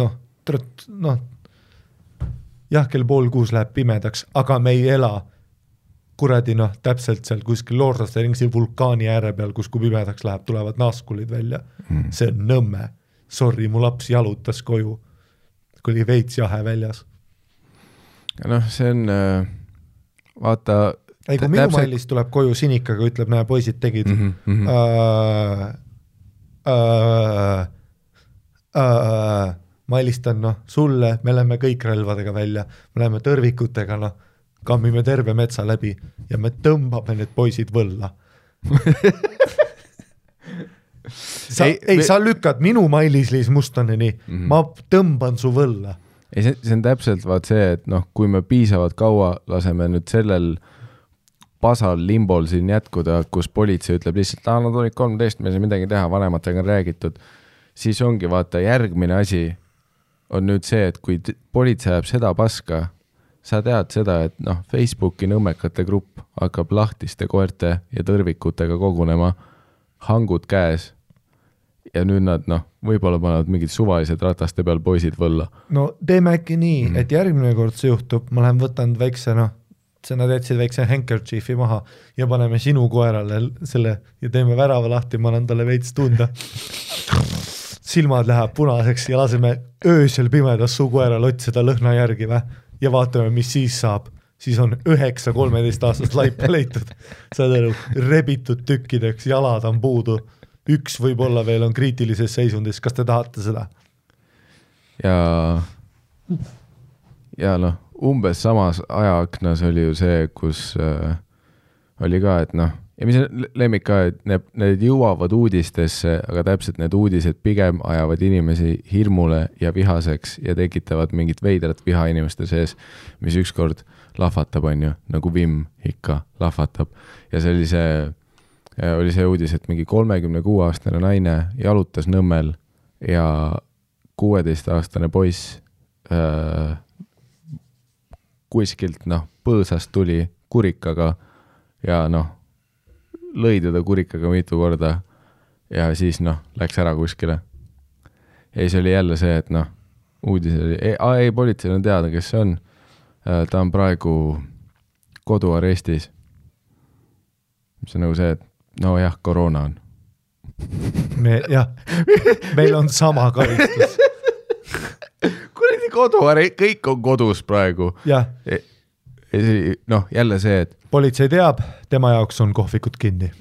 jah, kell 5:30 läheb pimedaks, aga me ei ela kuradi täpselt seal kuskil Loorlaste ringsi vulkaani ääre peal, kus kui pimedaks läheb, tulevad naaskulid välja. See on Nõmme. Sorry, mu laps jalutas koju, kui oli veits jahe väljas. Ja see on, vaata... Ei, kui minu Mailis tuleb koju sinikaga, ütleb, näe, poisid tegid. Ma helistan sulle, me läheme kõik relvadega välja, me läheme tõrvikutega, kammime terve metsa läbi ja me tõmbame need poisid võlla. Sa lükkad minu Mailis-Liis Mustoneni, ma tõmban su võlla. Ei, see on täpselt vaat see, et kui me piisavalt kaua laseme nüüd sellel pasal limbol siin jätkuda, kus politsei ütleb lihtsalt, nad olid 13, me ei saa midagi teha, vanematega on räägitud, siis ongi vaata järgmine asi on nüüd see, et kui politsei ajab seda paska, sa tead seda, et Facebooki nõmmekate grupp hakkab lahtiste koerte ja tõrvikutega kogunema, hangud käes ja nüüd nad võib-olla panevad mingid suvalised rataste peal poisid võlla. No teeme äkki nii, et järgmine kord see juhtub, ma lähen võtan väikse, nad jätsid väikse handkerchiefi maha ja paneme sinu koerale selle ja teeme värava lahti, ma annan talle veits tunda. Silmad läheb punaseks ja laseme öösel pimedas su koeral otsida lõhna järgi ja vaatame, mis siis saab. Siis on 9 13-aastast laipa leitud. Saad aru, rebitud tükkideks, jalad on puudu. Üks võib-olla veel on kriitilises seisundis. Kas te tahate seda? Ja umbes samas ajaaknas oli ju see, kus oli ka, et ja mis lemmik ka, et need jõuavad uudistesse, aga täpselt need uudised pigem ajavad inimesi hirmule ja vihaseks ja tekitavad mingit veidrat viha inimeste sees, mis ükskord lahvatab, on ju, nagu vimm ikka lahvatab. Ja see oli see uudis, et mingi 36-aastane naine jalutas Nõmmel ja 16-aastane poiss kuskilt põõsast tuli kurikaga ja lõi teda kurikaga mitu korda ja siis läks ära kuskile. Ja see oli jälle see, et uudis oli, ei, politsei on teada, kes see on. Ta on praegu koduarestis. See on nagu see, et jah, koroona on. Meil on sama karistus. Kuradi kõik on kodus praegu. Jah. Jälle see, et politsei teab, tema jaoks on kohvikud kinni.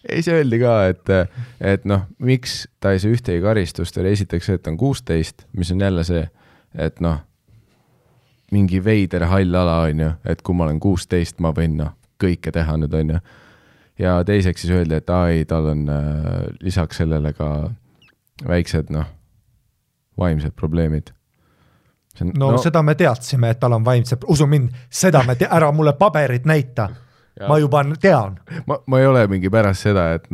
Ei, see öeldi ka, et miks ta ei saa ühtegi karistust, oli esiteks see, et ta on 16, mis on jälle see, et mingi veider hall ala on ju, et kui ma olen 16, ma võin kõike teha nüüd on ju. Ja teiseks siis öeldi, et tal on lisaks sellele ka väiksed vaimsed probleemid. Seda me teadsime, et tal on vaimsed, usu mind, seda me ära mulle paberit näita. Ja. Ma juba tean. Ma ei ole mingi pärast seda, et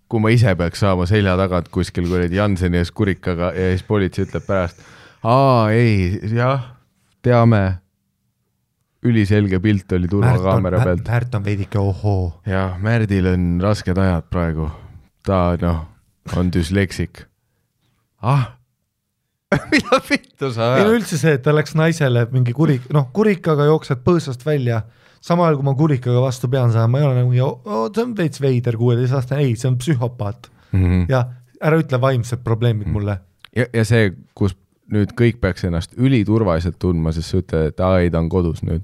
kui ma ise peaks saama selja tagant kuskil kuradi Janseni ees kurikaga ja siis politsei ütleb pärast, ei, jah, teame, üliselge pilt oli turvakaamera pealt. Märt on veidike ohoo. Ja Märdil on rasked ajad praegu. Ta on dysleksik. Mida vittu sa ajad? Ei üldse see, et ta läks naisele mingi kurikaga jooksed põõsast välja. Sama ajal, kui ma kurikaga vastu pean saama, ma ei ole nagu, see on veits veider 16 aastane, ei, see on psühhopaat. ja ära ütle vaimsed probleemid mulle. Ja see, kus nüüd kõik peaks ennast üliturvaliselt tundma, sest sa ütled, et ei, ta on kodus nüüd.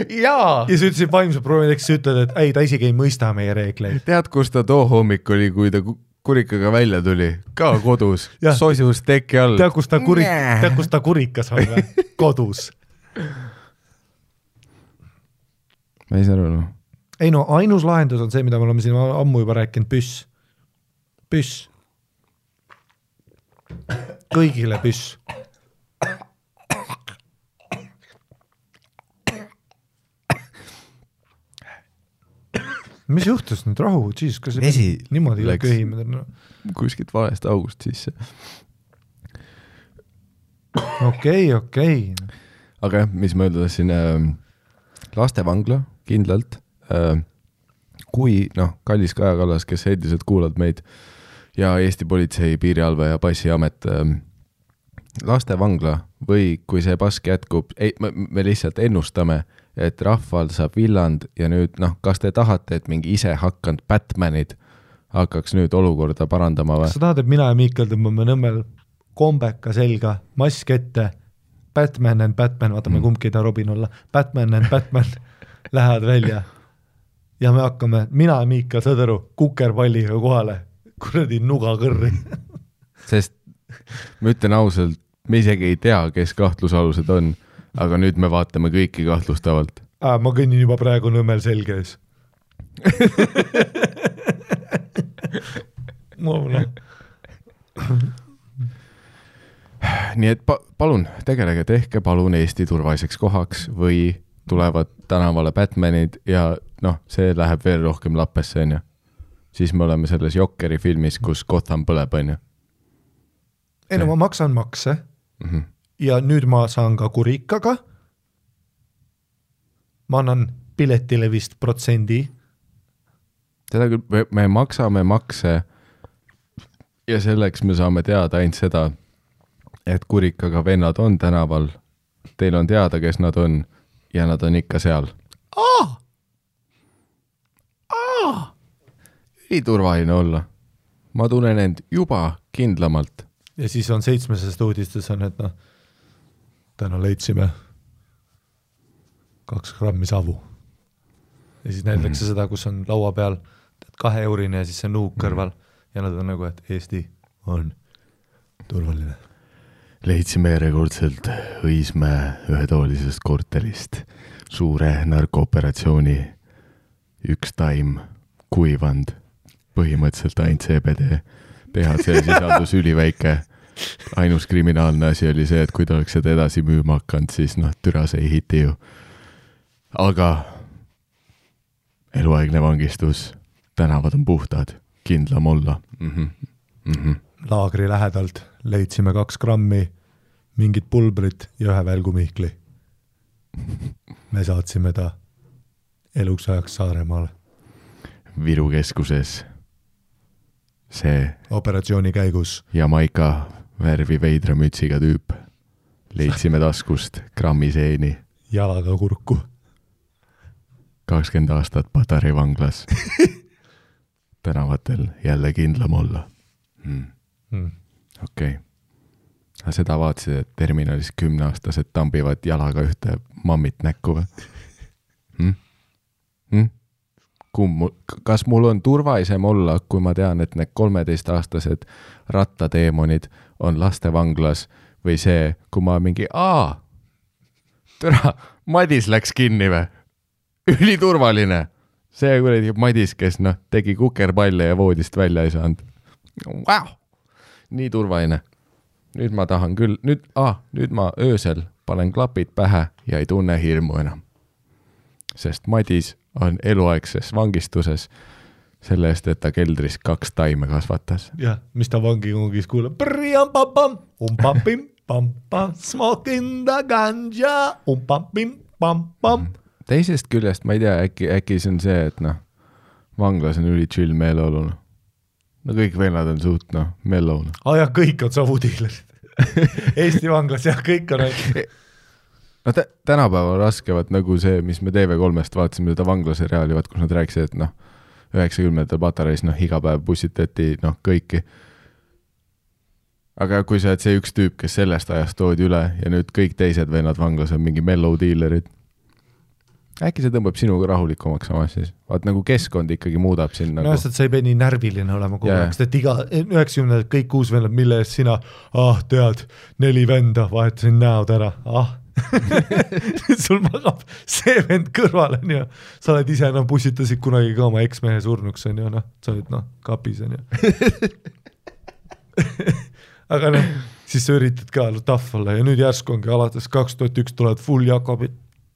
ja sa ütlesid vaimsed probleemid, eks sa ütled, et ei, ta isegi ei mõista meie reegleid. Tead, kus ta too hommik oli, kui ta kurikaga välja tuli? Ka kodus, soisus teki all. Tead, kus ta kurikas on või? Kodus. Ma ei saa aru, no. Ei no, ainus lahendus on see, mida me oleme siin ammu juba rääkinud, püss. Kõigile püss. Mis juhtus nüüd rahu? Jeez, kas vesi niimoodi köhimad? No. Kuskilt valest august sisse. Okei. Aga mis ma öelda siin, lastevangla kindlalt, kui kallis Kaja Kallas, kes endiselt kuulad meid ja Eesti politsei, piirialve ja passiamet, lastevangla või kui see pask jätkub, me lihtsalt ennustame, et rahval saab villand ja nüüd, kas te tahate, et mingi ise hakkanud Batmanid hakkaks nüüd olukorda parandama või? Kas sa tahad, et mina ja Miikal tõmbame Nõmmel kombeka selga, mask ette, Batman and Batman, vaatame kumbki ta Robin olla, Batman and Batman lähevad välja ja me hakkame, mina ja Miikal, saad aru, kukerpalliga kohale, kuradi nuga kõrri. Sest ma ütlen ausalt, me isegi ei tea, kes kahtlusalused on, aga nüüd me vaatame kõiki kahtlustavalt. Ma kõnnin juba praegu Nõmmel selges. Nii et palun, tegelege, tehke palun Eesti turvaliseks kohaks või tulevad tänavale Batmanid ja see läheb veel rohkem lappesse, on ju. Siis me oleme selles Jokeri filmis, kus Gotham põleb, on ju. Ei no ma maksan makse. Ja nüüd ma saan ka kurikaga. Ma annan piletile vist protsendi. Seda küll, me maksame makse ja selleks me saame teada ainult seda, et kurikaga vennad on tänaval. Teil on teada, kes nad on ja nad on ikka seal. Ei turvaline olla. Ma tunnen end juba kindlamalt. Ja siis on 7. uudistes on, et täna leidsime 2 grammi savu. Ja siis näidatakse seda, kus on laua peal 2 eurine ja siis see nuuk kõrval ja nad on nagu, et Eesti on turvaline. Leidsime järjekordselt Õismäe ühetoolisest korterist suure narkooperatsiooni, 1 taim, kuivand, põhimõtteliselt ainult CBD, THC sisaldus üliväike. Ainus kriminaalne asi oli see, et kui ta oleks seda edasi müüma hakkanud, siis türa see ei hiti ju. Aga eluaegne vangistus, tänavad on puhtad, kindlam olla. Laagri lähedalt leidsime 2 grammi mingit pulbrit ja 1 välgumihkli. Me saatsime ta eluks ajaks Saaremaale. Viru keskuses see operatsiooni käigus Jamaika värvi veidra mütsiga tüüp. Leidsime taskust grammi seeni. Jalaga kurku. 20 aastat Patarei vanglas. Tänavatel jälle kindlam olla. Okei. Aga seda vaatasid, et terminalis 10-aastased tambivad jalaga ühte mammit näkku või? Kas mul on turvaisem olla, kui ma tean, et need 13-aastased rattateemonid on lastevanglas või see, kui ma mingi, türa, Madis läks kinni või? Üliturvaline. See kuradi Madis, kes tegi kukerpalle ja voodist välja ei saanud. Wow. Nii turvaline. Nüüd ma tahan küll, nüüd ma öösel panen klapid pähe ja ei tunne hirmu enam. Sest Madis on eluaegses vangistuses selle eest, et ta keldris 2 taime kasvatas. Jah, mis ta vangikongis kuuleb? Smoking the ganja. Teisest küljest ma ei tea, äkki see on see, et vanglas on üli chill meeleolu. Kõik vennad on suht mellow. Ja kõik on savudiilerid. Eesti vanglas ja kõik on tänapäeval raskevad nagu see, mis me TV3-st vaatasime seda vanglaseriaali, kus nad rääkisid, et 90 patareis, noh, iga päev bussitati, noh, kõiki. Aga kui sa oled see üks tüüp, kes sellest ajast toodi üle ja nüüd kõik teised vennad vanglas on mingi mellow dealerid, äkki see tõmbab sinuga rahulikumaks samas siis? Vaat nagu keskkond ikkagi muudab siin nagu... No, et sa ei pea nii närviline olema kogu aeg, sest et iga 90 kõik uus vennad, mille eest sina, tead, 4 venda, vahetasin näod ära, sul magab see vend kõrval, on ju, sa oled ise, bussitasid kunagi ka oma eksmehe surnuks, on ju, sa oled, kapis, on ju. Aga siis sa üritad ka tough olla ja nüüd järsku ongi alates 2001 tulevad full Jakobid,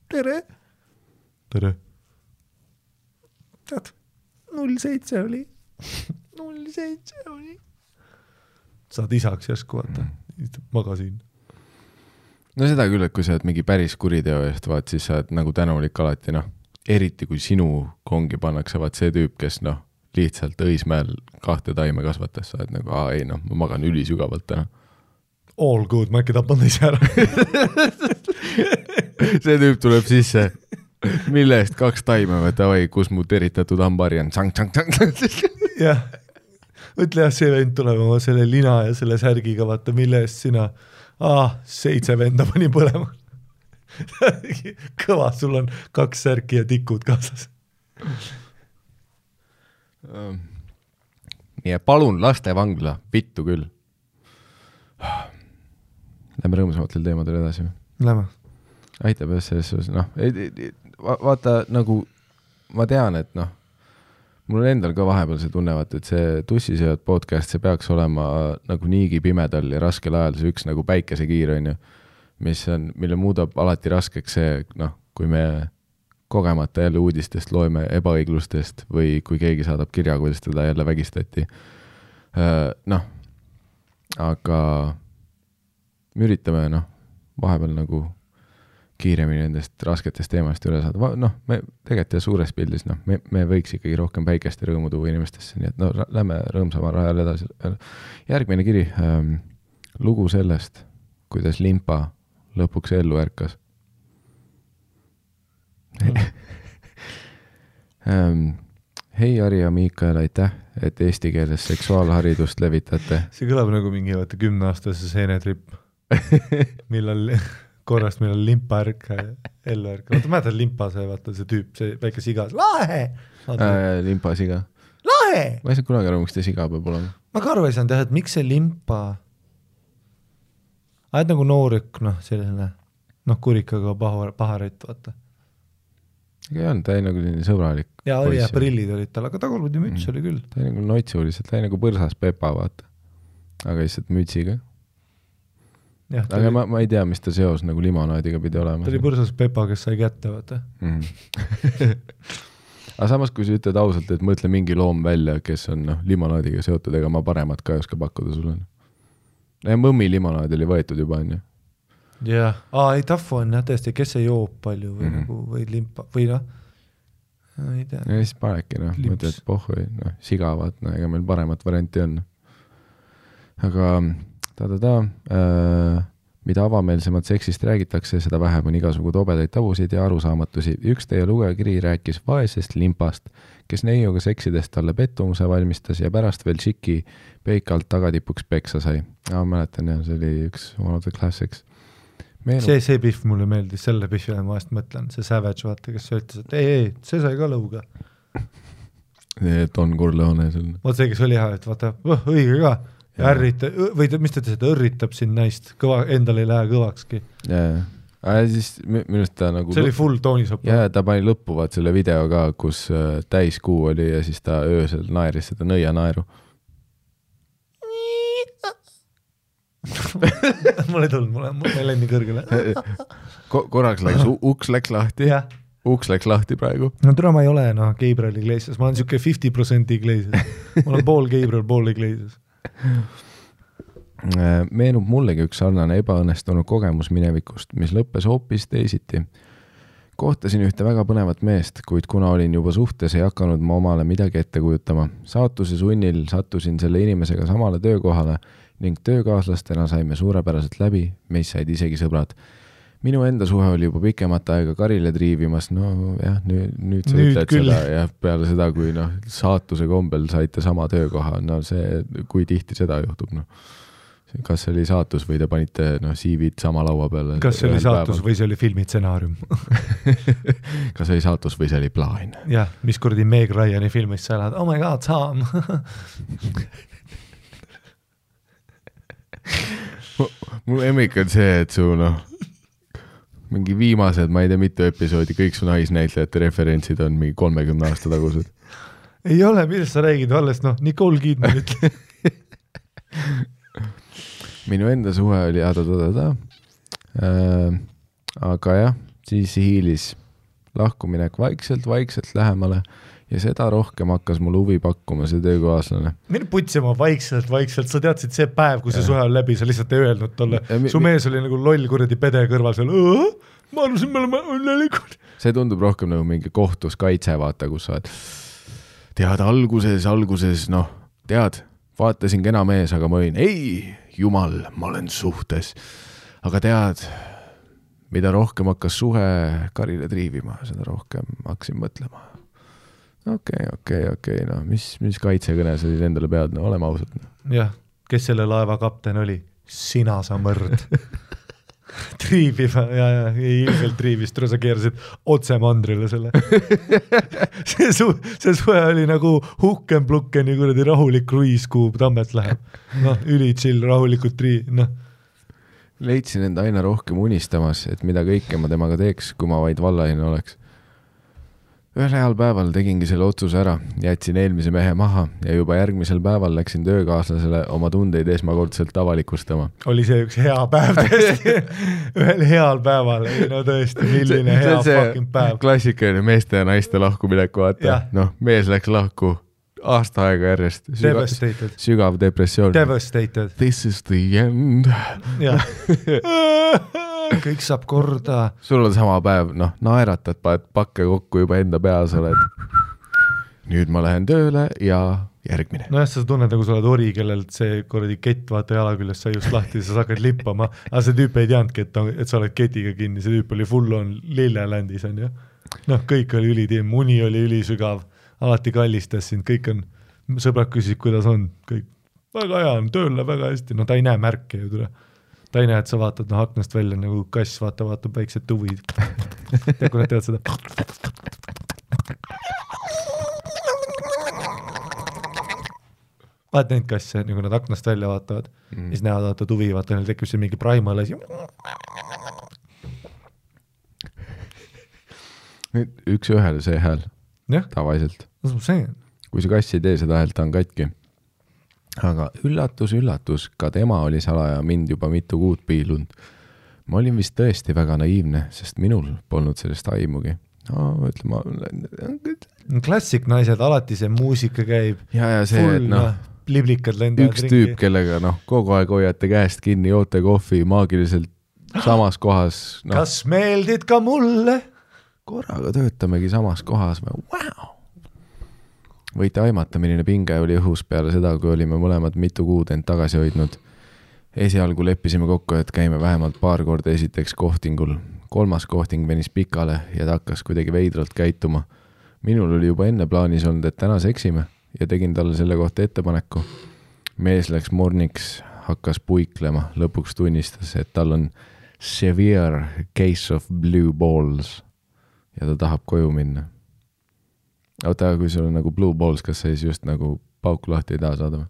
tere, tead, 07 oli, saad isaks järsku vaata, magasin. No seda küll, et kui sa oled mingi päris kuriteo eest, vaat siis sa oled nagu tänulik alati, eriti kui sinu kongi pannakse, vaat see tüüp, kes lihtsalt Õismäel 2 taime kasvatas, sa oled nagu, ma magan ülisügavalt täna. All good, ma äkki tapan teise ära. See tüüp tuleb sisse, mille eest 2 taime, kus mu teritatud hambari on, jah, mõtle see vend tuleb oma selle lina ja selle särgiga, vaata, mille eest sina 7 venda pani põlema. Kõva, sul on 2 särki ja tikud kaasas. Nii, palun lastevangla, vittu küll. Lähme rõõmsamatel teemadel edasi. Lähme. Aitab selles, vaata nagu ma tean, et mul on endal ka vahepeal see tunnevat, et see Tussisööd podcast, see peaks olema nagu niigi pimedal ja raskel ajal see üks nagu päikesekiir on ju, mille muudab alati raskeks see, kui me kogemata jälle uudistest loeme ebaõiglustest või kui keegi saadab kirja, kuidas teda jälle vägistati. Aga me üritame vahepeal nagu kiiremini nendest rasketest teemast üle saada. Me tegelikult suures pildis, me võiks ikkagi rohkem päikest ja rõõmu tuua inimestesse, nii et lähme rõõmsama rajal edasi. Järgmine kiri, lugu sellest, kuidas limpa lõpuks ellu ärkas. Hei Ari ja Miikael, aitäh, et eesti keeles seksuaalharidust levitate. See kõlab nagu mingi 10-aastase seenetripp, millal limpa ärka ellu ärka. Vaata, mäletad limpa see, vaata see tüüp, see väike siga. Lahe! Limpa siga. Lahe! Ma ei saa kunagi aru, miks te siga peab olema. Ma ka aru ei saanud, et miks see limpa... Aed nagu noorük, selline, kurikaga paharit, vaata. Ega ei olnud, ta ei nagu sõbralik. Ja prillid olid tal, aga tagurpidi müts oli küll. Ta ei nagu notsuliselt, ta ei nagu põrsas Pepa, vaata. Aga lihtsalt mütsiga. Aga ma ei tea, mis ta seos nagu limonaadiga pidi olema. Ta oli põrsas Pepa, kes sai kätte, vaata. Aga samas, kui sa ütled ausalt, et mõtle mingi loom välja, kes on limonaadiga seotud, ega ma paremat ka ei oska pakkuda sulle. Ja mõmmi limonaad oli võetud juba, on ju. Jah, ei tafu on tõesti, kes ei joob palju või, või limpa või ei tea. Ja siis panedki, mõtled, et pohhui, sigavad, ega meil paremat varianti on. Aga mida avameelsemalt seksist räägitakse, seda vähem on igasugu tobedaid tabusid ja arusaamatusi. Üks teie lugejakiri rääkis vaesest limpast, kes neiuga seksidest talle pettumuse valmistas ja pärast veel šiki peikalt tagatipuks peksa sai. Mäletan, see oli üks one of the classics. See pihv mulle meeldis, selle pihvile ma vahest mõtlen, see Savage, vaata, kes ütles, et ei, see sai ka lõuga. Don Corleone. Vaata see, kes oli hea, et vaata, õige ka. Või mis ta ütles, et õrritab siin naist, endal ei lähe kõvakski. Siis minust ta nagu... See oli full toonisopp. Ja ta pani lõppu vaat selle video ka, kus täiskuu oli ja siis ta öösel naeris seda nõia naeru. Mul ei tulnud, mul ei lenni kõrgele. Korraks läks, uks läks lahti. Uks läks lahti praegu. No tule ma ei ole Gabriel Iglesias, ma olen siuke 50% Iglesias. Ma olen pool Gabriel, pool Iglesias. Meenub mullegi üks sarnane ebaõnnestunud kogemus minevikust, mis lõppes hoopis teisiti. Kohtasin ühte väga põnevat meest, kuid kuna olin juba suhtes, ei hakanud ma omale midagi ette kujutama. Saatuse sunnil sattusin selle inimesega samale töökohale ning töökaaslastena saime suurepäraselt läbi, meist said isegi sõbrad. minu enda suhe oli juba pikemat aega Karile triivimas, no jah, nüüd sa Nüüd ütled küll. seda ja peale seda, kui saatuse kombel saite sama töökoha, no see, kui tihti seda juhtub, kas see oli saatus või te panite CV-d sama laua peale? Kas see oli saatus või see oli filmitsenaarium? Kas see oli saatus või see oli plaan? Jah, mis kuradi Meg Ryani filmis sa elad, oh my god, Sam! Mul emmik on see, et su mingi viimased, ma ei tea mitu episoodi, kõik su naisnäitlejate referentsid on mingi 30 aasta tagused. Ei ole, millest sa räägid, alles Nicole Kidman ütle. Minu enda suhe oli aga jah, siis hiilis lahkuminek vaikselt lähemale ja seda rohkem hakkas mul huvi pakkuma see töökaaslane. Mine putsima vaikselt, sa teadsid see päev, kui see suhe on läbi, sa lihtsalt ei öelnud tolle. Su mees oli nagu loll kuradi pede kõrval seal, ma arvasin, me oleme õnnelikud. See tundub rohkem nagu mingi kohtus kaitse, vaata, kus sa oled. Tead, alguses, tead, vaatasin kena mees, aga ma olin, ei, jumal, ma olen suhtes. Aga tead, mida rohkem hakkas suhe Karile triivima, seda rohkem hakkasin mõtlema. Okei, mis kaitsekõne sa siis endale pead, oleme ausad. Jah, kes selle laeva kapten oli? Sina sa mõrd. Triiviva, ja ilgelt triivis, sa keerasid otse mandrile selle. see suhe oli nagu Hukken-Plukkeni kuradi rahulik kruiis, kuhu Tammets läheb. Üli chill, rahulikult Leidsin enda aina rohkem unistamas, et mida kõike ma temaga teeks, kui ma vaid vallaline oleks. Ühel heal päeval tegingi selle otsuse ära, jätsin eelmise mehe maha ja juba järgmisel päeval läksin töökaaslasele oma tundeid esmakordselt avalikustama. Oli see üks hea päev tõesti? Ühel heal päeval, tõesti, milline hea fucking päev. Klassikaline meeste ja naiste lahkumineku, vaata. Mees läks lahku aasta aega järjest. Sügav depressioon. Devastated. This is the end. Jah. Kõik saab korda. Sul on sama päev, naeratad, paned pakke kokku juba enda peas, oled. Nüüd ma lähen tööle ja järgmine. Jah, sa tunned, nagu sa oled ori, kellelt see korradi kett vaata jala küljest sai just lahti, sa hakkad lippama. Aga see tüüp ei teadnudki, et sa oled ketiga kinni, see tüüp oli full on Lillelandis, on ju. Kõik oli ülitiim, uni oli ülisügav, alati kallistas sind, kõik on, sõbrad küsisid, kuidas on, kõik väga hea on, tööle väga hästi, ta ei näe märke ju tule. Ta ei näe, et sa vaatad aknast välja nagu kass, vaatab väiksed tuvid. Tead, kui nad teavad seda. Vaat neid kasse, nagu nad aknast välja vaatavad, siis näevad vaata tuvi, vaata, neil tekib see mingi primal asi. Üks ühele see hääl, tavaliselt. Kui see kass ei tee seda häält, ta on katki. Aga üllatus, ka tema oli salaja mind juba mitu kuud piilunud. Ma olin vist tõesti väga naiivne, sest minul polnud sellest aimugi. Klassik naised, alati see muusika käib. Ja see, et liblikad lendavad üks tüüp, kellega kogu aeg hoiate käest kinni, joote kohvi maagiliselt samas kohas. Kas meeldid ka mulle? Korraga töötamegi samas kohas. Wow! Võite aimata, milline pinge oli õhus peale seda, kui olime mõlemad mitu kuud end tagasi hoidnud. Esialgu leppisime kokku, et käime vähemalt paar korda esiteks kohtingul. 3. kohting venis pikale ja ta hakkas kuidagi veidralt käituma. Minul oli juba enne plaanis olnud, et täna seksime ja tegin talle selle kohta ettepaneku. Mees läks morniks, hakkas puiklema, lõpuks tunnistas, et tal on severe case of blue balls ja ta tahab koju minna. Oota, kui sul on nagu blue balls, kas sa siis just nagu pauku lahti ei taha saada või?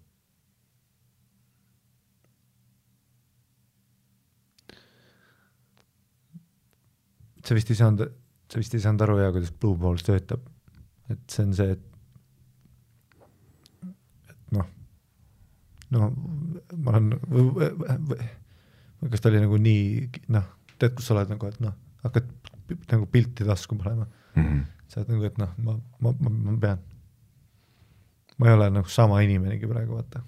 Sa vist ei saanud aru, kuidas blue balls töötab. Et see on see, et ma olen, kas ta oli nagu nii, tead, kus sa oled nagu, et hakkad nagu pilti tasku panema. Sa oled nagu, et ma pean. Ma ei ole nagu sama inimenegi praegu, vaata.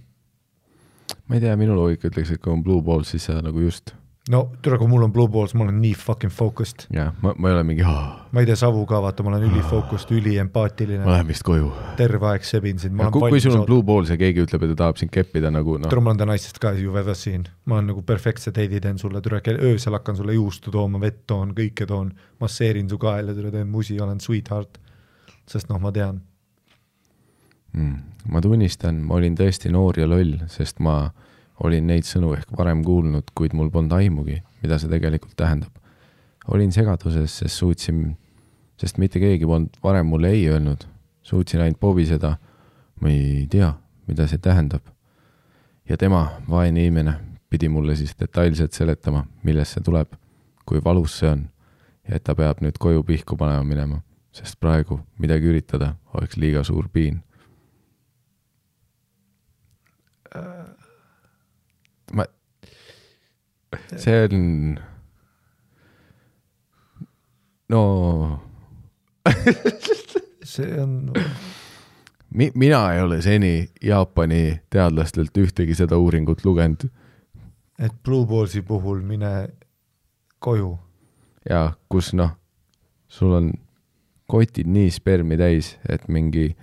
Ma ei tea, minu loogika ütleks, et kui on blue balls, siis sa nagu just no türa, kui mul on Blue Balls, ma olen nii fucking focused. Jah, ma ei ole mingi ma ei tee savu ka, vaata, ma olen ülifocused, üliempaatiline. Ma lähen vist koju. Terve aeg sebin sind. Kui sul on Blue Balls ja keegi ütleb, et ta tahab sind keppida nagu Türa, ma olen ta naistest ka ju väga siin. Ma olen nagu perfektse teidi teen sulle, türa, öösel hakkan sulle juustu tooma, vett toon, kõike toon, masseerin su kael ja türa teen musi, olen sweetheart. Sest noh, ma tean. Ma tunnistan, ma olin tõesti noor ja loll, sest ma olin neid sõnu ehk varem kuulnud, kuid mul polnud aimugi, mida see tegelikult tähendab. Olin segaduses, sest mitte keegi polnud varem mulle ei öelnud. Suutsin ainult pobiseda, ma ei tea, mida see tähendab. Ja tema, vaene inimene, pidi mulle siis detailselt seletama, millest see tuleb, kui valus see on ja et ta peab nüüd koju pihku panema minema, sest praegu midagi üritada oleks liiga suur piin. See on see on mina ei ole seni Jaapani teadlastelt ühtegi seda uuringut lugenud. Et Blue Ballsi puhul mine koju. Ja kus sul on kotid nii spermi täis, et mingi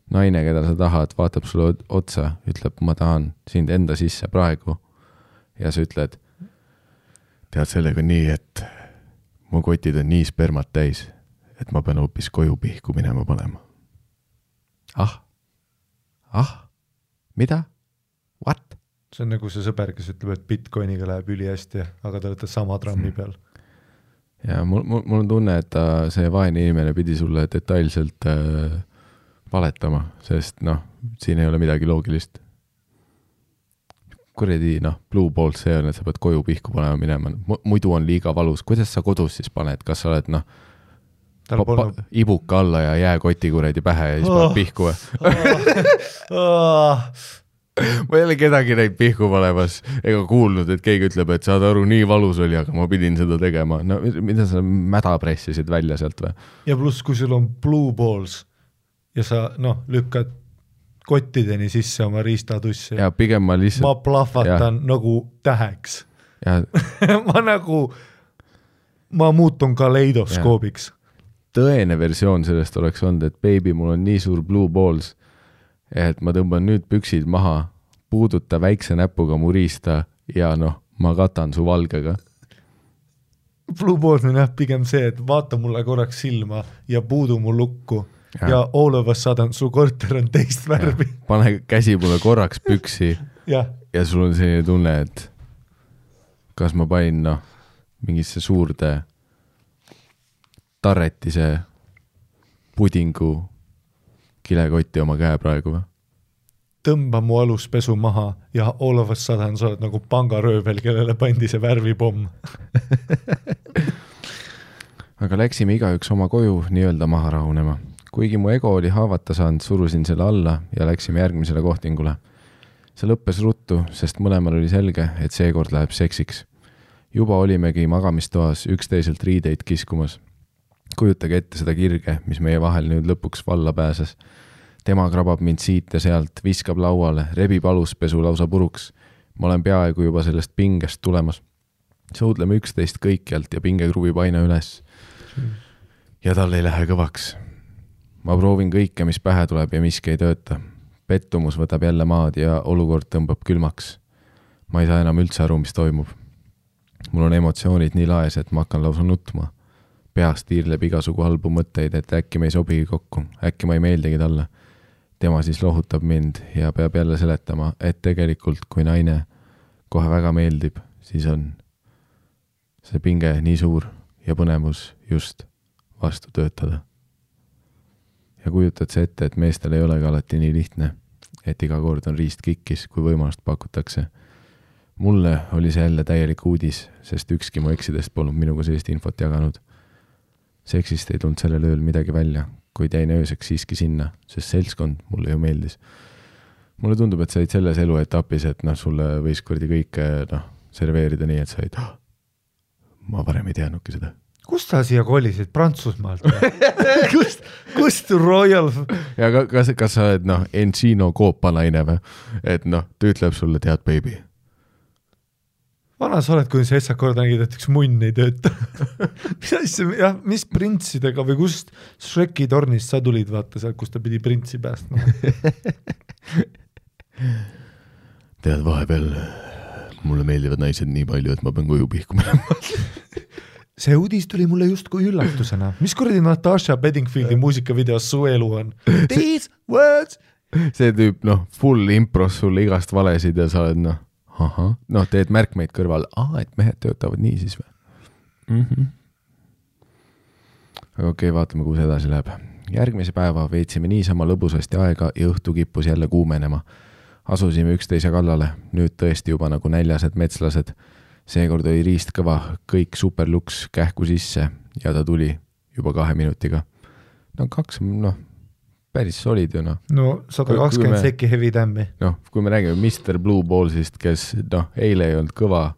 naine, keda sa tahad, vaatab sulle otsa, ütleb, ma tahan sind enda sisse praegu. Ja sa ütled, tead sellega nii, et mu kotid on nii spermat täis, et ma pean hoopis koju pihku minema panema. Mida? What? See on nagu see sõber, kes ütleb, et Bitcoiniga läheb üli hästi, aga te olete sama trammi peal. Ja mul on tunne, et see vaene inimene pidi sulle detailselt valetama, sest siin ei ole midagi loogilist. Kuredi, Blue Balls see on, et sa pead koju pihku panema minema. Muidu on liiga valus. Kuidas sa kodus siis paned? Kas sa oled, ibuka alla ja jääkoti kuredi pähe ja siis paned pihku? Ma ei ole kedagi neid pihku panemas ega kuulnud, et keegi ütleb, et saad aru, nii valus oli, aga ma pidin seda tegema. Mida sa mäda pressisid välja sealt või? Ja pluss, kui sul on Blue Balls ja sa lükkad kottideni sisse oma riistatussi. Ja pigem ma lihtsalt... Ma plahvatan nagu täheks. Ja... ma muutun kaleidoskoobiks. Tõene versioon sellest oleks olnud, et baby, mul on nii suur Blue Balls, et ma tõmban nüüd püksid maha, puuduta väikse näpuga mu riista ja ma katan su valgega. Blue Balls on pigem see, et vaata mulle korraks silma ja puudu mu lukku. Ja all of a sudden su korter on teist värvi. Pane käsi mulle korraks püksi ja sul on selline tunne, et kas ma panin mingisse suurde tarretise pudingu kilekotti oma käe praegu või? Tõmba mu aluspesu maha ja all of a sudden sa oled nagu pangaröövel, kellele pandi see värvipomm. Aga läksime igaüks oma koju nii-öelda maha rahunema. Kuigi mu ego oli haavata saanud, surusin selle alla ja läksime järgmisele kohtingule. See lõppes ruttu, sest mõlemal oli selge, et seekord läheb seksiks. Juba olimegi magamistoas üksteiselt riideid kiskumas. Kujutage ette seda kirge, mis meie vahel nüüd lõpuks valla pääses. Tema krabab mind siit ja sealt, viskab lauale, rebib aluspesu lausa puruks. Ma olen peaaegu juba sellest pingest tulemas. Suudleme üksteist kõikjalt ja pinge kruvib aina üles. Ja tal ei lähe kõvaks. Ma proovin kõike, mis pähe tuleb ja miski ei tööta. Pettumus võtab jälle maad ja olukord tõmbab külmaks. Ma ei saa enam üldse aru, mis toimub. Mul on emotsioonid nii laes, et ma hakkan lausa nutma. Peast tiirleb igasugu halbu mõtteid, et äkki me ei sobigi kokku. Äkki ma ei meeldigi talle. Tema siis lohutab mind ja peab jälle seletama, et tegelikult kui naine kohe väga meeldib, siis on see pinge nii suur ja põnevus just vastu töötada. Ja kujutad see ette, et meestel ei olegi alati nii lihtne, et iga kord on riist kikkis, kui võimalust pakutakse. Mulle oli see jälle täielik uudis, sest ükski mu eksidest polnud minuga sellist infot jaganud. Seksist ei tulnud sellel ööl midagi välja, kuid jäin ööseks siiski sinna, sest seltskond mulle ju meeldis. Mulle tundub, et sa olid selles eluetapis, et sulle võis kurdi kõike serveerida nii, et sa olid, ma varem ei teadnudki seda. Kust sa siia kolisid? Prantsusmaalt? Kust Royal? Ja kas sa oled Encino koopanaine või? Et ta ütleb sulle, tead, baby. vana sa oled, kui sa esak korda nägid, et üks munn ei tööta. mis printsidega või kust Shreki tornist sa tulid, vaata seal, kus ta pidi printsi päästma? Tead, vahepeal mulle meeldivad naised nii palju, et ma pean koju pihkuma. See uudis tuli mulle justkui üllatusena. Mis kuradi Natasha Bedingfieldi muusikavideos su elu on? These words! See tüüp, full impros sulle igast valesid ja sa oled, teed märkmeid kõrval. Et mehed töötavad nii siis või? Aga okei, vaatame, kuhu see edasi läheb. Järgmise päeva veetsime niisama lõbusasti aega ja õhtu kippus jälle kuumenema. Asusime üksteise kallale, nüüd tõesti juba nagu näljased metslased. Seekord oli riist kõva, kõik superluks kähku sisse ja ta tuli juba 2 minutiga. Päris solid ju . 120 sekki heavy tämmi. Kui me räägime Mr. Blue Ballsist, kes eile ei olnud kõva,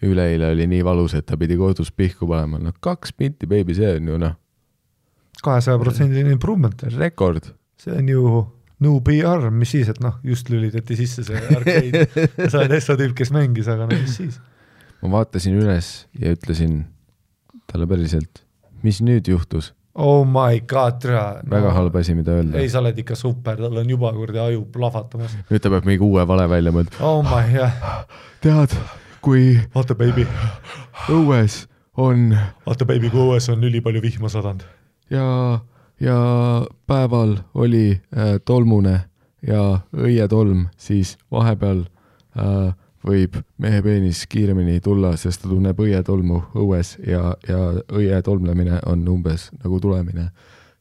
üleeile oli nii valus, et ta pidi kodus pihku panema. 2 minti, baby, see on ju 200% improvement. Rekord. See on ju no PR, mis siis, et just lülitati sisse see arcade. Sa oled Essa tüüp, kes mängis, aga mis siis? Ma vaatasin üles ja ütlesin talle päriselt, mis nüüd juhtus? Oh my god, väga halb asi, mida öelda. Ei, sa oled ikka super, tal on juba kurdi aju plahvatamas. Nüüd ta peab mingi uue vale välja mõelda. Oh my god. Tead, kui Vaata, baby. Õues on üli palju vihma sadand. Ja päeval oli tolmune ja õietolm, siis vahepeal võib mehe peenis kiiremini tulla, sest ta tunneb õietolmu õues ja õietolmlemine on umbes nagu tulemine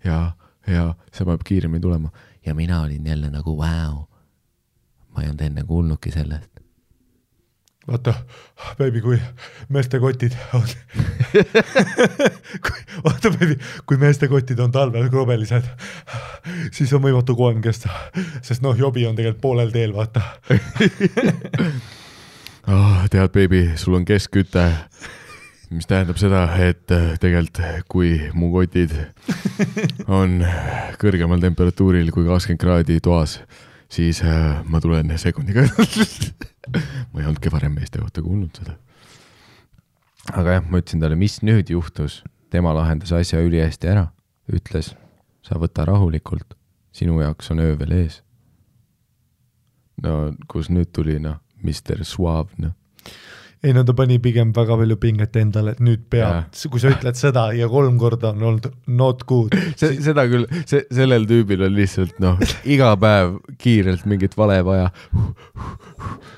ja see peab kiiremini tulema. Ja mina olin jälle nagu wow. Ma ei olnud enne kuulnudki sellest. Vaata, baby, kui meeste kotid on kui meeste kotid on talvel krobelised, siis on võimatu koem kesta, sest jobi on tegelikult poolel teel, vaata. Tead, baby, sul on keskküte, mis tähendab seda, et tegelikult kui mu kotid on kõrgemal temperatuuril kui 20 kraadi toas, siis ma tulen sekundiga. Ma ei olnudki varem meeste kohta kuulnud seda. Aga jah, ma ütlesin talle, mis nüüd juhtus. Tema lahendas asja ülihästi ära. Ütles, sa võta rahulikult. Sinu jaoks on öö veel ees. Kus nüüd tuli, Mr. Suave, Ei, ta pani pigem väga palju pinget endale, et nüüd peab, kui sa ütled seda ja 3 korda on olnud not good. Seda küll, sellel tüübil on lihtsalt, iga päev kiirelt mingit vale vaja.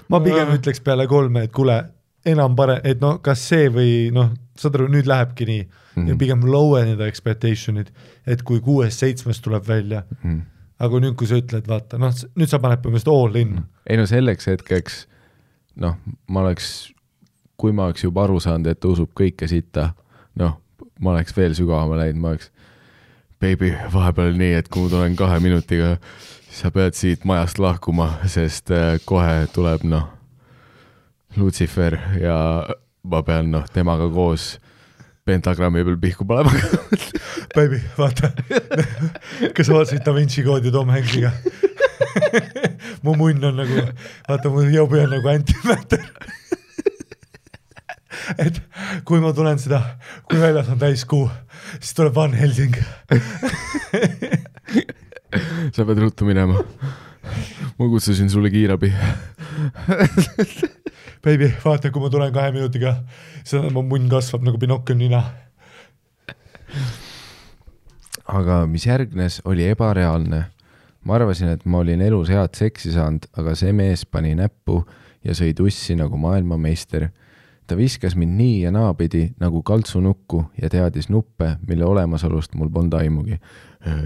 Ma pigem ütleks peale 3, et kuule, enam pare, et kas see või, saad aru, nüüd lähebki nii. Ja pigem lowenida expectationid, et kui 6-7 tuleb välja. Aga nüüd, kui sa ütled, vaata, nüüd sa paned põhimõtteliselt all in. Ei, selleks hetkeks, kui ma oleks juba aru saanud, et usub kõike sitta, ma oleks veel sügavama läinud, ma oleks, baby, vahepeal nii, et kui ma tulen 2 minutiga, sa pead siit majast lahkuma, sest kohe tuleb, Lucifer ja ma pean, temaga koos pentagrammi peal pihku panema. Baby, vaata, kas vaatasid Da Vinci koodi Tom Hanksiga? Mu munn on nagu, vaata, mu jobi on nagu antimatter. Et kui ma tulen seda, kui väljas on täiskuu, siis tuleb Van Helsing. Sa pead ruttu minema. Ma kutsusin sulle kiirabi. Baby, vaata, kui ma tulen 2 minutiga, siis mu munn kasvab nagu Pinocchio nina. Aga mis järgnes, oli ebareaalne. Ma arvasin, et ma olin elus head seksi saanud, aga see mees pani näppu ja sõi tussi nagu maailmameister. Ta viskas mind nii ja naapidi nagu kaltsunukku ja teadis nuppe, mille olemasolust mul polnud aimugi.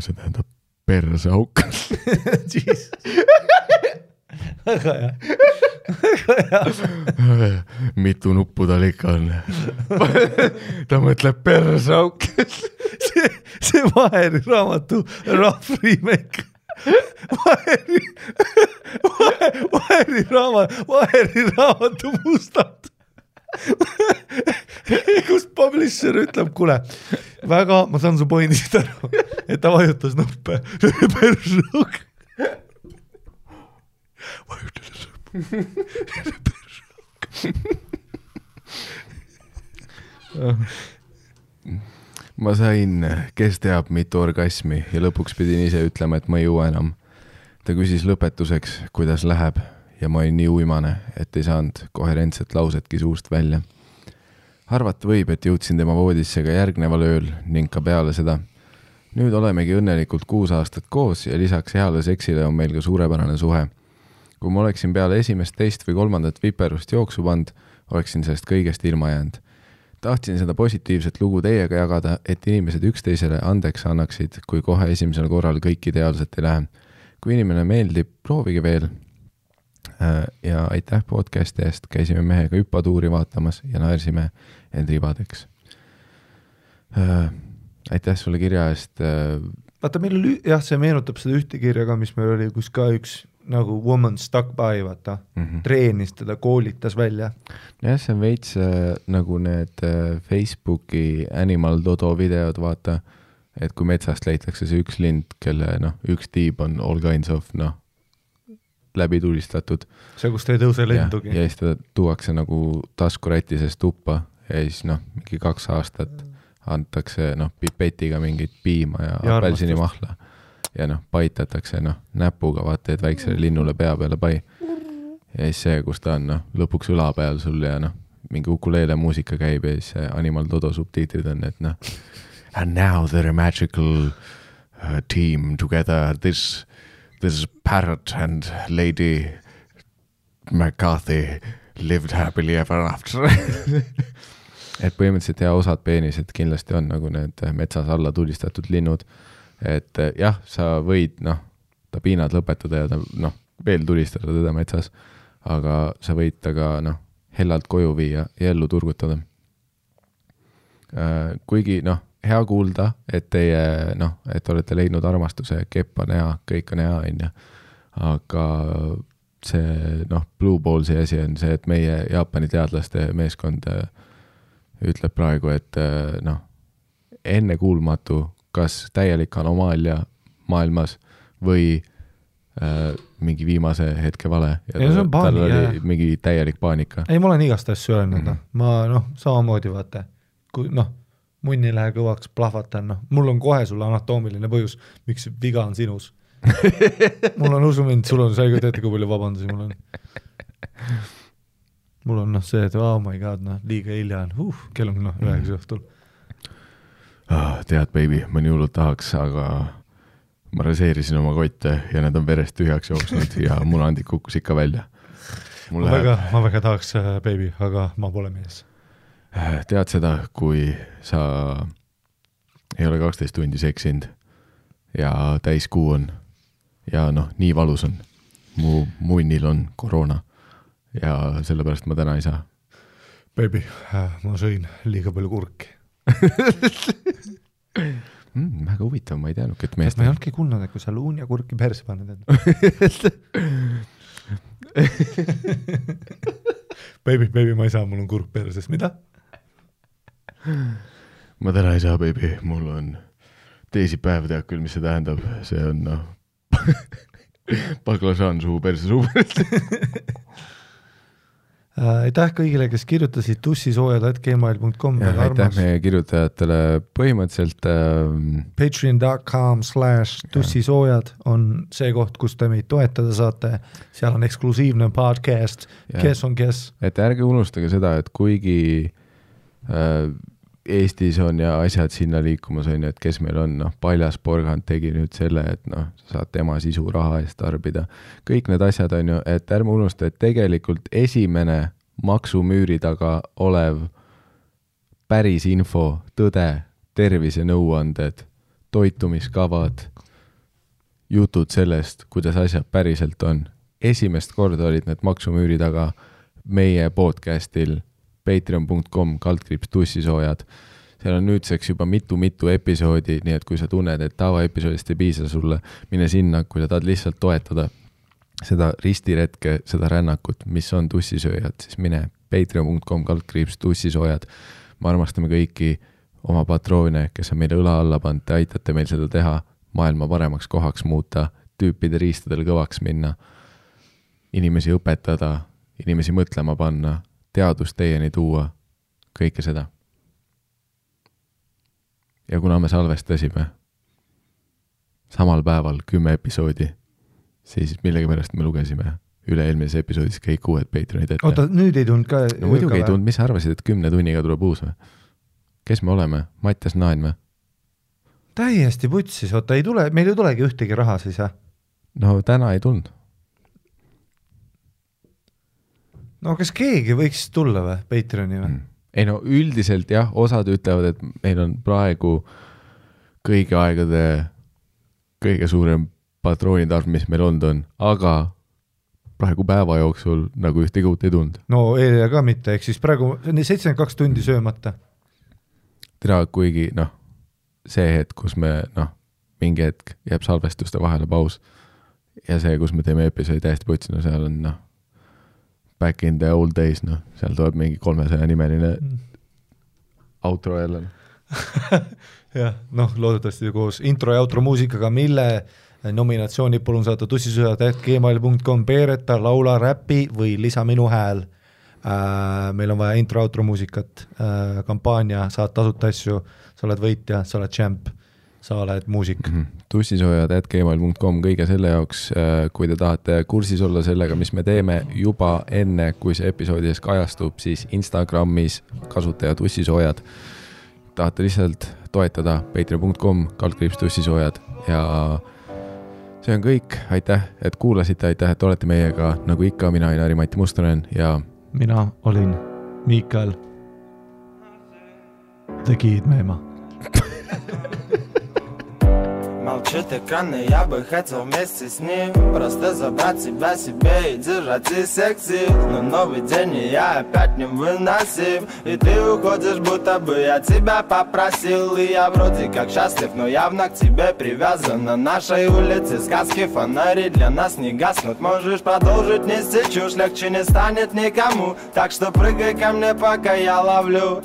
See tähendab persauk. Väga hea. Mitu nuppu tal ikka on. Ta mõtleb persauk. See Vaheri raamatu rough remake. Vaheri raamatu mustad. Kus publisher ütleb, kuule, väga, ma saan su pointist aru, et ta vajutas nuppe. Persauk. Vajutas nuppe. Persauk. ma sain, kes teab, mitu orgasmi ja lõpuks pidin ise ütlema, et ma ei jõua enam. Ta küsis lõpetuseks, kuidas läheb ja ma olin nii uimane, et ei saanud koherentset lausetki suust välja. Arvata võib, et jõudsin tema voodisse ka järgneval ööl ning ka peale seda. Nüüd olemegi õnnelikult 6 aastat koos ja lisaks heale seksile on meil ka suurepärane suhe. Kui ma oleksin peale esimest, teist või 3. viperust jooksu pand, oleksin sellest kõigest ilma jäänud. Tahtsin seda positiivset lugu teiega jagada, et inimesed üksteisele andeks annaksid, kui kohe esimesel korral kõik ideaalselt ei lähe. Kui inimene meeldib, proovige veel. Ja aitäh podcasti eest, käisime mehega hüppatuuri vaatamas ja naersime end ribadeks. Aitäh sulle kirja eest. Vaata, meil oli, see meenutab seda ühte kirja ka, mis meil oli, kus ka üks nagu woman stuck by, vaata, treenis teda, koolitas välja. Jah, see on veits nagu need Facebooki Animal Dodo videod, vaata, et kui metsast leitakse see üks lind, kelle üks tiib on all kinds of läbi tulistatud. See, kus ta ei tõuse lendugi. Ja siis ta tuuakse nagu taskuräti seest tuppa ja siis mingi 2 aastat antakse pipetiga mingit piima ja apelsini mahla ja paitatakse näpuga, vaata, et väiksele linnule pea peale pai. Ja siis see, kus ta on lõpuks õla peal sul ja mingi ukuleele muusika käib ja siis Animal Dodo subtiitrid on, et and now they're a magical team together, this parrot and Lady McCarthy lived happily ever after. Et põhimõtteliselt osad peenised kindlasti on nagu need metsas alla tulistatud linnud, et jah, sa võid ta piinad lõpetada ja ta veel tulistada teda metsas, aga sa võid ta ka hellalt koju viia ja ellu turgutada. Kuigi hea kuulda, et teie et olete leidnud armastuse, kepp on hea, kõik on hea, aga see Blue Ballsi asi on see, et meie Jaapani teadlaste meeskond ütleb praegu, et enne kuulmatu, kas täielik anomaalia maailmas või mingi viimase hetke vale. Ja tal oli mingi täielik paanika. Ei, ma olen igast asju öelnud. Ma samamoodi vaata, kui munn ei lähe kõvaks, plahvatan. Mul on kohe sulle anatoomiline põhjus, miks viga on sinus. Mul on usumind, sul on selge teete, kui palju vabandusi mul on. Mul on see, et oh my god, liiga hilja on, kell on 9 õhtul. Tead, baby, ma nii hullult tahaks, aga ma raseerisin oma kotte ja need on verest tühjaks jooksnud ja munandik kukkus ikka välja. Ma väga tahaks, baby, aga ma pole mees. Tead seda, kui sa ei ole 12 tundi seksinud ja täiskuu on ja nii valus on. Mu munnil on koroona ja sellepärast ma täna ei saa. Baby, ma sõin liiga palju kurki. Väga huvitav, ma ei teadnud, et meest... Ma ei olnudki kuulnud, et kui sa luun ja kurki perse paned. Baby, ma ei saa, mul on kurk perses. Mida? Ma täna ei saa, baby. Mul on teisipäev, tead küll, mis see tähendab. See on baklažaan suu perse suu perse. Aitäh kõigile, kes kirjutasid tussisoojad@gmail.com. Aitäh meie kirjutajatele põhimõtteliselt patreon.com/tussisoojad on see koht, kus te meid toetada saate. Seal on eksklusiivne podcast, kes on kes. Et ärge unustage seda, et kuigi Eestis on ja asjad sinna liikumas on, et kes meil on, Paljas Porgand tegi nüüd selle, et saad tema sisu raha eest tarbida. Kõik need asjad on ju, et ärme unusta, et tegelikult esimene maksumüüri taga olev päris info, tõde, tervisenõuanded, toitumiskavad, jutud sellest, kuidas asjad päriselt on. Esimest korda olid need maksumüüri taga meie podcastil patreon.com/tussisoojad. Seal on nüüdseks juba mitu episoodi, nii et kui sa tunned, et tavaepisoodist ei piisa sulle, mine sinna, kui sa tahad lihtsalt toetada seda ristiretke, seda rännakut, mis on tussisööjad, siis mine patreon.com/tussisoojad. Me armastame kõiki oma patroone, kes on meile õla alla pannud, te aitate meil seda teha, maailma paremaks kohaks muuta, tüüpide riistadel kõvaks minna, inimesi õpetada, inimesi mõtlema panna, teadust teieni tuua, kõike seda. ja kuna me salvestasime samal päeval 10 episoodi, siis millegipärast me lugesime üle-eelmises episoodis kõik uued Patreonid ette. Oota, nüüd ei tulnud ka... No muidugi ei tulnud, mis sa arvasid, et 10 tunniga tuleb uus või? Kes me oleme? Mattias Naan või? Täiesti putsis, oota, ei tule, meil ei tulegi ühtegi raha siis, jah? No täna ei tulnud. No kas keegi võiks tulla või, Patreoni või? Ei no üldiselt jah, osad ütlevad, et meil on praegu kõigi aegade kõige suurem patroonitarv, mis meil olnud on, aga praegu päeva jooksul nagu ühtegi uut ei tulnud. No eile ka mitte, ehk siis praegu 72 tundi söömata. Tere, kuigi see hetk, kus me mingi hetk jääb salvestuste vahele paus ja see, kus me teeme episoodi täiesti putsi, seal on back in the old days, seal tuleb mingi 300 nimeline outro jälle. jah, loodetavasti koos intro ja outro muusikaga, mille nominatsiooni palun saata tussisõjad@gmail.com, Peereta, laula, räppi või lisa minu hääl. Meil on vaja intro, outro muusikat, kampaania, saad tasuta asju, sa oled võitja, sa oled champ, sa oled muusik. tussisõjad@gmail.com kõige selle jaoks, kui te tahate kursis olla sellega, mis me teeme juba enne, kui see episoodides kajastub, siis Instagramis kasutaja tussisoojad. Tahate lihtsalt toetada patreon.com/tussisoojad ja see on kõik. Aitäh, et kuulasite, aitäh, et olete meiega. Nagu ikka, mina olen Ari-Mati Mustonen ja mina olin Miikael Tegid Meema. Молчит экран, и я бы хотел вместе с ним просто забрать себя себе и держать из всех сил. Но новый день, и я опять не выносим. И ты уходишь, будто бы я тебя попросил. И я вроде как счастлив, но явно к тебе привязан. На нашей улице сказки, фонари для нас не гаснут. Можешь продолжить нести чушь, легче не станет никому. Так что прыгай ко мне, пока я ловлю.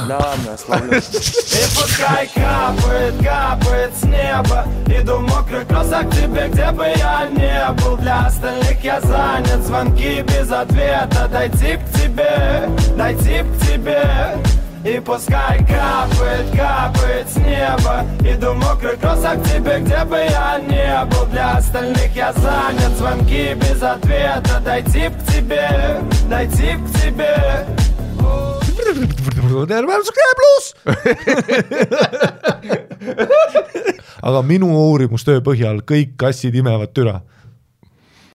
Да ладно, я словлю. И пускай капает, капает с неба. Иду в мокрых кроссах к тебе, где бы я не был. Для остальных я занят, звонки без ответа. Дойти к тебе, дойти к тебе. И пускай капает, капает с неба. Иду в мокрых кроссах к тебе, где бы я не был. Для остальных я занят, звонки без ответа. Дойти к тебе, дойти к тебе. Aga minu uurimustöö põhjal kõik kassid imevad türa.